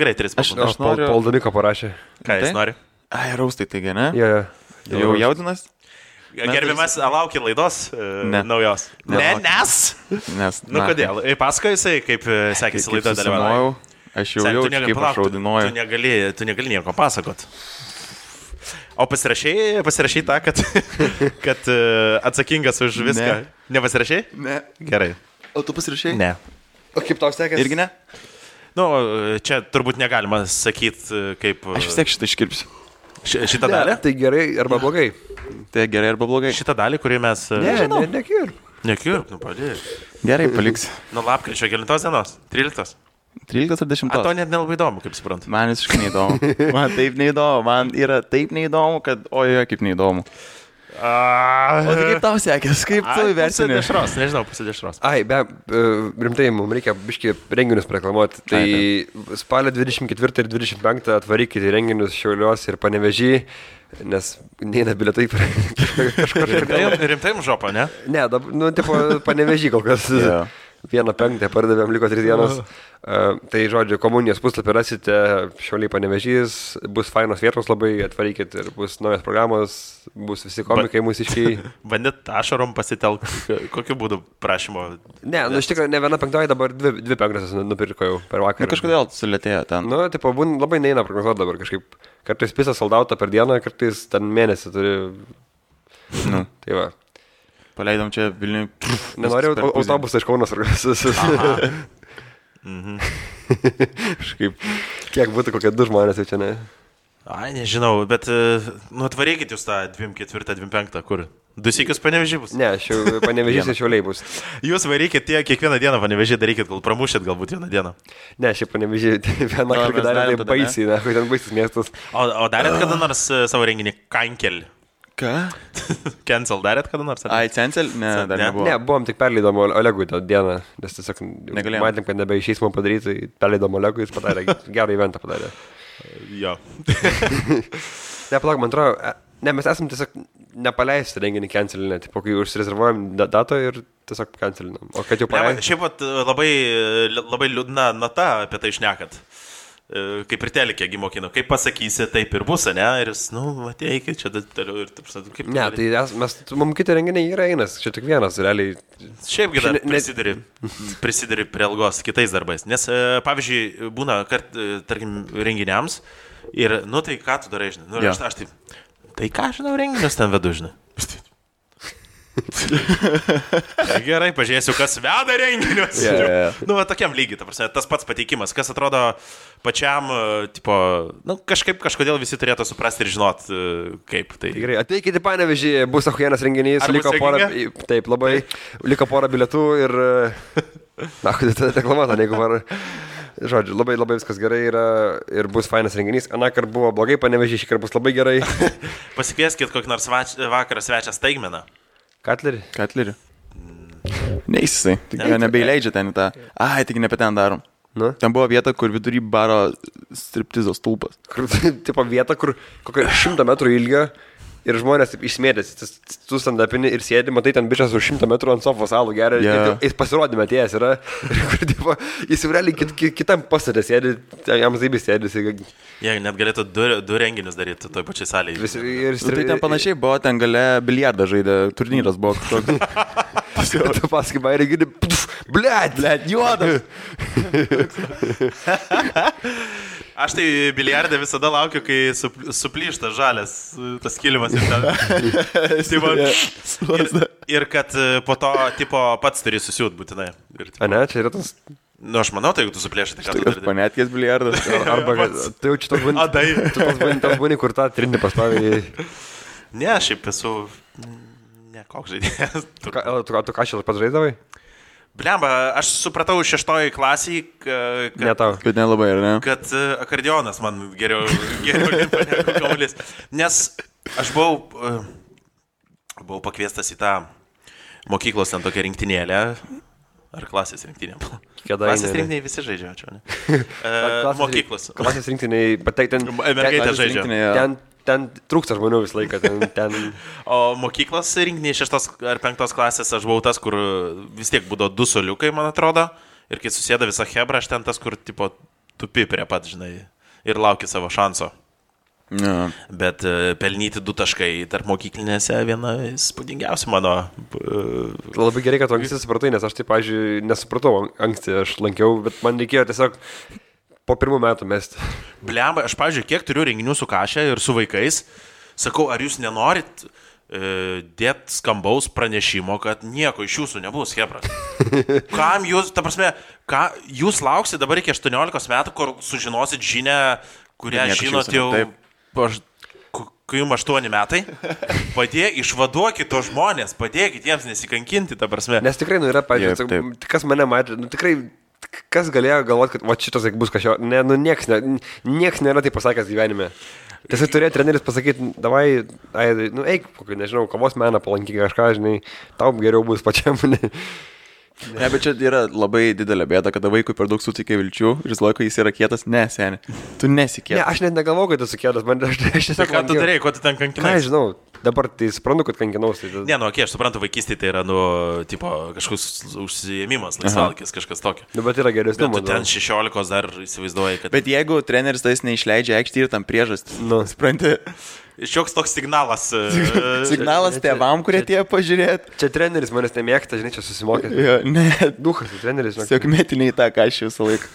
S1: Gerai, 3 pabūnam.
S3: Aš noriu... Paul Damiko parašė.
S1: Ką jis nori?
S2: Raustai, taigi, ne?
S3: Jau
S2: jaudinas?
S1: Gerbiamas, laukia laidos naujos. Nes. Kodėl? Pasakoju jisai, kaip sekėsi laidoje dalyvauju.
S2: Aš jau jaučiu, kaip aš raudinuoju.
S1: Tu negali nieko pasakot. O pasirašai tą, kad atsakingas už viską. Nepasirašai?
S2: Ne.
S1: Gerai.
S2: O tu pasirašai?
S1: Ne.
S3: O kaip tau sekėsi?
S2: Irgi ne?
S1: Čia turbūt negalima sakyti, kaip...
S2: Aš vis tiek šitą iškirpsiu.
S1: Šitą dalį?
S3: Tai gerai arba blogai.
S2: Tai gerai arba blogai.
S1: Šitą dalį, kurį mes...
S3: Nekirp.
S1: Nekirp, padėjai.
S2: Gerai, paliks.
S1: Lapkričio 9 dienos? 13?
S2: 13 ar 10?
S1: To net nelabai įdomu, kaip suprantu.
S2: Man visiškai neįdomu. Man taip neįdomu. Man yra taip neįdomu, kad ojoje kaip neįdomu. O tai kaip tau sekės? Kaip tu įversini?
S1: Pasidešros.
S3: Rimtai, mums reikia biškį renginius reklamuoti. Tai spalio 24 ir 25 atvarykite renginius Šiauliuos ir Panevėžį, nes neina bilietai kažkur.
S1: Rimtai žopa, ne?
S3: Ne, tipo Panevėžį kol kas. 1.5 pardavėm, liko 3 dienos. Tai žodžiu, komunijos puslapį rasite, Šiauliai Panevėžys, bus fainos vietos labai, atvarykit ir bus naujas programos, bus visi komikai mūsiškiai.
S1: Bandėt ašarom pasitelk, kokiu būdu prašymo?
S3: Ne, iš tikrųjų, ne viena penktoji, dabar 2 penktosios nupirko jau per vakarą.
S2: Kažkodėl sulėtėjo ten.
S3: Tipo, labai neina prognozuoti dabar kažkaip. Kartais pisą soldautą per dieną, kartais ten mėnesį turi. Tai va.
S2: Paleidom čia Vilniui.
S3: Nenoriu autobusą iš Kaunas. Kiek būtų kokie 2 žmonės jau čia, ne?
S1: Nežinau, bet atvarykit jūs tą 24, 25, kur? 2 sykius Panevėžį bus?
S3: Ne, Panevėžys ir Šiauliai bus.
S1: Jūs varykit kiekvieną dieną Panevėžį darykit, gal pramušėt galbūt vieną dieną.
S3: Ne, šiaip Panevėžį vieną kartą darė tai baisiai, ne, ten baisis miestas.
S1: O darėt kada nors savo renginį Kankel?
S2: Ką?
S1: Cancel darėt kada nors?
S2: Cancel? Ne, dar nebuvo.
S3: Ne, buvom tik perleidom Olegui tą dieną, nes tiesiog matėm, kad nebeišeis man padaryti, tai perleidom Olegui, jis padarė, gerą eventą padarė.
S1: Jo.
S3: Nepalauk, man atrodo, mes esam tiesiog nepaleisti renginį cancelinę, tipo, kai užsirezervuojam datą ir tiesiog cancelinam. O kad jau paleidom.
S1: Šiaip labai liūdna nata apie tai šnekat. Kaip ir telikė gimokino, kaip pasakysi, taip ir bus, ne? Ir jis, ateikit čia toliau ir taip sakau, kaip...
S3: Ne, tai mums kiti renginiai yra einas, čia tik vienas, realiai...
S1: Šiaipgi dar prisideri prie algos kitais darbais, nes, pavyzdžiui, būna, tarkim, renginiams ir, tai ką tu darai, žinai? Aš taip, tai ką, žinau, renginius ten vedu, žinai? Gerai, pažiūrėsiu, kas veda renginius. Tokiam lygiai, tas pats pateikimas, kas atrodo pačiam, tipo, kažkodėl visi turėtų suprasti ir žinot, kaip tai.
S3: Gerai, ateikite į Panevėžį, bus ahujienas renginys, liko porą bilietų ir... Na, kodėl tada reklamuota, jeigu var... Žodžiu, labai viskas gerai yra ir bus fainas renginys. Anakart buvo blogai, Panevėžys šįkart bus labai gerai.
S1: Pasikvieskit kokį nors vakarą svečią Staigmeną.
S3: Katlerį?
S2: Neis jisai, tik nebeįleidžia ten į tą. Ai, tik ne apie ten darom.
S3: Nu?
S2: Ten buvo vieta, kur vidury baro striptizo stulpas.
S3: Kur, tipo vieta, kur kokia 100 metrų ilgio ir žmonės taip išsmėdės, tu stand-upini ir sėdi, matai ten bičas už 100 metrų ant sofos alų geria, jis pasirodymė atėjęs yra, ir kur, tipo, jis realiai kitam pasatė sėdi, jam zaibis sėdis.
S1: Jie net galėtų du renginius daryti toj pačiai salėje.
S2: Tai ten panašiai buvo, ten gale biliardą žaidė, turnyras buvo kažkoks.
S3: Tu pasakai, bairį gini, blėt,
S2: juodas.
S1: Aš tai biliardą visada laukiu, kai suplyšta žalias tas kilimas ir ten. Ir kad po to tipo pats turi susiūt būtinai.
S3: A ne, čia yra tas...
S1: Nu, aš manau, tai jeigu tu suplėšai, tai ką tu
S2: darai. Panetkės biliardas.
S3: Arba, tai jau čia tas būni, kur tą trinį pastoviai.
S1: Ne, šiaip esu... Ne, koks žaidėjas.
S3: Tu ką šį pats žaidavai?
S1: Blemba, aš supratau 6 klasiai,
S2: kad nelabai, ar ne?
S1: Kad akordionas man geriau limpa negu kamuolys. Nes aš buvau pakviestas į tą mokyklos ten tokią rinktinėlę. Ar klasės rinktinė? Klasės rinktiniai visi žaidžia, čia ne? Mokyklos.
S3: Klasės rinktiniai, bet tai ten...
S1: Mergaitė žaidžia.
S3: Ten trūksta žmonių visą laiką.
S1: O mokyklos rinktiniai 6 ar 5 klasės aš buvau tas, kur vis tiek būdavo 2 soliukai, man atrodo. Ir kai susėda visa hebra, aš ten tas, kur tipo tupi prie pat, žinai, ir lauki savo šanso.
S2: Ja.
S1: Bet pelnyti 2 taškai tarp mokyklinėse viena įspūdingiausia mano.
S3: Labai gerai, kad tu anksti supratai, nes aš taip, pavyzdžiui, nesupratau anksti, aš lankiau, bet man reikėjo tiesiog po 1 metų mesti.
S1: Blemba, aš, pavyzdžiui, kiek turiu renginių su Kašė ir su vaikais, sakau, ar jūs nenorit dėt skambaus pranešimo, kad nieko iš jūsų nebus, hebras. Kam jūs, ta prasme, jūs lauksit dabar iki 18 metų, kur sužinosit žinią, kurią žinot jau... Kai jums 8 metai, išvaduokit to žmonės, padėkit jiems nesikankinti, ta prasme.
S3: Nes tikrai, yra, pavyzdžiui, kas mane matė, tikrai, kas galėjo galvoti, kad šitas bus kažko, nieks nėra tai pasakęs gyvenime. Tiesiog turėjo treneris pasakyti, davai, eik, kokį, nežinau, kavos meną palankyk kažką, žinai, tau geriau bus pačiam.
S2: Ne, bet čia yra labai didelė bėda, kada vaikui per daug sutikė vilčių ir jis laiko jis yra kietas. Ne, seni, tu nesikėtas.
S3: Ne, aš net negalvoju, kad esu kietas, aš tiesiog...
S1: Ką tu darėjai, ko tu ten kankinai?
S3: Ką, žinau, dabar tai suprantu, kad kankinaus. Tai...
S1: Ne, aš suprantu, vaikystėje tai yra, tipo, kažkoks užsiėmimas, laisvalkis, kažkas tokio.
S3: Bet yra geresnių,
S1: bet tu ten 16 dar įsivaizduoji, kad...
S2: Bet jeigu treneris tais neišleidžia aikštį ir tam priežastį, supranti...
S1: Šioks toks signalas.
S2: Signalas tėvam, kurie tie pažiūrėt.
S3: Čia treneris manęs nemėgta, žinai, čia susimokė.
S2: Jo, ne.
S3: Duhas, treneris.
S2: Tiesiog metiniai tą Kašį visą laiką.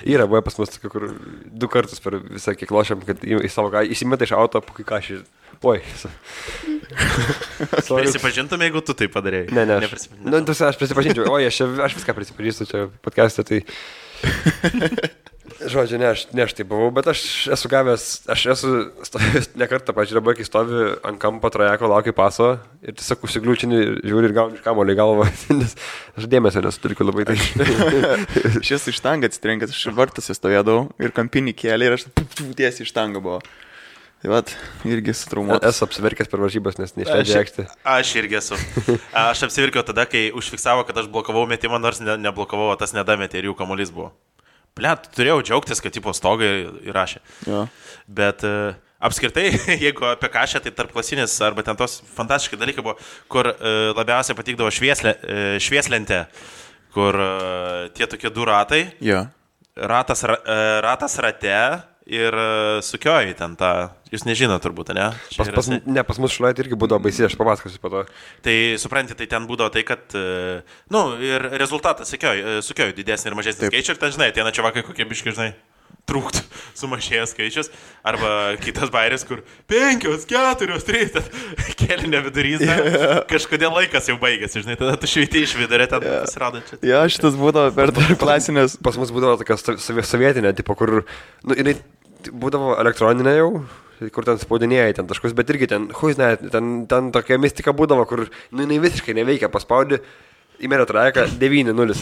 S3: Yra, buvo pas mus, kur 2 kartus per visą kiek lošiam, kad į savo įsimeta iš auto, po kai Kašį. Oi.
S1: Prisipažintum, jeigu tu tai padarėjai.
S3: Ne. Aš prisipažinčiau. Oi, aš viską prisipažįstu čia podcast'e, tai... Žodžiu, ne aš tai buvau, bet aš esu stovėjęs ne kartą, pažiūrėjau, kai stovi ant kampo trajeko, laukia paso ir tiesiog užsigliūčini, žiūri ir gauni iš kamuolį į galvą, nes aš dėmesio nesuturiu labai tai.
S2: Šis iš štangą atsitrenkęs, aš vartose stovėdavau ir kampinį kėlį ir aš tiesiai iš štangą buvo. Tai vat, irgi sutraumuotas.
S3: Esu apsiverkęs per varžybas, nes neišleidžia aikštį.
S1: Aš irgi esu. Aš apsiverkiau tada, kai užfiksavo, kad aš blokavau metimą, nors neblokavau, o tas nedametė ir jų kamuolys buvo. Blet, turėjau džiaugtis, kad tipo stogai įrašė.
S2: Ja.
S1: Bet apskritai, jeigu apie Kašę, tai tarpklasinis arba ten tos fantastiški dalykai buvo, kur labiausiai patikdavo švieslentė, kur tie tokie 2 ratai,
S2: ja.
S1: ratas rate ir sukioji ten tą, jūs nežino turbūt, ne?
S3: Pas mus šlaitį irgi būdavo baisi, aš papasakosiu po to.
S1: Tai supranti, tai ten būdavo tai, kad, ir rezultatas sukioji didesnį ir mažesnį skaičių ir ten, žinai, tie načiovakai kokie biški, žinai, trūktų sumažėjęs skaičius, arba kitas bairis, kur 5, 4, 3, kėlinio vidurys, kažkodėl laikas jau baigėsi, žinai, tada tu šveitį iš vidurio, ten pasirodo čia.
S2: Jo, šitas būdavo per klasinės.
S3: Pas mus būdavo tokia sovietinė, tipo, kur, jinai būdavo elektroninė jau, kur ten spaudinėjai ten taškus, bet irgi ten, ten tokia mistika būdavo, kur, jinai visiškai neveikia, paspaudi, Įmėrė trajeką 9-0.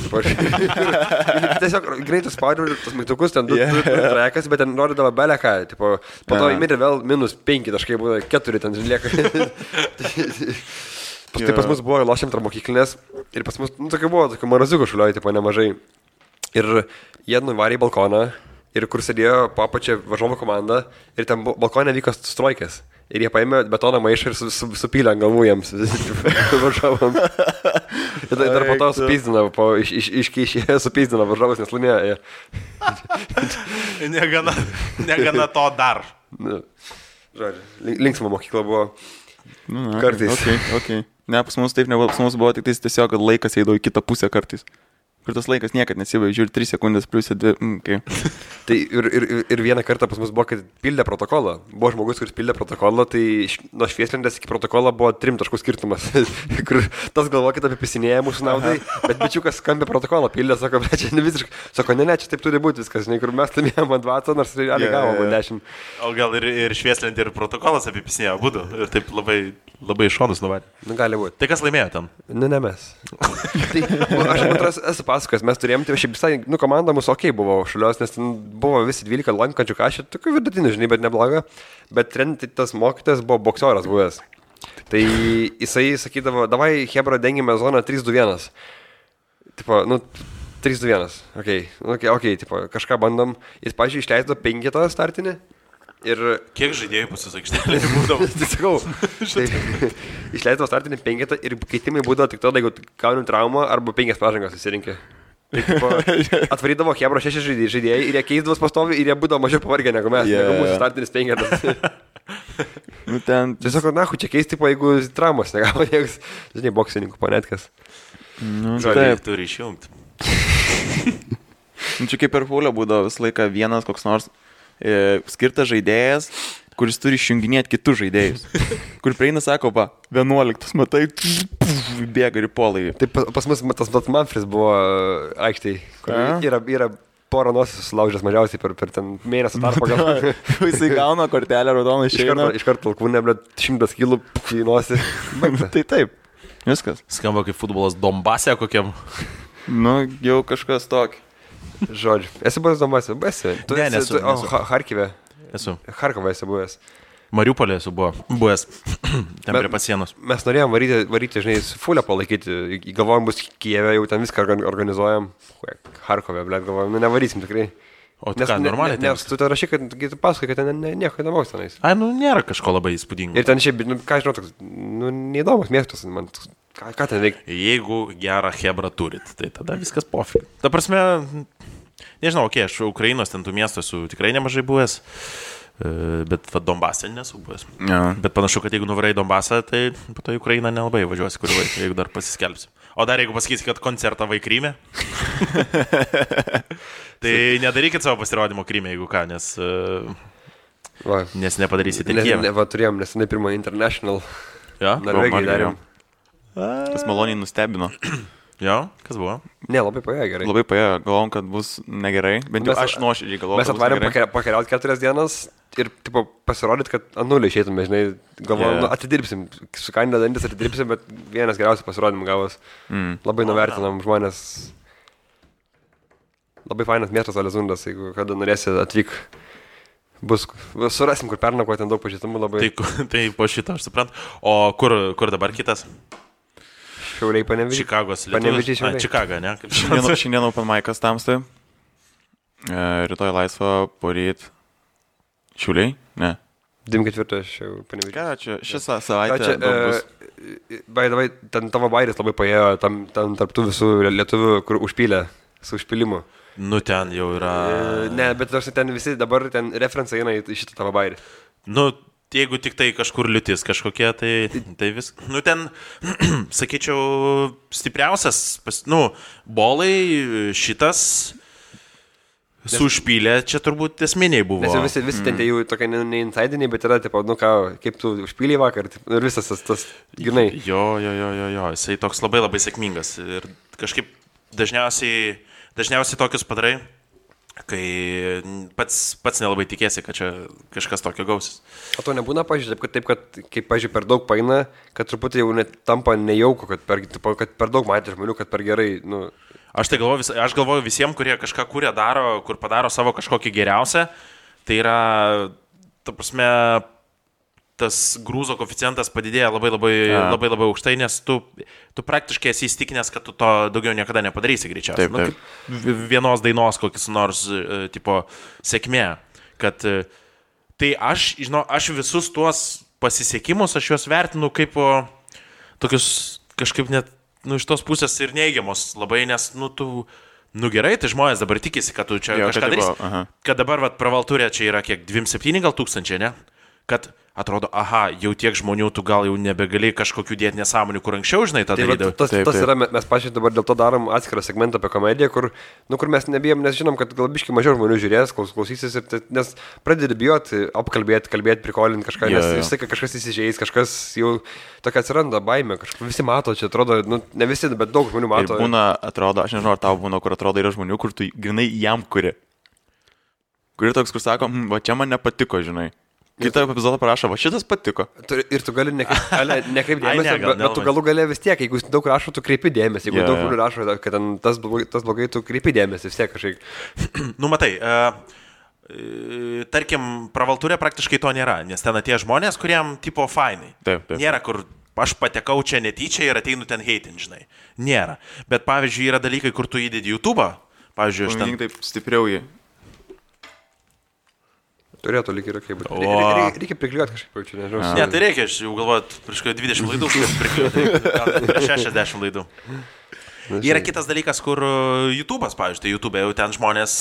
S3: Tiesiog greitai spaudžiu tos mygtukus, ten 2 trajekas, bet ten rodydavo beleką. Po to įmėrė vėl -5 taškai, buvo 4 ten lieka. Tai pas mus buvo lošiam tarp mokyklinės ir pas mus tokia buvo, tokia maraziukų šulioj, nemažai. Ir jie nuvarė į balkoną ir kur sėdėjo po apačia varžovų komanda ir ten balkonė vyko strojkės. Ir jie paėmė betono maišą ir supylė ant galvų jiems varžovam. Ir dar po to supyzdino, iškeišė supyzdino varžovus, nes laimėjo.
S1: Negana to dar.
S3: Žodžiu, linksma mokykla buvo kartais.
S2: Okay. Ne, pas mus taip nebuvo, pas mus buvo tik tiesiog, kad laikas eidavo į kitą pusę kartais. Kur tas laikas niekad nesibaigia, žiūri 3 sekundės plius 2. Okay.
S3: Tai ir vieną kartą pas mus buvo, kad pildė protokolą. Buvo žmogus, kuris pildė protokolą, tai nuo švieslentės iki protokolo buvo 3 taškų skirtumas. Kur tas galvoja, kad apipisinėja mūsų naudai, bet bičiukas skambė protokolą, pildė, sako, bet čia ne visiškai. Sako, ne, čia taip turi būti viskas, žinai, kur mes laimėjom ant 20, nors realiai gavom 10.
S1: O gal ir švieslentė, ir protokolas apipisinėjo būdu. Ir taip labai šonus nuvarė.
S3: Nu, gali būti.
S1: Tai kas laimėjo ten?
S3: Ne mes. Aš esu pasakojęs, mes turėjom, tai šiaip visai, komanda mūsų buvo šulios, nes ten buvo visi 12 lankančių kažkaip, tokių vidutinių, žinai, bet nebloga. Bet tas mokytas buvo boksioras buvęs. Tai jisai sakydavo, davai, Hebra, dengime zoną 3-2-1. Tipo, 3-2-1. Okay, tipo, kažką bandom. Jis, pažiūrėjau, išleido 5 startinį. Ir
S1: kiek žaidėjų pusisakštėlė būdavo?
S3: Tai sakau, išleidavo startinį 5 ir keitimai būdavo tik tada, jeigu gauni traumą arba 5 pažangas susirinkė. Atvarydavo Hebra 6 žaidėjai ir jie keisdavo pastovi ir jie būdavo mažiau pavargę negu mes, negu mūsų startinis 5. Tiesiog, čia keisti, jeigu traumas negavo, niekas, žinai, boksininkų panetkas.
S1: Žodžiai, turi išjungti.
S2: Čia kaip per fulę būdavo visą laiką vienas koks nors skirtas žaidėjas, kuris turi išjunginėti kitus žaidėjus. Kur prieina, sako, 11, matai, bėga ir polai.
S3: Tai pas mus tas Manfris buvo aikštėj, kur yra porą nosis sulaužęs mažiausiai per ten mėnesį tarpą gal.
S2: Jisai gauna kortelę raudoną išeina.
S3: Iškart alkūnė, 100 kilų į nosį.
S2: Tai taip, viskas.
S1: Skamba kaip futbolas Donbase kokiam.
S2: Jau kažkas tokį.
S3: Žodžiu, esi buvęs Donbase?
S1: Ne, nesu.
S3: Harkive?
S1: Esu.
S3: Harkovą esi buvęs.
S1: Mariupolė esu buvęs. Ten prie pasienos.
S3: Mes norėjom varyti, žinai, fulę palaikyti. Galvojom, bus Kijeve, jau ten viską organizuojam. Harkove, blėt, galvojom, nevarysim tikrai.
S1: O tai ką, normaliai?
S3: Nes tu rašai, kad tu pasakai, kad ten nieko įdomaus tenais.
S1: Nėra kažko labai įspūdingo.
S3: Ir ten šiaip, ką žinau, toks, neįdomus miestas, man, ką ten reikia?
S1: Jeigu gerą Hebrą turit, tai tada viskas pofig. Ta prasme, nežinau, aš Ukrainos ten tų miestų esu tikrai nemažai buvęs, bet Donbase nesu buvęs.
S2: Ja.
S1: Bet panašu, kad jeigu nuvarai Donbasą, tai po to į Ukrainą nelabai važiuosi kurį laiką, jeigu dar pasiskelbsi. O dar jeigu pasakysi, kad koncertą vai Kryme, tai nedarykit savo pasirodymo Kryme, jeigu ką, nes nepadarysite Kijeve.
S3: Turėjom nesenai pirmą International.
S1: Ja?
S3: Norvegijai darėm.
S2: Tas maloniai nustebino.
S1: Jo, kas buvo?
S3: Ne, labai paėjo gerai.
S2: Labai paėjo, galvom, kad bus negerai, bent jau aš nuoširdžiai galvojau.
S3: Mes atvarėm pakeliauti 4 dienas ir pasirodyti, kad anulį išeitume, žinai, galvojom, atidirbsim, su kaina dantis atidirbsim, bet vienas geriausių pasirodymų gavos. Labai nuvertinam žmonės. Labai fainas miestas Alezundas, jeigu kada norėsi atvyk. Surasim, kur pernako, ten daug pažįstamų labai.
S1: Tai po šito aš suprantu. O kur dabar kitas?
S3: Šiauliai Panevėžys.
S1: Čikagos lietuvis. Čikaga, ne?
S2: Šiandien open mic'as tamstai. Rytoj laisva, poryt. Šiauliai? Ne.
S3: 24 aš jau Panevėžys.
S2: Ką čia šią savaitę bus?
S3: Davai, ten tavo bairis labai paėjo, tam tarptų visų lietuvių, kur užpylė su užpylimu.
S1: Ten jau yra...
S3: Ne, bet ten visi dabar ten referencai eina į šitą tavo bairį.
S1: Jeigu tik tai kažkur liūtis kažkokie, tai vis... ten, sakyčiau, stipriausias, bolai šitas su užpylė, čia turbūt esminiai buvo.
S3: Nes visi ten jau tokie ne insidiniai, bet yra, tipo, kaip tu užpylė vakar, ir visas tas, grinai.
S1: Jo, jisai toks labai labai sėkmingas ir kažkaip dažniausiai tokius padarai, kai pats nelabai tikėsi, kad čia kažkas tokio gausis.
S3: O to nebūna, pažiūrėjau, kad kaip, pažiūrėjau, per daug paina, kad truputį jau net tampa nejauku, kad per daug matė žmonių, kad per gerai, nu...
S1: Aš galvoju visiems, kurie kažką kūrė, daro, kur padaro savo kažkokį geriausią, tai yra, ta prasme, tas grūzo koeficientas padidėja labai aukštai, nes tu praktiškai esi įstikinęs, kad tu to daugiau niekada nepadarysi greičiausiai.
S2: Taip.
S1: Vienos dainos kokis nors tipo sėkmė. Kad tai aš visus tuos pasisekimus, aš juos vertinu kaip tokius kažkaip net iš tos pusės ir neigiamos labai, nes gerai, tai žmonės dabar tikisi, kad tu čia kažką darysi. Kad dabar pravalturė čia yra kiek 2,7 gal tūkstančiai, ne? Kad atrodo, jau tiek žmonių, tu gal jau nebegali kažkokių dėti nesąmonių, kur anksčiau, žinai, tą darydavai.
S3: Tas yra, mes pačiai dabar dėl to darom atskirą segmentą apie komediją, kur mes nebijom, nes žinom, kad gal biškai mažiau žmonių žiūrės, klausysis, nes pradedi bijoti, kalbėti, prikolinti kažką, nes visai kažkas įsižeis, kažkas jau tokia atsiranda baimė, visi mato, čia atrodo, ne visi, bet daug žmonių mato.
S2: Ir būna, atrodo, aš nežinau, ar tau būna, kur atrodo yra žmonių, kur tu grinai jam kuri. Kuri toks, kur sako, va čia man nepatiko, žinai. Kitą epizodą parašo, va šitas patiko.
S3: Ir tu gali nekreipti dėmesio, bet tu galų galė vis tiek, jeigu daug rašo, tu kreipi dėmesį. Jeigu daug žmonių rašo, kad tas blogai, tu kreipi dėmesį vis tiek kažkaip.
S1: Matai, tarkim, pravalturė praktiškai to nėra, nes ten atėjo žmonės, kuriem tipo fainai.
S2: Taip.
S1: Nėra, kur aš patekau čia netyčia ir ateinu ten heitin, žinai. Nėra. Bet pavyzdžiui, yra dalykai, kur tu įdedi YouTube'ą. Pavyzdžiui, aš ten...
S2: Taip stipriau jį.
S3: Turėtų lyg ir kaip. Reikia prikliuoti kažkaip, čia nežinau.
S1: Ne, tai reikia, aš jau galvoju, prieš 20 laidų prikliuoti, prieš 60 laidų. Yra kitas dalykas, kur YouTube'as, pavyzdžiui, tai YouTube jau ten žmonės,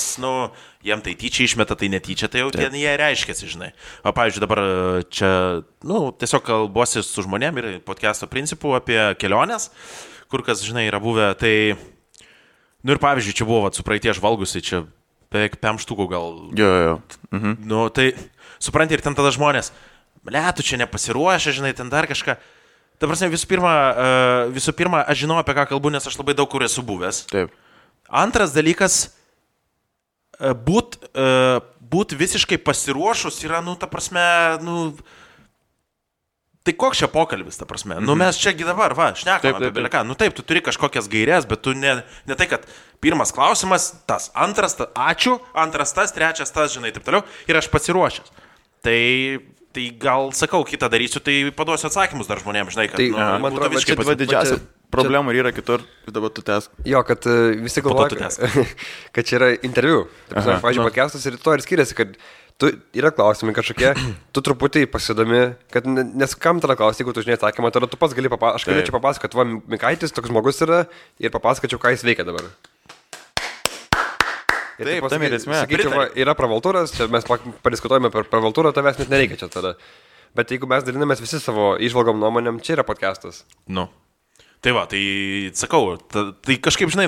S1: jiem tai tyčia išmeta, tai netyčia, tai jau ten jie reiškiasi, žinai. O pavyzdžiui, dabar čia, tiesiog kalbuosi su žmonėm ir podcast'o principų apie keliones, kur kas, žinai, yra buvę, tai, ir pavyzdžiui, čia buvo su praeitie žvalgusi, čia beveik 5 štukų gal.
S2: Jo.
S1: Tai supranti ir ten tada žmonės, tu čia nepasiruošę, žinai, ten dar kažką. Ta prasme, visų pirma, aš žinau, apie ką kalbu, nes aš labai daug kur esu buvęs.
S2: Taip.
S1: Antras dalykas, būt visiškai pasiruošus yra, ta prasme, tai koks čia pokalbis, ta prasme? Mes čiagi dabar, šnekam apie beleką. Taip, tu turi kažkokias gairias, bet tu ne tai, kad pirmas klausimas, tas, antras, ačiū, antras tas, trečias tas, žinai, taip toliau, ir aš pasiruošęs. Tai gal, sakau, kitą darysiu, tai paduosiu atsakymus dar žmonėms, žinai, kad...
S2: Tai, man atrodo, čia didžiausia problema yra kitur, dabar tu tęsk.
S3: Jo, kad visi galvoja, kad čia yra interviu. Pavyzdžiui, podcastas ir to ir skiriasi, kad yra klausimai kažkokie, tu truputį pasidomi, kad nes kam tada klausti, jeigu tu žinai atsakymą, tada tu pats gali papasakoti, aš galėčiau papasakoti, va, Mikaitis toks žmogus yra ir papasakočiau, ką jis veikia dabar. Ir
S2: taip, tam ir esmė.
S3: Sakyčiau, yra pravaltūras, čia mes padiskutuojame per pravaltūrą, tavęs net nereikia čia tada. Bet jeigu mes dalinamės visi savo įžvalgom nuomonėm, čia yra podcastas.
S1: Tai va, tai sakau, tai kažkaip, žinai,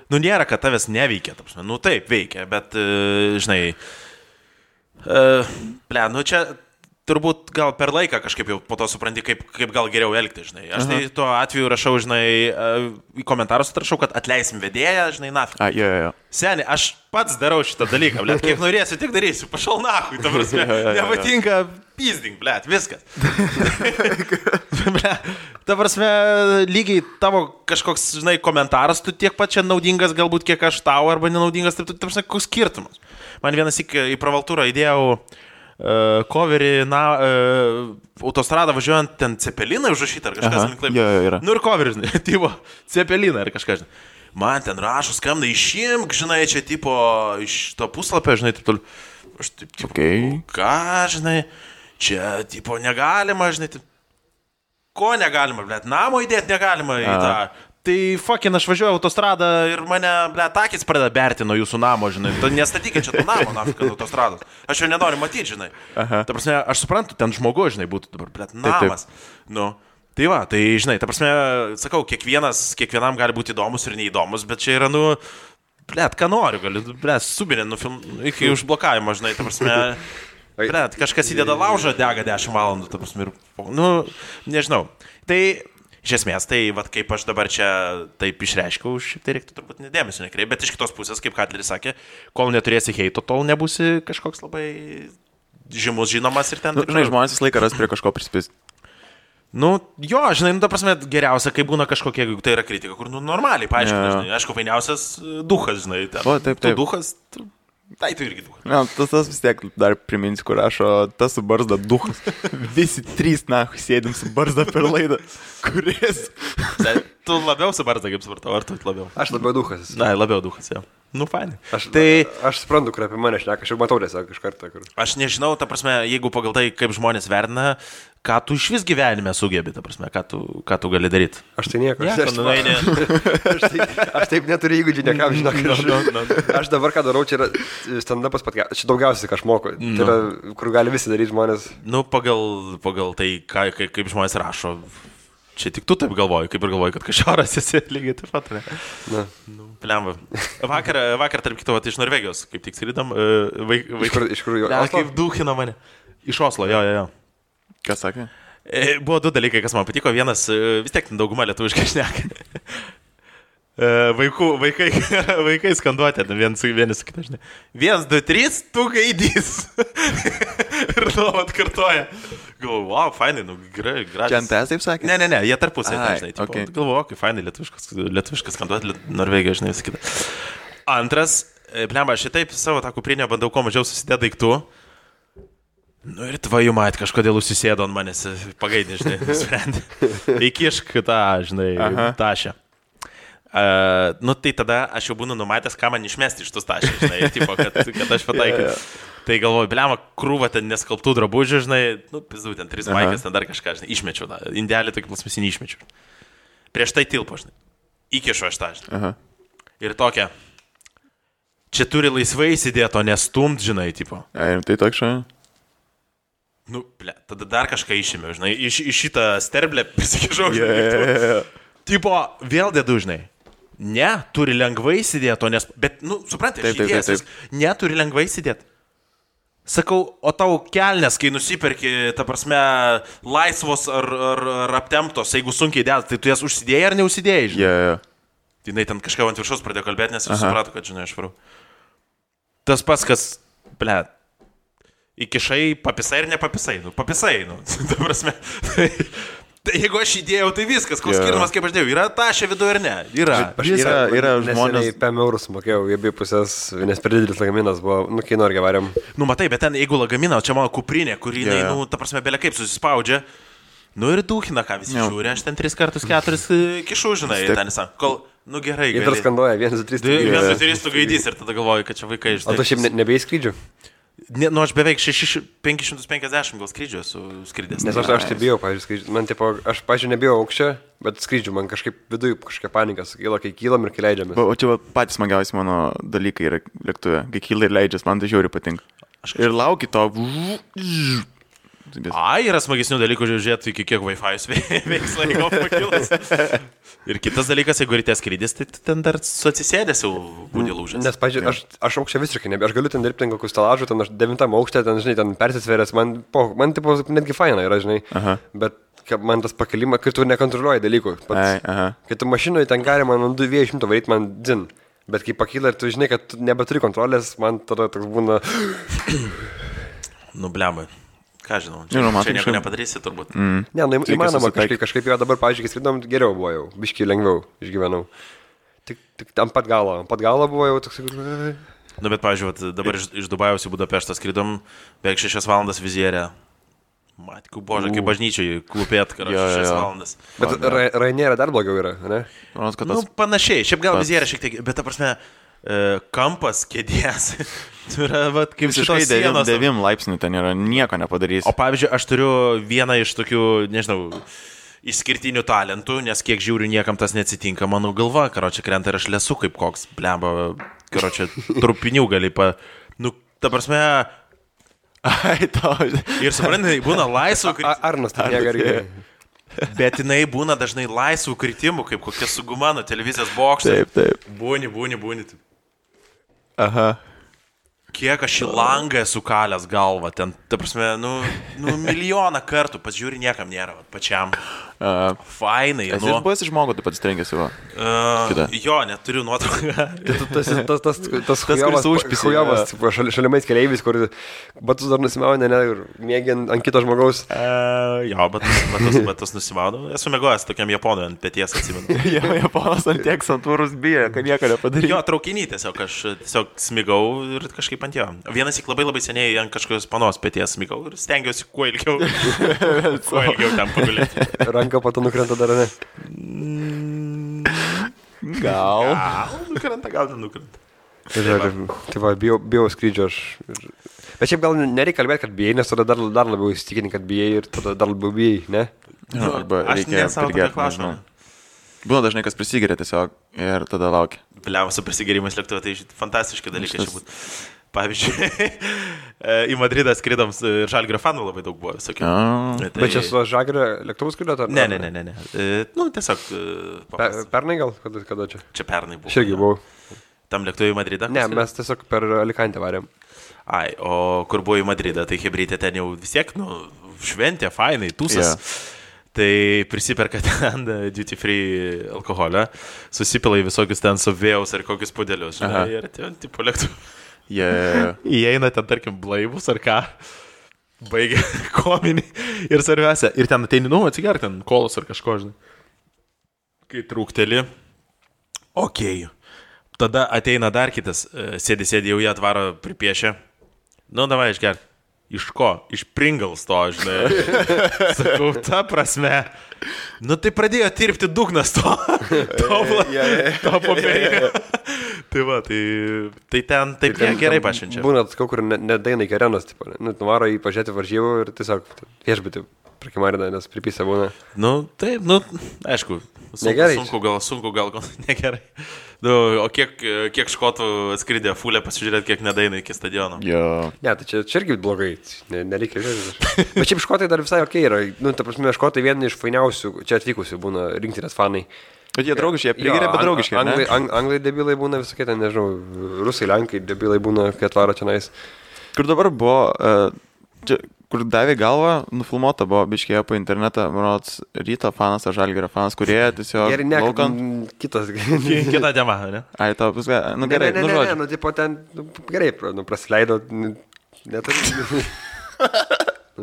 S1: nėra, kad tavęs neveikia, taip, veikia, bet, žinai, čia turbūt gal per laiką kažkaip jau po to supranti, kaip gal geriau elgti, žinai. Aš tai tuo atveju rašau, žinai, į komentarus atrašau, kad atleisim vedėją, žinai, nafik.
S2: Jo.
S1: Seni, aš pats darau šitą dalyką, kiek norėsiu, tiek darysiu, pašal nakui, ta prasme, nepatinka pizding, viskas. Ta prasme, lygiai tavo kažkoks, žinai, komentaras, tu tiek pat čia naudingas, galbūt kiek aš tau, arba nenaudingas, ta prasme, koks skirtumas. Man vienas į pravaltūrą įdėjau coverį, autostradą važiuojant ten Cepeliną užrašytą ar kažkas link taip.
S2: Yra.
S1: Ir coverį, žinai, tipo Cepeliną ar kažką, žinai. Man ten rašo, skambina, išimk, žinai, čia tipo iš to puslapio, žinai, taip toliau. Aš taip, tipo, ką, žinai, čia, tipo, negalima, žinai, taip. Ko negalima, namo įdėti negalima į tą. Tai fucking aš važiuoju autostradą ir mane, akis pradeda berti nuo jūsų namo, žinai. Nestatykit čia to namo, nafika, autostrados. Aš jo nenoriu matyti, žinai. Ta prasme, aš suprantu, ten žmogus, žinai, būtų dabar, namas. Tai va, tai, žinai, ta prasme, sakau, kiekvienam gali būti įdomus ir neįdomus, bet čia yra, ką noriu, gali, subinė, iki užblokavimo, žinai, ta prasme, kažkas įdeda laužą, dega 10 valandų, ta prasme, ir, nežinau. Tai Iš esmės, tai vat, kaip aš dabar čia taip išreiškiau, šiaip tai reiktų turbūt nedėmesio nekreipti, bet iš kitos pusės, kaip Katleris sakė, kol neturėsi heito, tol nebūsi kažkoks labai žymus žinomas ir ten.
S2: Žinai, žmonės visą laiką ras prie kažko prispist.
S1: Nu, jo, žinai, ta prasme, geriausia, kai būna kažkokia, jeigu tai yra kritika, kur, normaliai, paaiškina, žinai, aišku, fainiausias duhas, žinai, ten.
S2: O, taip.
S1: Tu duhas, tai tu irgi duhas.
S2: Na, tas vis tiek dar priminsiu, kur rašo, tas su barzda duhas. Visi trys, sėdim su barzda per laidą. Kuris?
S1: Tu labiau su barzda, kaip supratau, ar tu labiau?
S3: Aš labiau duhas.
S1: Na, labiau duhas, jau. Nu, fainai.
S3: Aš suprantu, kur apie mane šneka, aš jau matau tiesiog iš karto.
S1: Aš nežinau, ta prasme, jeigu pagal tai, kaip žmonės vertina, ką tu iš vis gyvenime sugebi, ta prasme, ką tu gali daryti.
S3: Aš tai nieko.
S1: Ne,
S3: aš taip neturiu įgūdžių, niekam žinok. Aš dabar ką darau, čia yra stand-upas podcast, čia daugiausiai, ką aš moku. Tai yra, kur gali visi daryti žmonės.
S1: Nu, pagal tai, kaip žmonės rašo. Čia tik tu taip galvoji, kaip ir galvoji, kad kažoras esi lygiai taip pat, ne?
S3: Na.
S1: Nu, plemba. Vakar, tarp kito, iš Norvegijos, kaip tik skridam.
S3: Iš kur jo?
S1: Kaip duhina mane. Iš Oslo, jo.
S2: Kas sakė?
S1: Buvo du dalykai, kas man patiko. Vienas, vis tiek dauguma lietuviškai šneka. Vaikai skanduotė, vieni su kita, žinai. 1, 2, 3, tu gaidys. Ir nuolat kartoja. Galvoju, wow, fainai, nu gerai, gražiai.
S2: Čia NTS taip sakė?
S1: Ne, jie tarpusai, žinai.
S2: Okay.
S1: Galvoju, kaip fainai, lietuviškas skanduotė, Norvegija, žinai, vis kita. Antras, blemba, aš šitaip savo tą kuprinę bandau kuo mažiau susidėti daiktų. Nu ir tvaju mat, kažkodėl užsisėdo ant manęs, pagaidė, žinai, nusprendė. Įkišk tą, žinai, tašę. Nu tai tada aš jau būnu numatęs, ką man išmesti iš tos tašės, žinai, tipo, kad aš pataikiau. Tai galvoju, bliama, krūva ten neskalbtų drabužių, žinai, nu, pizdu, ten 3 maikės, ten dar kažką, žinai, išmečiau, indelį tokį plasmasinį išmečiau. Prieš tai tilpo, žinai, įkišu aš tą, žinai. Ir tokia, čia turi laisvai įsidėti, o nestumt, žinai, tipo.
S2: Ir tai toks šai?
S1: Nu, ble, tada dar kažką išėmiau, žinai, iš šitą sterblę prisikišau, žinai. Tipo, vėl dedu, žinai. Ne, turi lengvai įsidėti, o nes... Bet, nu, suprantate, aš įdėjęs, ne, turi lengvai įsidėti. Sakau, o tau kelnes, kai nusiperki, ta prasme, laisvos ar aptemptos, jeigu sunkiai dėt, tai tu jas užsidėjai ar neužsidėjai, žinai? Tai jinai ten kažką ant viršaus pradėjo kalbėti, nes aš supratau, kad, žinai, aš varau. Tas pats, kas, ble, įkišai, papisai ir nepapisai, nu, papisai, nu, ta prasme. Tai jeigu aš įdėjau, tai viskas, koks skirtumas, kaip aš dėjau, yra tašė viduje ar ne? Yra
S3: žmonės. 5 eurus mokėjau, jie bija pusės, nes per didelis lagaminas buvo, nu, kai nori varėm.
S1: Nu, matai, bet ten, jeigu lagaminą, čia mano kuprinė, kuri, nu, ta prasme, belia kaip susispaudžia, nu ir duhina, ką visi žiūri, aš ten 3 kartus 4 kišu, žinai, ten įsam, kol, nu gerai.
S3: Jie dar skanduoja, 1, 2, 3,
S1: 1, 2, 3 tu gaidys ir tada galvoju, kad čia vaikai iš...
S3: O tu šiaip nebėjai skrydžių?
S1: Nu, aš beveik 550 gal skrydžių esu skridęs.
S3: Nes aš tai bijau, pavyzdžiui, skrydžių. Man, tipo, aš, pavyzdžiui, nebijau aukščio, bet skrydžių man kažkaip viduje kažkokia panika sukyla, kai kylam ir kai leidžiamės.
S2: O čia patys smagiausi mano dalykai yra lėktuve. Kai kyla ir leidžias, man tai žiauriai patinka. Ir lauki to.
S1: Yra smagesnių dalykų žiūrėti, iki kiek Wi-Fi'us veiks laiko pakilas. Ir kitas dalykas, jeigu ryte skrydis, tai ten dar su atsisėdęs jau būdė lūžęs.
S3: Nes, pažiūrėjau, aš aukščia visiškai nebėjau. Aš galiu ten dirbti ten kokius stelažų, ten aš 9 aukšte, ten, žinai, ten persisvėręs. Man tipo, netgi faina yra, žinai. Bet man tas pakelimas, kai tu nekontroliuoji dalykų. Kai tu mašinoje ten gali man ant 200 varyti, man dzin. Bet kai pakyla ir tu žinai, kad tu nebeturi kontrolės, man tada toks būna...
S1: Nu, blemai. Ką žinau, čia nieko nepadarysi turbūt.
S3: Ne, nu įmanoma kažkaip jau dabar, pavyzdžiui, kai skridom, geriau buvo jau, biškai lengviau išgyvenau. Tik ant pat galo buvo jau toks...
S1: Nu, bet, pavyzdžiui, dabar iš Dubajaus į Budapeštą skridom, beveik 6 valandas vizierę. Matku, bože, kaip bažnyčiai klūpėt, karoči, 6 valandas.
S3: Bet Ryanair'e dar blogiau yra, ne?
S1: Nu, panašiai, šiaip gal vizierė šiek tiek, bet, ta prasme, kampas kėdės. Tai yra, vat, kaip šitos sienos.
S2: 9 laipsnių ten yra, nieko nepadarys.
S1: O pavyzdžiui, aš turiu vieną iš tokių, nežinau, išskirtinių talentų, nes kiek žiūriu, niekam tas neatsitinka. Mano galva, karoči, krenta ir aš lesu kaip koks, blemba, karoči, trupinių gali Nu, ta prasme...
S2: Ai, tau.
S1: Ir suprantai, būna laisvų kritimų.
S3: Arnas tai negargiai.
S1: Bet jinai būna dažnai laisvų kritimų, kaip kokia suguma nuo televizijos bokšto.
S2: Taip.
S1: Būni.
S2: Aha.
S1: kiek aš į langą esu kalęs galvą, ten, ta prasme, milijoną kartų, pasižiūri, niekam nėra, pačiam. Fainai,
S2: Esi buvęs iš žmogų, tu pats trenkėsi, va.
S1: Jo, neturiu nuotrauką.
S3: Tas hujovas, šalimais keleivis, kur batus dar nusimauna, ir mėgi ant kito žmogaus.
S1: Jo, batus nusimauna. Esu mėgojęs tokiam japonui ant peties, atsimenu.
S2: Japonas ant tiek santūrus bijo, kad nieko nepadarė.
S1: Jo, traukinį tiesiog, aš tiesiog smigau ir kažkaip ant jo. Vienas įk labai seniai ant kažkokios panos peties smigau ir stengiausi kuo ilgiau ten pagulėti.
S3: Ranka po to nukrenta dar, ne?
S2: Gal
S1: nukrenta.
S3: Tai va, bijau skrydžio aš. Bet šiaip gal nereikia kalbėti, kad bijai, nes tada dar labiau įsitikinti, kad bijai ir tada dar labiau bijai, ne?
S2: Arba
S1: aš
S2: reikia
S1: nesavo tokio klausimą.
S2: Būna dažnai, kas prisigeria tiesiog ir tada laukia.
S1: Bliamas su prisigerimas lėktuve, tai fantastiški dalykai čia būtų. Pavyzdžiui, į Madridą skridom ir Žalgirio fanų labai daug buvo visokių.
S3: Bet čia su Žalgirio lėktuvų skridot?
S1: Ne. Tiesiog...
S3: Pernai gal? Kada čia?
S1: Čia pernai buvo.
S3: Aš irgi buvau.
S1: Tam lėktuvui į Madridą?
S3: Ne, mes tiesiog per Alicantę varėm.
S1: Ai, o kur buvo į Madridą, tai hebrytė ten jau vis tiek, šventė, fainai, tūsas. Tai prisiperka ten duty free alkoholio, susipila į visokius ten suvėjaus ar kokius pudelius, žinai, ir ten tipo lėktuvų. Įeina ten, tarkim, blaivus ar ką, baigia kominį ir svarbiausia. Ir ten ateini, atsigerk ten kolos ar kažko, žinai. Kai trūkteli, okei. Tada ateina dar kitas, sėdi, jau jie atvaro pripiešę. Davai išgerk. Iš ko? Iš Pringles to, žinai. Sakau, ta prasme. Tai pradėjo tirpti dugnas to popierinio. Tai va, tai ten taip gerai pašvenčia.
S3: Būna kur nedaina iki arenos, nuvaro į pažiūrėti varžybų ir tiesiog viešbutį prakimarina, nes pripisa būna.
S1: Taip, aišku, sunku gal negerai. O kiek škotų atskridė fulę pasižiūrėti, kiek nedaina iki stadiono.
S3: Ne, tai čia irgi blogai, nereikia žiūrėti. Bet šiaip škotai dar visai okei yra. Ta prasme, škotai vieni iš fainiausių čia atvykusių būna rinktinės fanai.
S2: Bet jie draugiški, jie prigeria, bet draugiški.
S3: Anglai debilai būna visokie, ten nežinau, rusai, lenkai debilai būna, kai atvaro čia nais.
S2: Kur dabar buvo, kur davė galvą, nufilmuota buvo, biškėjo po internetą, manot, Ryto fanas ar Žalgirio fanas, kurie tiesiog...
S3: Gerai, ne, kitas.
S1: Kita tema, ne?
S2: Ai, tau viską, gerai, žodžiu.
S3: Ne, tipo ten, gerai, praleido, neturi.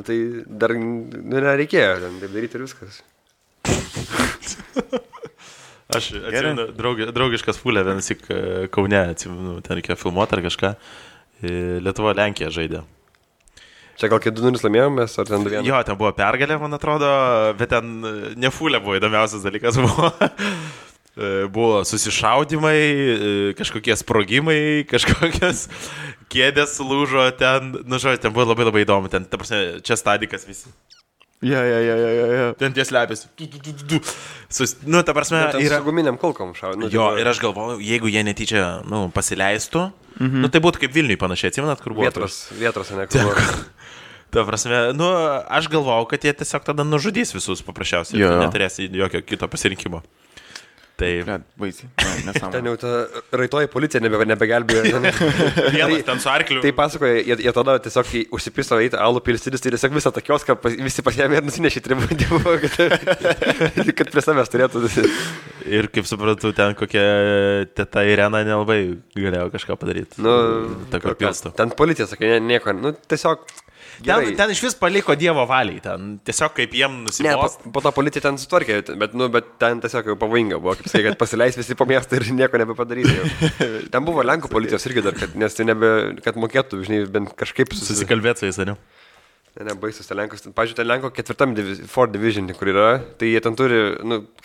S3: Tai dar nereikėjo, ten taip daryti ir viskas.
S1: Aš atsimenu, draugiškas fulė, vienas tik Kaune, atsimenu, ten reikėjo filmuoti ar kažką. Lietuva Lenkija žaidė.
S3: Čia gal kai 2-0 laimėjom mes, ar ten 2-1?
S1: Jo, ten buvo pergalė, man atrodo, bet ten ne fulė buvo, įdomiausias dalykas buvo. Buvo susišaudimai, kažkokie sprogimai, kažkokios kėdės lūžo ten, žodžiu, ten buvo labai įdomu, ten, ta prasme, čia stadikas visi.
S2: Ja.
S1: Ten ties lepės. Ta prasme,
S3: yra... Su guminiam kulkom šau.
S1: Jo, ir aš galvoju, jeigu jie netyčia, pasileistų, tai būtų kaip Vilniui panašiai, atsimenat, kur buvo?
S3: Vietros, ne, kur buvo.
S1: Ta prasme, aš galvojau, kad jie tiesiog tada nužudys visus paprasčiausiai, neturės jokio kito pasirinkimo. Taip.
S2: Baisiai.
S3: Ten jau ta raitoji policija nebegelbėjo.
S1: Vienas ten su arkliu.
S3: Tai pasakoja, jie tada tiesiog užsipiso eiti alų pilstydis, tai tiesiog visą tą kioską visi pasiėmė ir nusinešė tribūnį, kad prie savęs turėtų.
S1: Ir kaip suprantu, ten kokia teta Irena nelabai galėjo kažką padaryti.
S3: Ten policija sakė, nieko, tiesiog...
S1: Ten iš vis paliko Dievo valiai, ten tiesiog kaip jiem nusibos.
S3: Ne, po to policija ten sutvarkė, bet ten tiesiog jau pavojinga buvo, kaip sakai, kad pasileis visi po miestą ir nieko nebepadarys. Ten buvo Lenkų policijos irgi dar, nes tai kad mokėtų, žinai, bent kažkaip
S1: susikalbėti su jais, ar ne?
S3: Ne, baisus, ten Lenkos, pažiūrėjau, ten Lenko 4 division, kur yra, tai jie ten turi,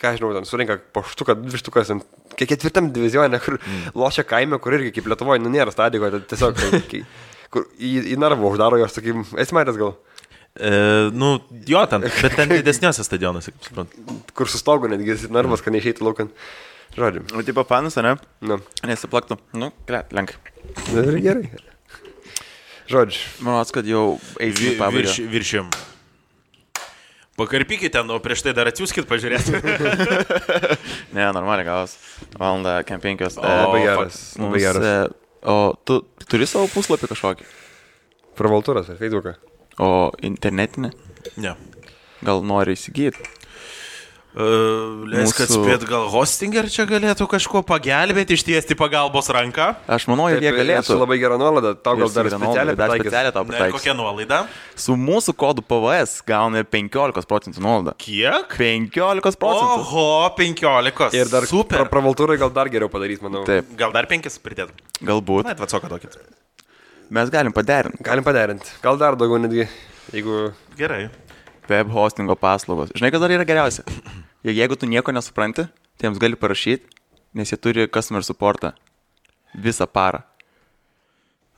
S3: ką žinau, ten surinka po štuką, 2 štukas, 4 divizione, kur lošia kaime, kur irgi kaip Lietuvoje, nėra stadiko, tiesiog... Kur į narvą uždaro jos, sakykim, esi matęs gal?
S1: Jo, bet ten didesniuose stadionuose, kaip suprantu.
S3: Kur su stogu netgi narvas, kad neišeitų laukan. Žodžiu.
S2: O tipo fanas, ne? Nesiplaktų. Lenkai.
S3: Gerai. Žodžiu.
S2: Manau, kad jau eisi į pabaigą.
S1: Viršim. Pakarpykit ten, o prieš tai dar atsiųskit pažiūrėti.
S2: Ne, normaliai gavos. Valandą, kem 5.
S3: Labai geras.
S2: O tu turi savo puslapį kažkokį?
S3: Pravaltūras ar Facebooką.
S2: O internetinį?
S1: Ne.
S2: Gal nori įsigyti?
S1: Leisk atspėt, gal Hostinger čia galėtų kažkuo pagelbėti, ištiesti pagalbos ranką?
S2: Aš manau, jie galėtų.
S3: Su labai gera nuolaida, tau gal dar
S2: specialiai tau
S1: Ne,
S2: pataikys.
S1: kokia nuolaida?
S2: Su mūsų kodu PVS gauna 15% nuolaidą.
S1: Kiek?
S2: 15%.
S1: Oho, 15.
S3: Ir dar
S1: super.
S3: pravaltūrai gal dar geriau padarys, manau.
S2: Taip,
S1: Gal dar 5 pridėtum?
S2: galbūt.
S1: Na, atvacoką tokį.
S2: Mes galim paderinti.
S3: Galim paderinti. Gal dar daugiau netgi, jeigu...
S1: Gerai.
S2: Web hostingo paslaugos. Žinai, kas dar yra geriausia? Jeigu tu nieko nesupranti, tai jiems gali parašyti, nes jie turi customer supportą visą parą.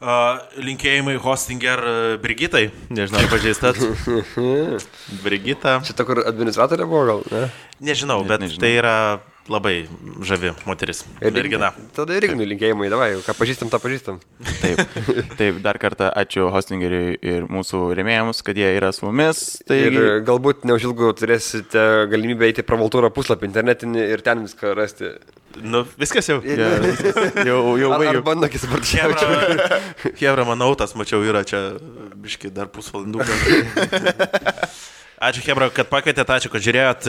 S1: Linkėjimai Hostinger Brigitai. Nežinau, ar pažįstat. Brigita.
S3: Šitą, kur administratorė buvo, gal, ne?
S1: Nežinau,
S2: Net
S1: bet
S2: nežinau.
S1: tai yra labai žavi moteris. Mergina.
S3: Tada ir Ignui linkėjimai, davai, ką pažįstam, tą pažįstam.
S2: Taip, dar kartą ačiū Hostingeriui ir mūsų rėmėjams, kad jie yra su mumis. Tai
S3: Ir galbūt neužilgo turėsite galimybę eiti pravaltūrą puslapį internetinį ir ten viską rasti.
S1: Nu, viskas jau.
S2: jau
S3: Ar
S2: baigiu.
S3: bando kisparčiaučiau.
S1: Hebra, manau, tas mačiau yra čia biški dar pusvalandų. Ačiū, Hebra, kad pakvietėte, ačiū, kad žiūrėjot.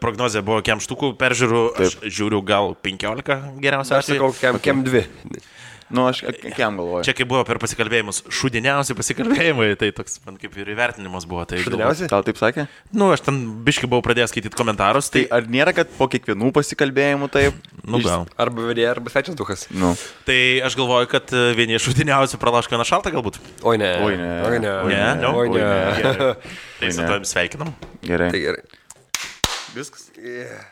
S1: Prognozija buvo kem štukų peržiūrų. Aš žiūriu gal 15 geriausia.
S3: Aš sakau, kem 2.
S2: Nu, aš kiam galvoju.
S1: Čia kaip buvo per pasikalbėjimus, šudiniausi pasikalbėjimai, tai toks man kaip ir įvertinimas buvo. Tai
S3: Šudiniausi?
S2: Gal taip sakė?
S1: Nu, aš ten biški buvau pradėjęs skaityti komentarus,
S2: Tai
S1: tai...
S2: ar nėra, kad po kiekvienų pasikalbėjimų taip?
S1: Nu, gal.
S3: Arba vedėja, arba svečias duhas.
S2: Nu.
S1: Tai aš galvoju, kad vieni iš šudiniausių pralaško vieną šaltą galbūt.
S3: Oi ne.
S2: Oi, ne.
S3: Oi ne.
S1: Ne, no?
S3: Oi ne.
S1: Tai su tavim sveikinam.
S2: Gerai.
S3: Tai gerai.
S2: Viskas.
S3: Yeah.